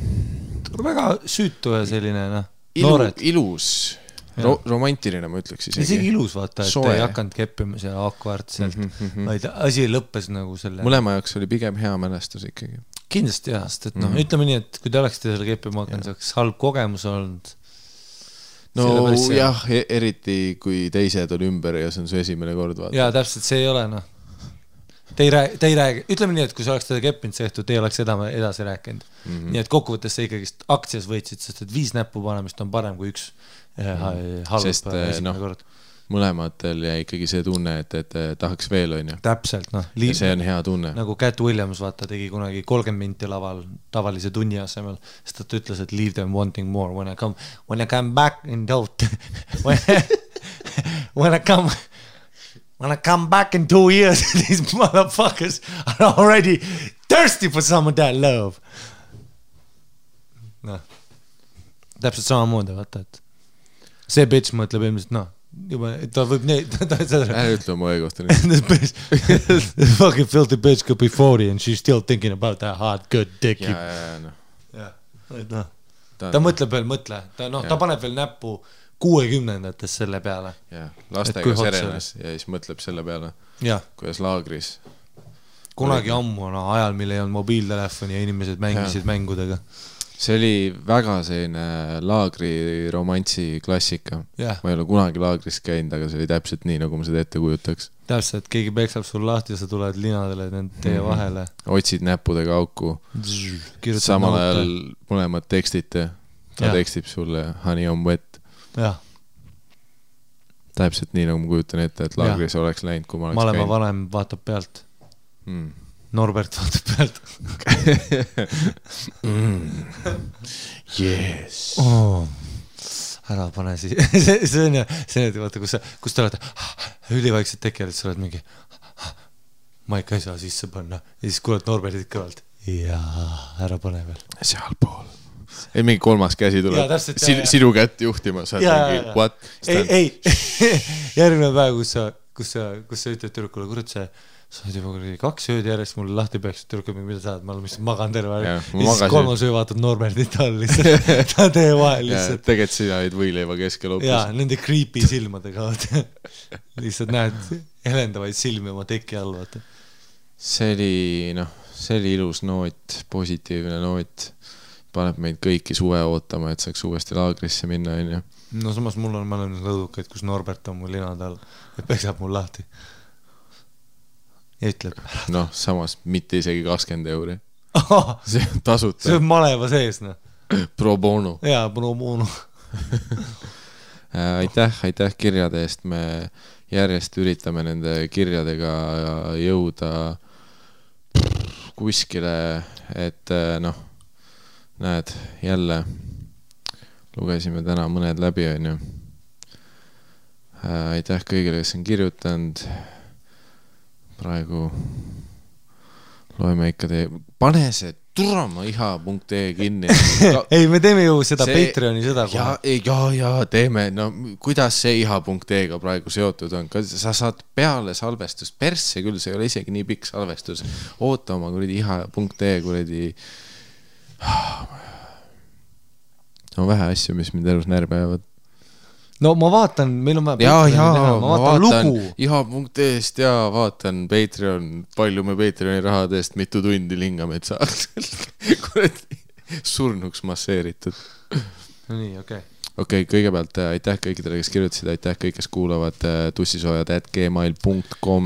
Väga süütu ja selline, noored. Ilus. Romantiline, ma ütleks isegi. Isegi ilus vaata, et ei hakanud keppima see akvaartselt, vaid asi lõppes nagu selle... Mõlema jaoks oli pigem hea mälestus ikkagi. Kindlasti jah, sest et ütleme nii, et kui te oleksite selle keppima hakanud, see oleks halb kogemus olnud. no jah, eriti kui teised on ümber ja see on su esimene kord vaata. Jaa, täpselt, see ei ole noh. Te ei räägi, ütleme nii, et kui sa oleks teda keppinud see õhtu, te ei oleks edasi rääkinud. Nii et kokkuvõttes sa ikkagi aktsias võitsid, sest et 5 näppu panemist on parem kui 1 halb esimene kord. Mõlematel jäi ikkagi see tunne, et tahaks veel, on ju. Täpselt, noh. Ja see on hea tunne. Nagu Cat Williams, vaata, tegi kunagi 30 minti laval tavalise tunni asemel, sest ta ütles, et leave them wanting more. When I come back in doubt, when I come back in 2 years, these motherfuckers are already thirsty for some of that love. Noh, täpselt samamoodi, vaata, et see bitch mõtleb ilmselt, noh, juba, ta võib Ära ütle oma õigust. This fucking filthy bitch could be 40 and she's still thinking about that hard good dick. Ta mõtleb veel, ta paneb veel näppu 60-ndates selle peale. Lastega serenas ja siis mõtleb selle peale, kuidas laagris. Kunagi ammu ajal, mille ei olnud mobiiltelefoni ja inimesed mängisid mängudega. See oli väga selline laagri romantsi klassika. Ma ei ole kunagi laagris käinud, aga see oli täpselt nii, nagu ma seda ette kujutaks. Täpselt, keegi peksab sul lahti ja sa tuled linadele nende teie vahele. Otsid näppudega auku. Samal ajal mõlemad tekstite. Ta tekstib sulle Honey on wet. Täpselt nii, nagu ma kujutan ette, et laagris oleks läinud, kui ma oleks käinud. Malema vanem vaatab pealt. Norbert vaatab pealt. Yes. Ära pane siis. See on vaata, kus te olete ülivaikselt tekjad, et sa oled mingi maika ei saa sisse panna. Ja siis kuuled Norbertit kõvalt. Jaa, ära pane veel. Seal pool. Ei, mingi 3. käsi tuleb. Sinu kätt juhtima. What? Ei. Järgmine päev, kus sa ütled tüdrukule, kurat see sa oled juba 2 ööd järjest mulle lahti peaks, tüdrukul mida sa oled, ma olen lihtsalt magan terve aeg. Ja siis 3. öö vaatad Norbertit all lihtsalt. Ta tee vahel lihtsalt. Tegelikult sina olid võileiva keskel hoopis. Jaa, nende creepy silmadega. Lihtsalt näed helendavaid silmi oma teki all. Vaata. See oli ilus noot, positiivne noot. Paneb meid kõiki suve ootama, et saaks uuesti laagrisse minna. No samas mul on mõlemad lõdukaid, kus Norbert on mul linad all ja peksab mul lahti. Ja ütleb. Samas mitte isegi 20 euri. See on tasuta. See on maleva sees, noh. Pro bono. Jaa, pro bono. Aitäh kirjade eest. Me järjest üritame nende kirjadega jõuda kuskile, et näed, jälle lugesime täna mõned läbi, on ju. Aitäh kõigile, kes on kirjutanud. Praegu loeme ikka pane see turama iha.ee kinni. Ei, me teeme ju seda Patreoni seda kohe. Ja, teeme. No, kuidas see iha.ee-ga praegu seotud on? Sa saad peale salvestust. Persse küll, see ei ole isegi nii pikk salvestus. Oota oma kuradi iha.ee kuradi. On vähe asju, mis mind elus närbe jäävad. No ma vaatan, meil on ma vaatan lugu. Iha.ee-st ja vaatan Patreon, palju me Patreoni rahadest mitu tundi lingame, et saaks surnuks masseeritud. No nii, okei. Okei, kõigepealt aitäh kõikidele, kes kirjutasid, aitäh kõik, kes kuulavad tussisoojad@gmail.com.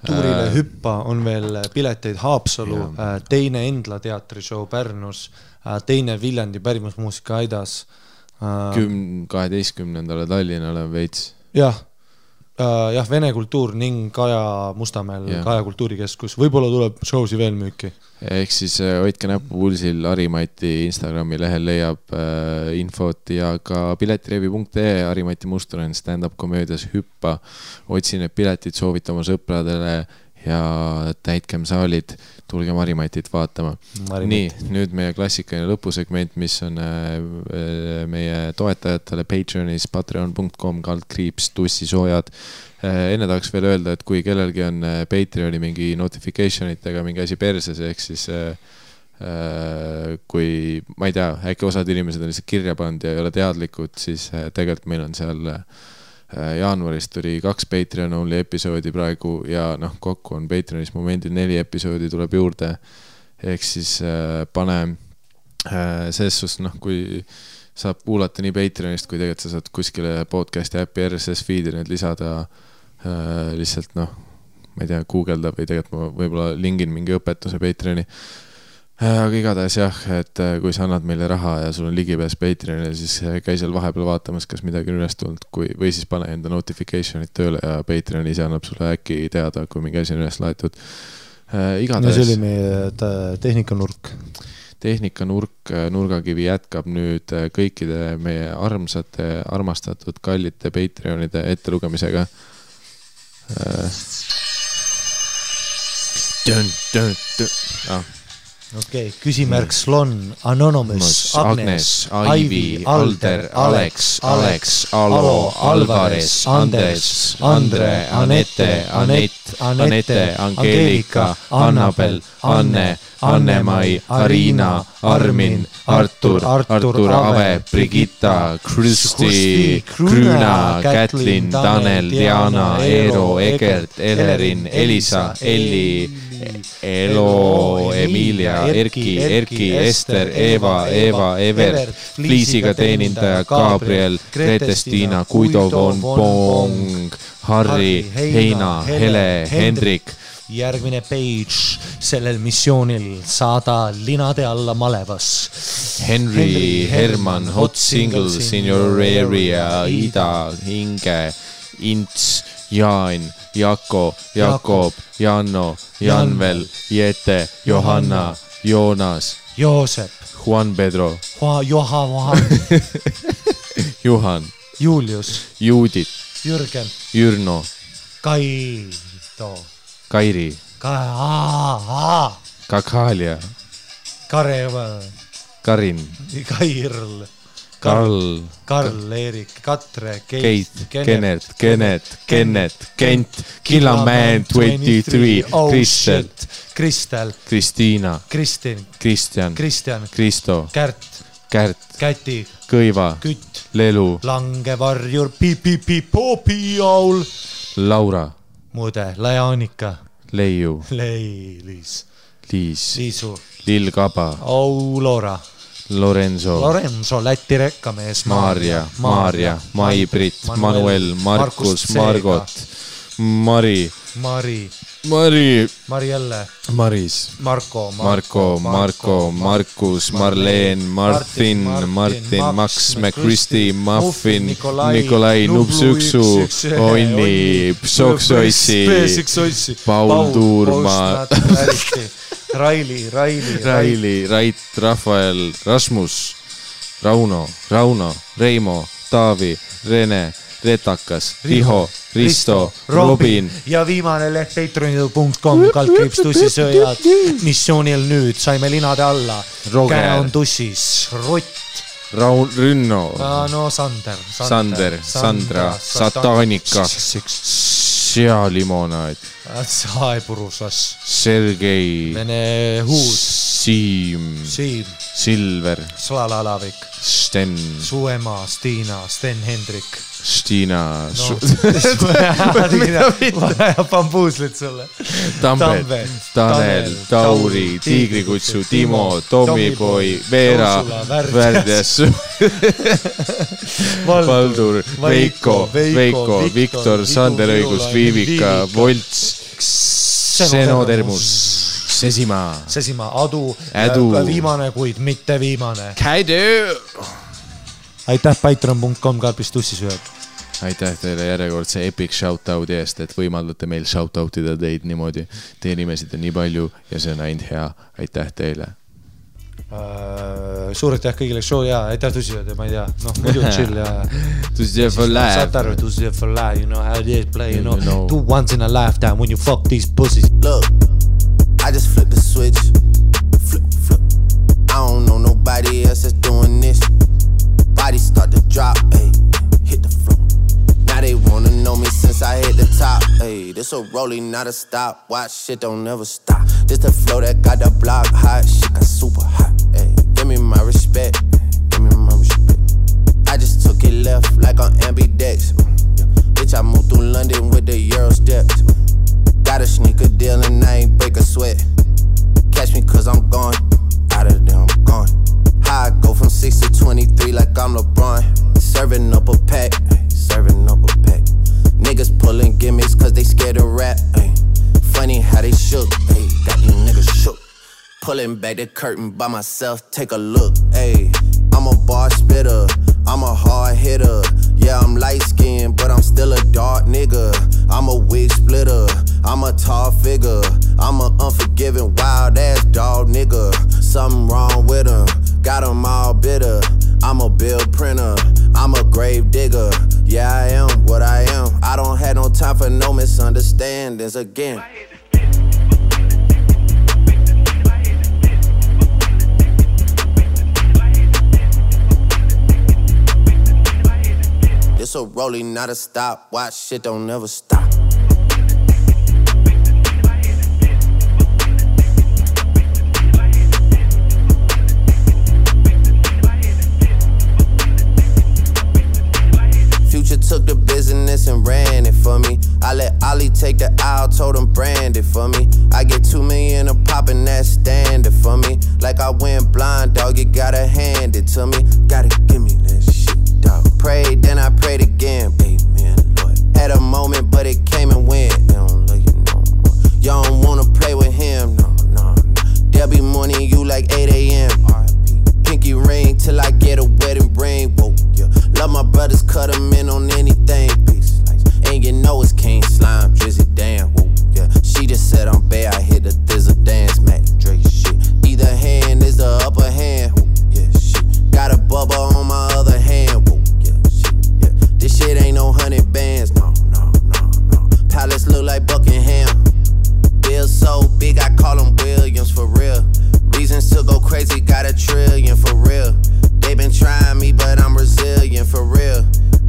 Tuurile hüppa on veel pileteid Haapsalu, teine Endla teatrishow Pärnus, teine Viljandi pärimusmuusika Aidas, 12. Tallinnale veits. Jah, Vene kultuur ning Kaja Mustamäel, Kaja kultuurikeskus. Võib-olla tuleb showsi veel müüki. Ehk siis hoidke näppu pulsil, Harimati Instagrami lehel leiab infot ja ka piletirevi.ee, Harimati Mustur on stand-up komöödias hüppa. Otsin need piletid, soovita oma sõpradele ja täitkem saalid, tulgem Harimatit vaatama. Nii, nüüd meie klassikaline lõpusegment, mis on meie toetajatele Patreonis, patreon.com/tussisoojad. Enne tahaks veel öelda, et kui kellelgi on Patreoni mingi notificationitega mingi asi perses, ehk siis kui, ma ei tea, äkki osad inimesed on lihtsalt kirja pannud ja ei ole teadlikud, siis tegelikult meil on seal jaanuarist tuli 2 Patreon only episoodi praegu ja kokku on Patreonis momendil 4 episoodi tuleb juurde. Ehk siis pane selles suhtes, kui saab kuulata nii Patreonist, kui tegelikult sa saad kuskile podcasti äppi RSS feed'i need lisada lihtsalt ma ei tea, guugelda või tegelikult ma võib-olla lingin mingi õpetuse Patreoni. Aga igatahes jah, et kui sa annad meile raha ja sul on ligipääs Patreonile, siis käi seal vahepeal vaatamas, kas midagi on üles tulnud, või siis pane enda notification'id tööle ja Patreon ise annab sulle äkki teada, kui mingi asi on üles laetud. No see oli meie tehnikanurk. Tehnikanurk, nurgakivi jätkab nüüd kõikide meie armastatud kallite Patreonide ettelugemisega. Okei, küsimärk Slon, Anonymous, Agnes, Ivy, Alder, Alex, Alo, Alvarez, Anders, Andre, Anette, Anette, Angelika, Annabel, Anne, Anne-Mai, Arina, Armin, Artur, Ave, Brigitta, Kristi, Krüna, Kätlin, Tanel, Diana, Eero, Egert, Elerin, Elisa, Elli, Elo, Emilia, Erki, Ester, Eva, Ever, Liisiga teenindaja, Gabriel, Grete-Stiina, Guido von Bong, Harri, Heina, Hele, Hendrik. Järgmine page sellel missioonil saada linade alla malevas. Henry, Herman, hot singles in your area, Ida, Inge, Ints, Jaan, Jako, Jakob, Janno, Janvel, Jete, Johanna, Joonas, Joosep, Juan Pedro, Juhan, Julius, Juudit, Jürgen, Jürno, Kaido, Kairi, Kakalia, Kareval, Karin, Kairl, Karl, Erik, Katre, Keit, Kennet, Kent, Killaman 23, Kristel, Kristiina, Kristjan, Kristo, Kärt, Käti, Kõiva, Kütt, Lelu, Langevarjur, Popiaul, Laura, Mude, Lajaanika, Leiu, Liis, Liisu, Lill Kaba, Aulora, Lorenzo, Läti rekkamees, Maarja, Mai-Brit, Manuel, Markus, Margot, Marielle, Maris, Marko, Markus, Marleen, Martin, Max, McChristy, Muffin, Nikolai, Nupsüksu, Onni, Psoksoissi, Paul Tuurma, Raili, Rait, Rafael, Rasmus, Rauno, Reimo, Taavi, Rene, Retakas, Riho, Risto, Robin ja viimane leht patreon.com /tussisööjad. Missioonil nüüd saime linade alla. Käe on tussis, Rott, Rünno, Sander, Sandra, Satanika, Sealimonaid, Saepurusas, Sergei, Vene Huud, Siim, Silver, Slalalavik, Sten, Suema, Stiina, Sten Hendrik, Stiina, Bambuuslit sulle, Tambet, Tanel, Tauri, Tiigrikutsu, Timo, Tommipoi, Veera, Värdjas, Valdur, Veiko, Viktor, Sander Õigus, Viivika, Volts, Senotermus, Sesimaa, Adu, viimane, kuid mitte viimane. Aitäh patreon.com /tussisööjad. Aitäh teile järjekordse epic shoutout'i eest, et võimaldate meil shoutout'ida teid niimoodi. Teie nimesid on nii palju ja see on ainult hea. Aitäh teile. Suur aitäh kõigile show ja aitäh tussisööjad ja ma ei tea, muidu chill ja tussisööjad for life. Saad aru, tussisööjad for life, you know how they play, you know, 2 once in a lifetime when you fuck these pussies. Look, I just flipped the switch, flip. I don't know nobody else that's doing this. Body start to drop, ayy, hit the floor. Now they wanna know me since I hit the top, ayy. This a rolling, not a stop. Watch shit don't never stop. This the flow that got the block hot. Shit got super hot, ayy. Give me my respect, I just took it left like on ambidex. Bitch, I moved through London with the Euro steps. Got a sneaker deal and I ain't break a sweat. Catch me cause I'm gone, out of there I'm gone. How I go from 6 to 23 like I'm back the curtain by myself, take a look. Ayy, I'm a bar spitter, I'm a hard hitter. Yeah, I'm light skinned, but I'm still a dark nigga. I'm a wig splitter, I'm a tall figure. I'm a unforgiving, wild ass dog nigga. Something wrong with him, got him all bitter. I'm a bill printer, I'm a grave digger. Yeah, I am what I am. I don't have no time for no misunderstandings again. It's a rolling, not a stop. Watch shit don't never stop. Future took the business and ran it for me. I let Ollie take the aisle, told him brand it for me. I get 2 million a pop and that's standard for me. Like I went blind, dog, you gotta hand it to me. Gotta give me that shit, dog. Prayed, then I prayed again. Amen, Lord. Had a moment, but it came and went. They don't love you no more. You don't wanna play with him, no, no, no. There'll be morning you like 8 a.m. Pinky ring till I get a wedding ring. Whoa, yeah. Love my brothers, cut them in on anything. Peace, and you know it's King Slime, Drizzy, damn. Whoa, yeah. She just said I'm bad, I hit the thizzle dance, Mac Drake shit. Either hand is the upper hand. Whoa, yeah, shit. Got a bubba on my other hand. Whoa, yeah, shit, yeah. This shit ain't no 100 bands, no, no, no, no. Palace look like Buckingham. Bill so big, I call him Williams for real. Reasons to go crazy, got $1 trillion for real. They been trying me, but I'm resilient for real.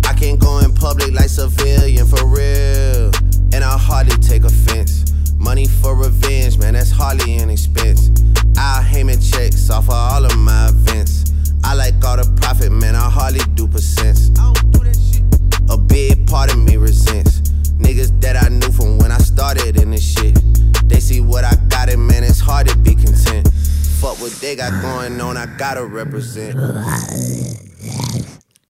I can't go in public like civilian for real. And I hardly take offense. Money for revenge, man, that's hardly an expense. I'll Heyman checks off of all of my events. I like all the profit, man, I hardly do percents. I don't do that shit. A big part of me resents niggas that I knew from when I started in this shit. They see what I got, and man, it's hard to be content. Fuck what they got going on, I gotta represent.